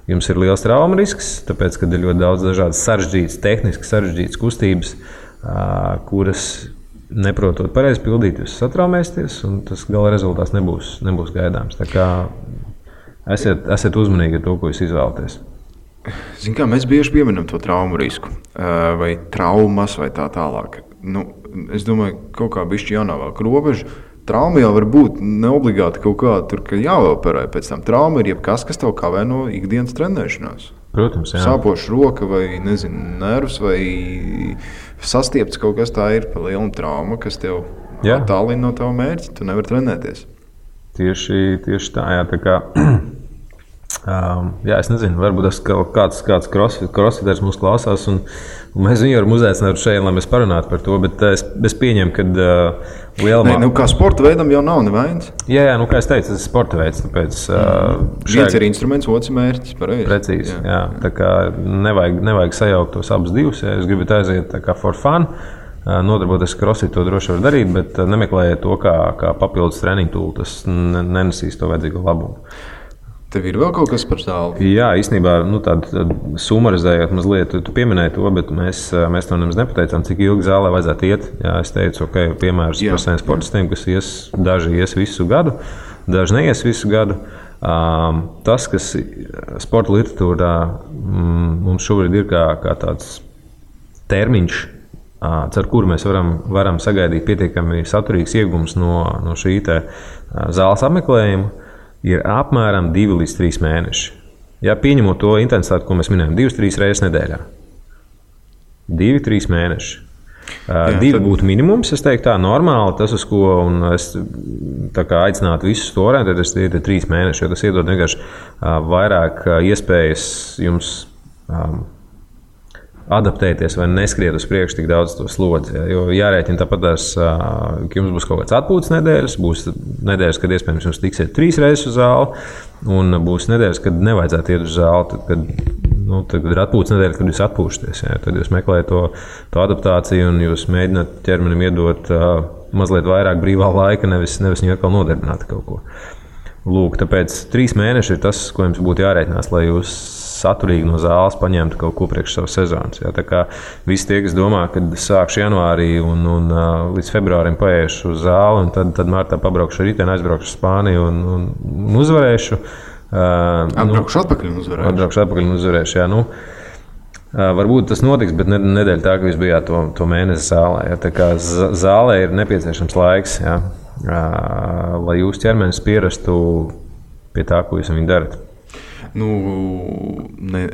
Jums ir liels trauma risks, tāpēc, ka ir ļoti daudz dažādas sarežģītas, tehniski sarežģītas kustības, kuras neprotot pareizi pildīt, jūs satraumēsieties, un tas gala rezultāts nebūs gaidāms. Tā kā esiet uzmanīgi ar to, ko jūs izvēlaties.
Zin kā, mēs bieži pieminam to traumu risku, vai traumas, vai tā tālāk. Es domāju, kaut kā bišķi jānovelk robežu. Trauma jau var būt neobligāti kaut kā tur, ka jāoperē pēc tam. Trauma ir jebkas, kas tev kavē no ikdienas trenēšanās.
Protams, jā.
Sāpoša roka vai, nervs vai sastiepts kaut kas tā ir pa lielu traumu, kas tev attālina no tava mērķa. Tu nevari trenēties.
Tieši tā, jā. Tā kā, es nezinu, varbūt kāds crossfiters mūs klausās, un mēs viņu varam uzaicināt šeit, lai mēs parunātu par to, bet es pieņemu, ka lielumā...
kā sporta veidam jau nav nevainas.
Jā, kā es teicu, tas ir sporta veids, tāpēc...
Viens ir instruments, otrs mērķis, pareizi.
Precīzi, jā. Tā kā nevajag sajaukt tos abus divus, ja jūs gribat aiziet tā kā for fun, nodarboties crossfit, to droši var darīt, bet nemeklējiet to kā papildus treniņu tūlu, tas nenesīs to vajadzīgo labumu.
Tev ir vēl kaut kas par zāli?
Jā, īstenībā tādu sumarizējot mazliet, tu pieminēji to, bet mēs to nemaz nepateicām, cik ilgi zālē vajadzētu iet. Jā, es teicu, piemērs par saviem sportistiem, kas daži ies visu gadu, daži neies visu gadu. Tas, kas sporta literatūrā mums šobrīd ir kā tāds termiņš, ar kuru mēs varam sagaidīt pietiekami saturīgs iegums no šī zāles apmeklējuma, ir apmēram 2 līdz 3 mēneši. Ja pieņemot to intensitāti, ko mēs minējam, 2-3 reizes nedēļā. 2-3 mēneši. 2 būtu minimums, es teiktu tā, normāli, tas, uz ko es aicinātu visus to orientēties, tie ir 3 mēneši, jo tas iedod vienkārši vairāk iespējas jums adaptēties vai neskriet uz priekšu tik daudz to slodzi. Jo jārēķina tāpat, ka jums būs kaut kāds atpūtas nedēļas, būs nedēļas, kad iespējams jums tiksiet 3 reizes uz zāli, un būs nedēļas, kad nevajadzētu iet uz zāli, tad ir atpūtas nedēļa, kad jūs atpūšaties. Ja? Tad jūs meklējat to adaptāciju un jūs mēģināt ķermenim iedot mazliet vairāk brīvā laika, nevis viņu atkal nodarbināt kaut ko. Lūk, tāpēc 3 mēneši ir tas, ko jums būtu jārēķinās, lai jūs saturīgi no zāles paņemtu kaut ko priekš savas sezonas. Ja? Tā kā visi tie, kas domā, kad sākšu janvārī un līdz februārim paiešu uz zāli, un tad martā pabraukšu ar riteni, aizbraukšu uz Spāniju un uzvarēšu.
Atbraukšu atpakaļ un uzvarēšu. Jā,
varbūt tas notiks, bet nedēļa tā, ka jūs bijāt to mēnesi zālē. Ja? Tā kā zālē ir nepieciešams laiks, ja? Lai jūs ķermenis pierastu pie tā, ko jūs viņu darat.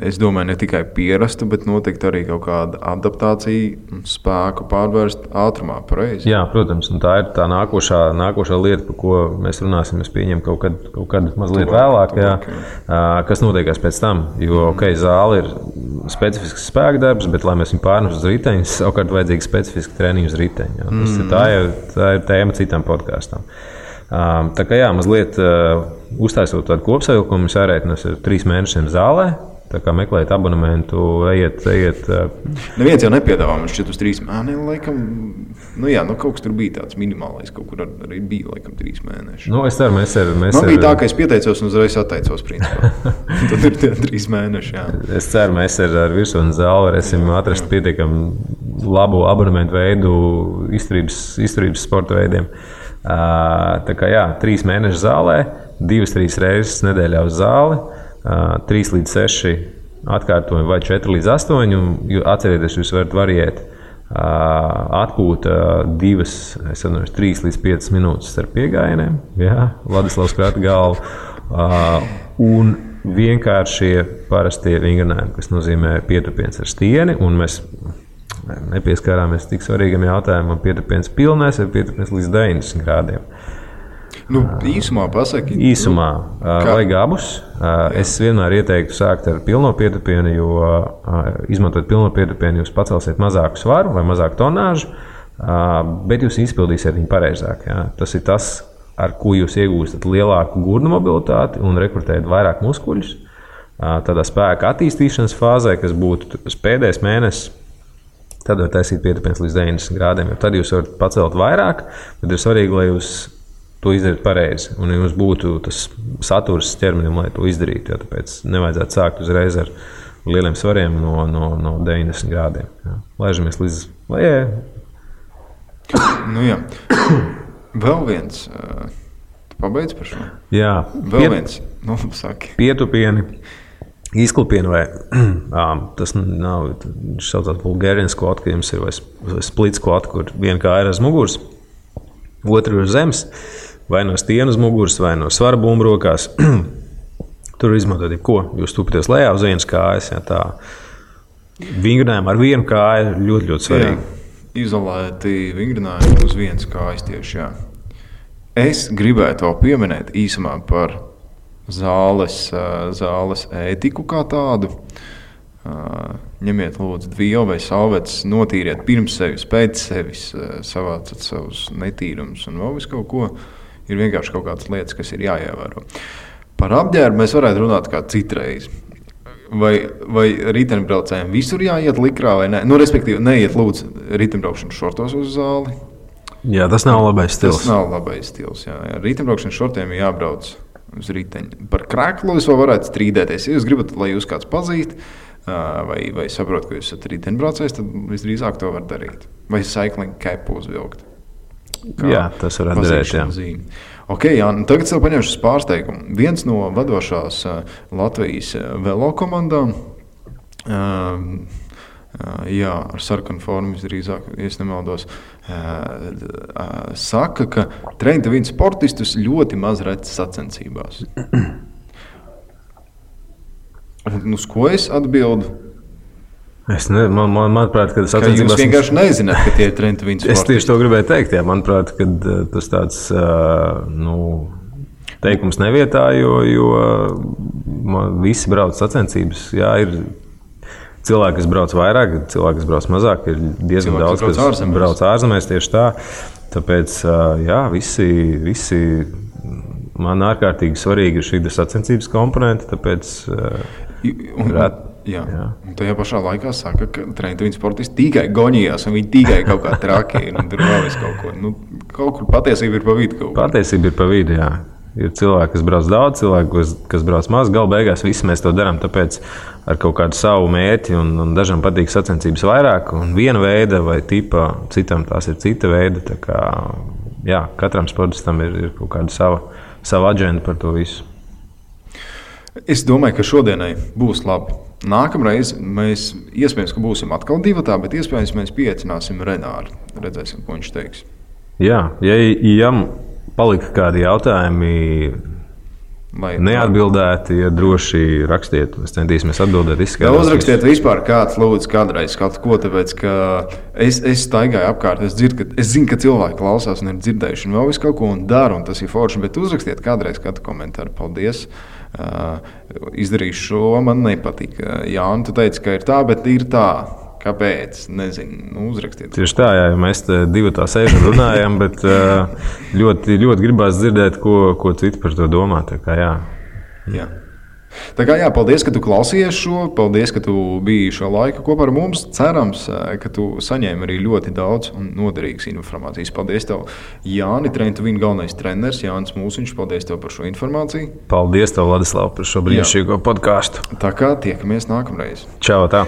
Es domāju, ne tikai pierastu, bet noteikti arī kaut kāda adaptācija un spēku pārvērst ātrumā, pareizi?
Jā, protams, un tā ir tā nākošā lieta, par ko mēs runāsim. Es pieņemu kaut kad mazliet vēlāk, kas notiekās pēc tam. Jo, zāle ir specifisks spēka darbs, bet, lai mēs viņu pārnestu uz riteņa, savukārt vajadzīga specifiska treniņa uz riteņa. Tā ir tēma citam podkāstam. Tā kā mazliet uztaisot tādu kopsavilkumu, mums jārēķinās ar 3 mēnešiem zālē. Tā kā meklējiet abonementu, ejiet.
Neviens jau nepiedāvā man šķiet uz 3 mēnešiem. Kaut kas tur bija tāds minimālais, kaut kur arī bija laikam 3 mēneši.
Es ceru, mēs
bija tā, ka es pieteicos un uzreiz atteicos, principā. Tad ir tie 3 mēneši, jā.
Es ceru, mēs ar virsotnes zāli varēsim atrast pietiekami labu abonementu veidu izturības sporta veidiem. Tā kā 3 mēneši zālē, 2-3 reizes nedēļā uz zāli, 3 līdz 6 atkārtojumi vai 4 līdz 8. Atcerieties, jūs varat variēt atpūta 3 līdz 5 minūtes starp piegājieniem, Ladislavs krata galvu, un vienkāršie parastie vingrinājumi, kas nozīmē pietupiens ar stieni, un mēs nepieskārāmies tik svarīgam jautājumam, pietupiens pilnais vai pietupiens līdz 90 grādiem.
Īsumā pasaki.
Īsumā vajag abus. Es vienmēr ieteiktu sākt ar pilno pietupienu, jo izmantojot pilno pietupienu, jūs pacelsiet mazāku svaru vai mazāku tonāžu. bet jūs izpildīsiet viņu pareizāk. Jā. Tas ir tas, ar ko jūs iegūstat lielāku gurnu mobilitāti un rekrutējat vairāk muskuļus. Tādā spēka attīstīšanas fāzē, kas būtu pēdējais mēnesis, tad var taisīt pietupiens līdz 90 grādiem. Jo tad jūs varat pacelt vairāk, bet ir svarīgi, lai jūs to izdarīt pareizi. Un jums būtu tas saturs ķermenim, lai to izdarītu. Jo tāpēc nevajadzētu sākt uzreiz ar lieliem svariem no 90 grādiem. Jā. Laižamies līdz lejai.
Nu jā. Vēl viens. Tu pabeidz par šo?
Jā.
Vēl viens. Nu, saki.
Pietupieni, izklupieni vai tas nav, viņš saucās Bulgarian squat, ka jums ir vai split squat, kur viena kāja ir uz muguras, otra ir uz zemes. Vai no stienas muguras, vai no svara bumbu rokās. Tur izmantot jebko. Jūs tupaties lejā uz vienas kājas. Ja, tā vingrinājumi ar vienu kāju ir ļoti, ļoti svarīgi.
Jā, izolēti vingrinājumi uz vienas kājas tieši, jā. Es gribētu vēl pieminēt īsumā par zāles ētiku kā tādu. Ņemiet lūdzu dvielu vai salvetes, notīriet pirms sevis, pēc sevis, savācat savus netīrumus un vēl visu kaut ko. Ir vienkārši kaut kādas lietas, kas ir jāievēro. Par apģērbu mēs varētu runāt kā citreiz. Vai riteņbraucējiem visur jāiet likrā vai ne? Nu, respektīvi, neiet lūdzu riteņbraukšanas šortos uz zāli.
Jā, tas nav labais stils.
Tas nav labais stils, jā. Riteņbraukšanas šortiem ir jābrauc uz riteņu. Par kreklu es vēl varētu strīdēties. Ja jūs gribat, lai jūs kāds pazīst, vai saprot, ka jūs esat riteņbraucējs, tad visdrīzāk to var darīt. Vai cycling capu uzvilkt.
Jā, tas var darīt, jā.
Zīme. Ok, jā, tagad sev paņemšu pārsteigumu. Viens no vadošās Latvijas velo komandām, jā, ar sarkanu formu visdrīzāk, ja es nemaldos, saka, ka Train to Win sportistus ļoti maz redz sacensībās. Un uz ko es atbildu?
Manuprāt, ka tas
attiecībās... Jūs vienkārši nezināt, ka tie ir Train to Win sportisti.
Es tieši to gribēju teikt, jā. Manuprāt, ka tas tāds teikums nevietā, jo visi brauc sacensības. Jā, ir cilvēki, kas brauc vairāk, cilvēki, kas brauc mazāk, ir diezgan daudz, kas brauc ārzemēs tieši tā. Tāpēc, jā, visi man ārkārtīgi svarīgi ir šī sacensības komponente, tāpēc
Jā. Un tajā pašā laikā saka, ka Train to Win sportisti tikai goņījās, un viņi tikai kaut kā traki ir, un tur vēl es kaut ko. Nu, kaut kur patiesība ir pa vidu kaut ko.
Patiesība ir pa vidu, jā. Ir cilvēki, kas brauc daudz, cilvēki, kas brauc maz. Galu beigās visi mēs to darām, tāpēc ar kaut kādu savu mērķi, un dažam patīk sacensības vairāk, un viena veida vai tipa, citam tās ir cita veida. Tā kā, jā, katram sportistam ir kaut kāda sava aģenda par to visu.
Es domāju, ka šodienai būs labi. Nākamreiz mēs iespējams, ka būsim atkal divatā, bet iespējams mēs pieaicināsim Renāru. Redzēsim, ko viņš teiks.
Jā, ja palika kādi jautājumi neatbildēti, ja droši rakstiet, mēs centīsimies atbildēt, izskaidrot.
Uzrakstiet vispār kāds lūdzu kādreiz kaut ko, tāpēc, ka es staigāju apkārt, es zinu, ka cilvēki klausās un ir dzirdējuši un vēl visu kaut ko un dara, un tas ir forši, bet uzrakstiet kādreiz kādu komentāru. Paldies! Izdarīšu šo, man nepatīk. Jā, un tu teici, ka ir tā, bet ir tā. Kāpēc? Nezinu, uzrakstiet.
Tieši tā, jā, mēs te divatā sēžam runājam, bet ļoti, ļoti gribās dzirdēt, ko citi par to domā. Tā kā jā.
Jā. Tā kā jā, paldies, ka tu klausījies šo, paldies, ka tu biji šo laiku kopā ar mums. Cerams, ka tu saņēmi arī ļoti daudz un noderīgas informācijas. Paldies tev, Jāni, Train to Win galvenais treneris, Jānis Mūsiņš, paldies tev par šo informāciju.
Paldies tev, Ladislav, par šo brīnišķīgo podkāstu.
Tā kā tiekamies nākamreiz.
Čau, tā!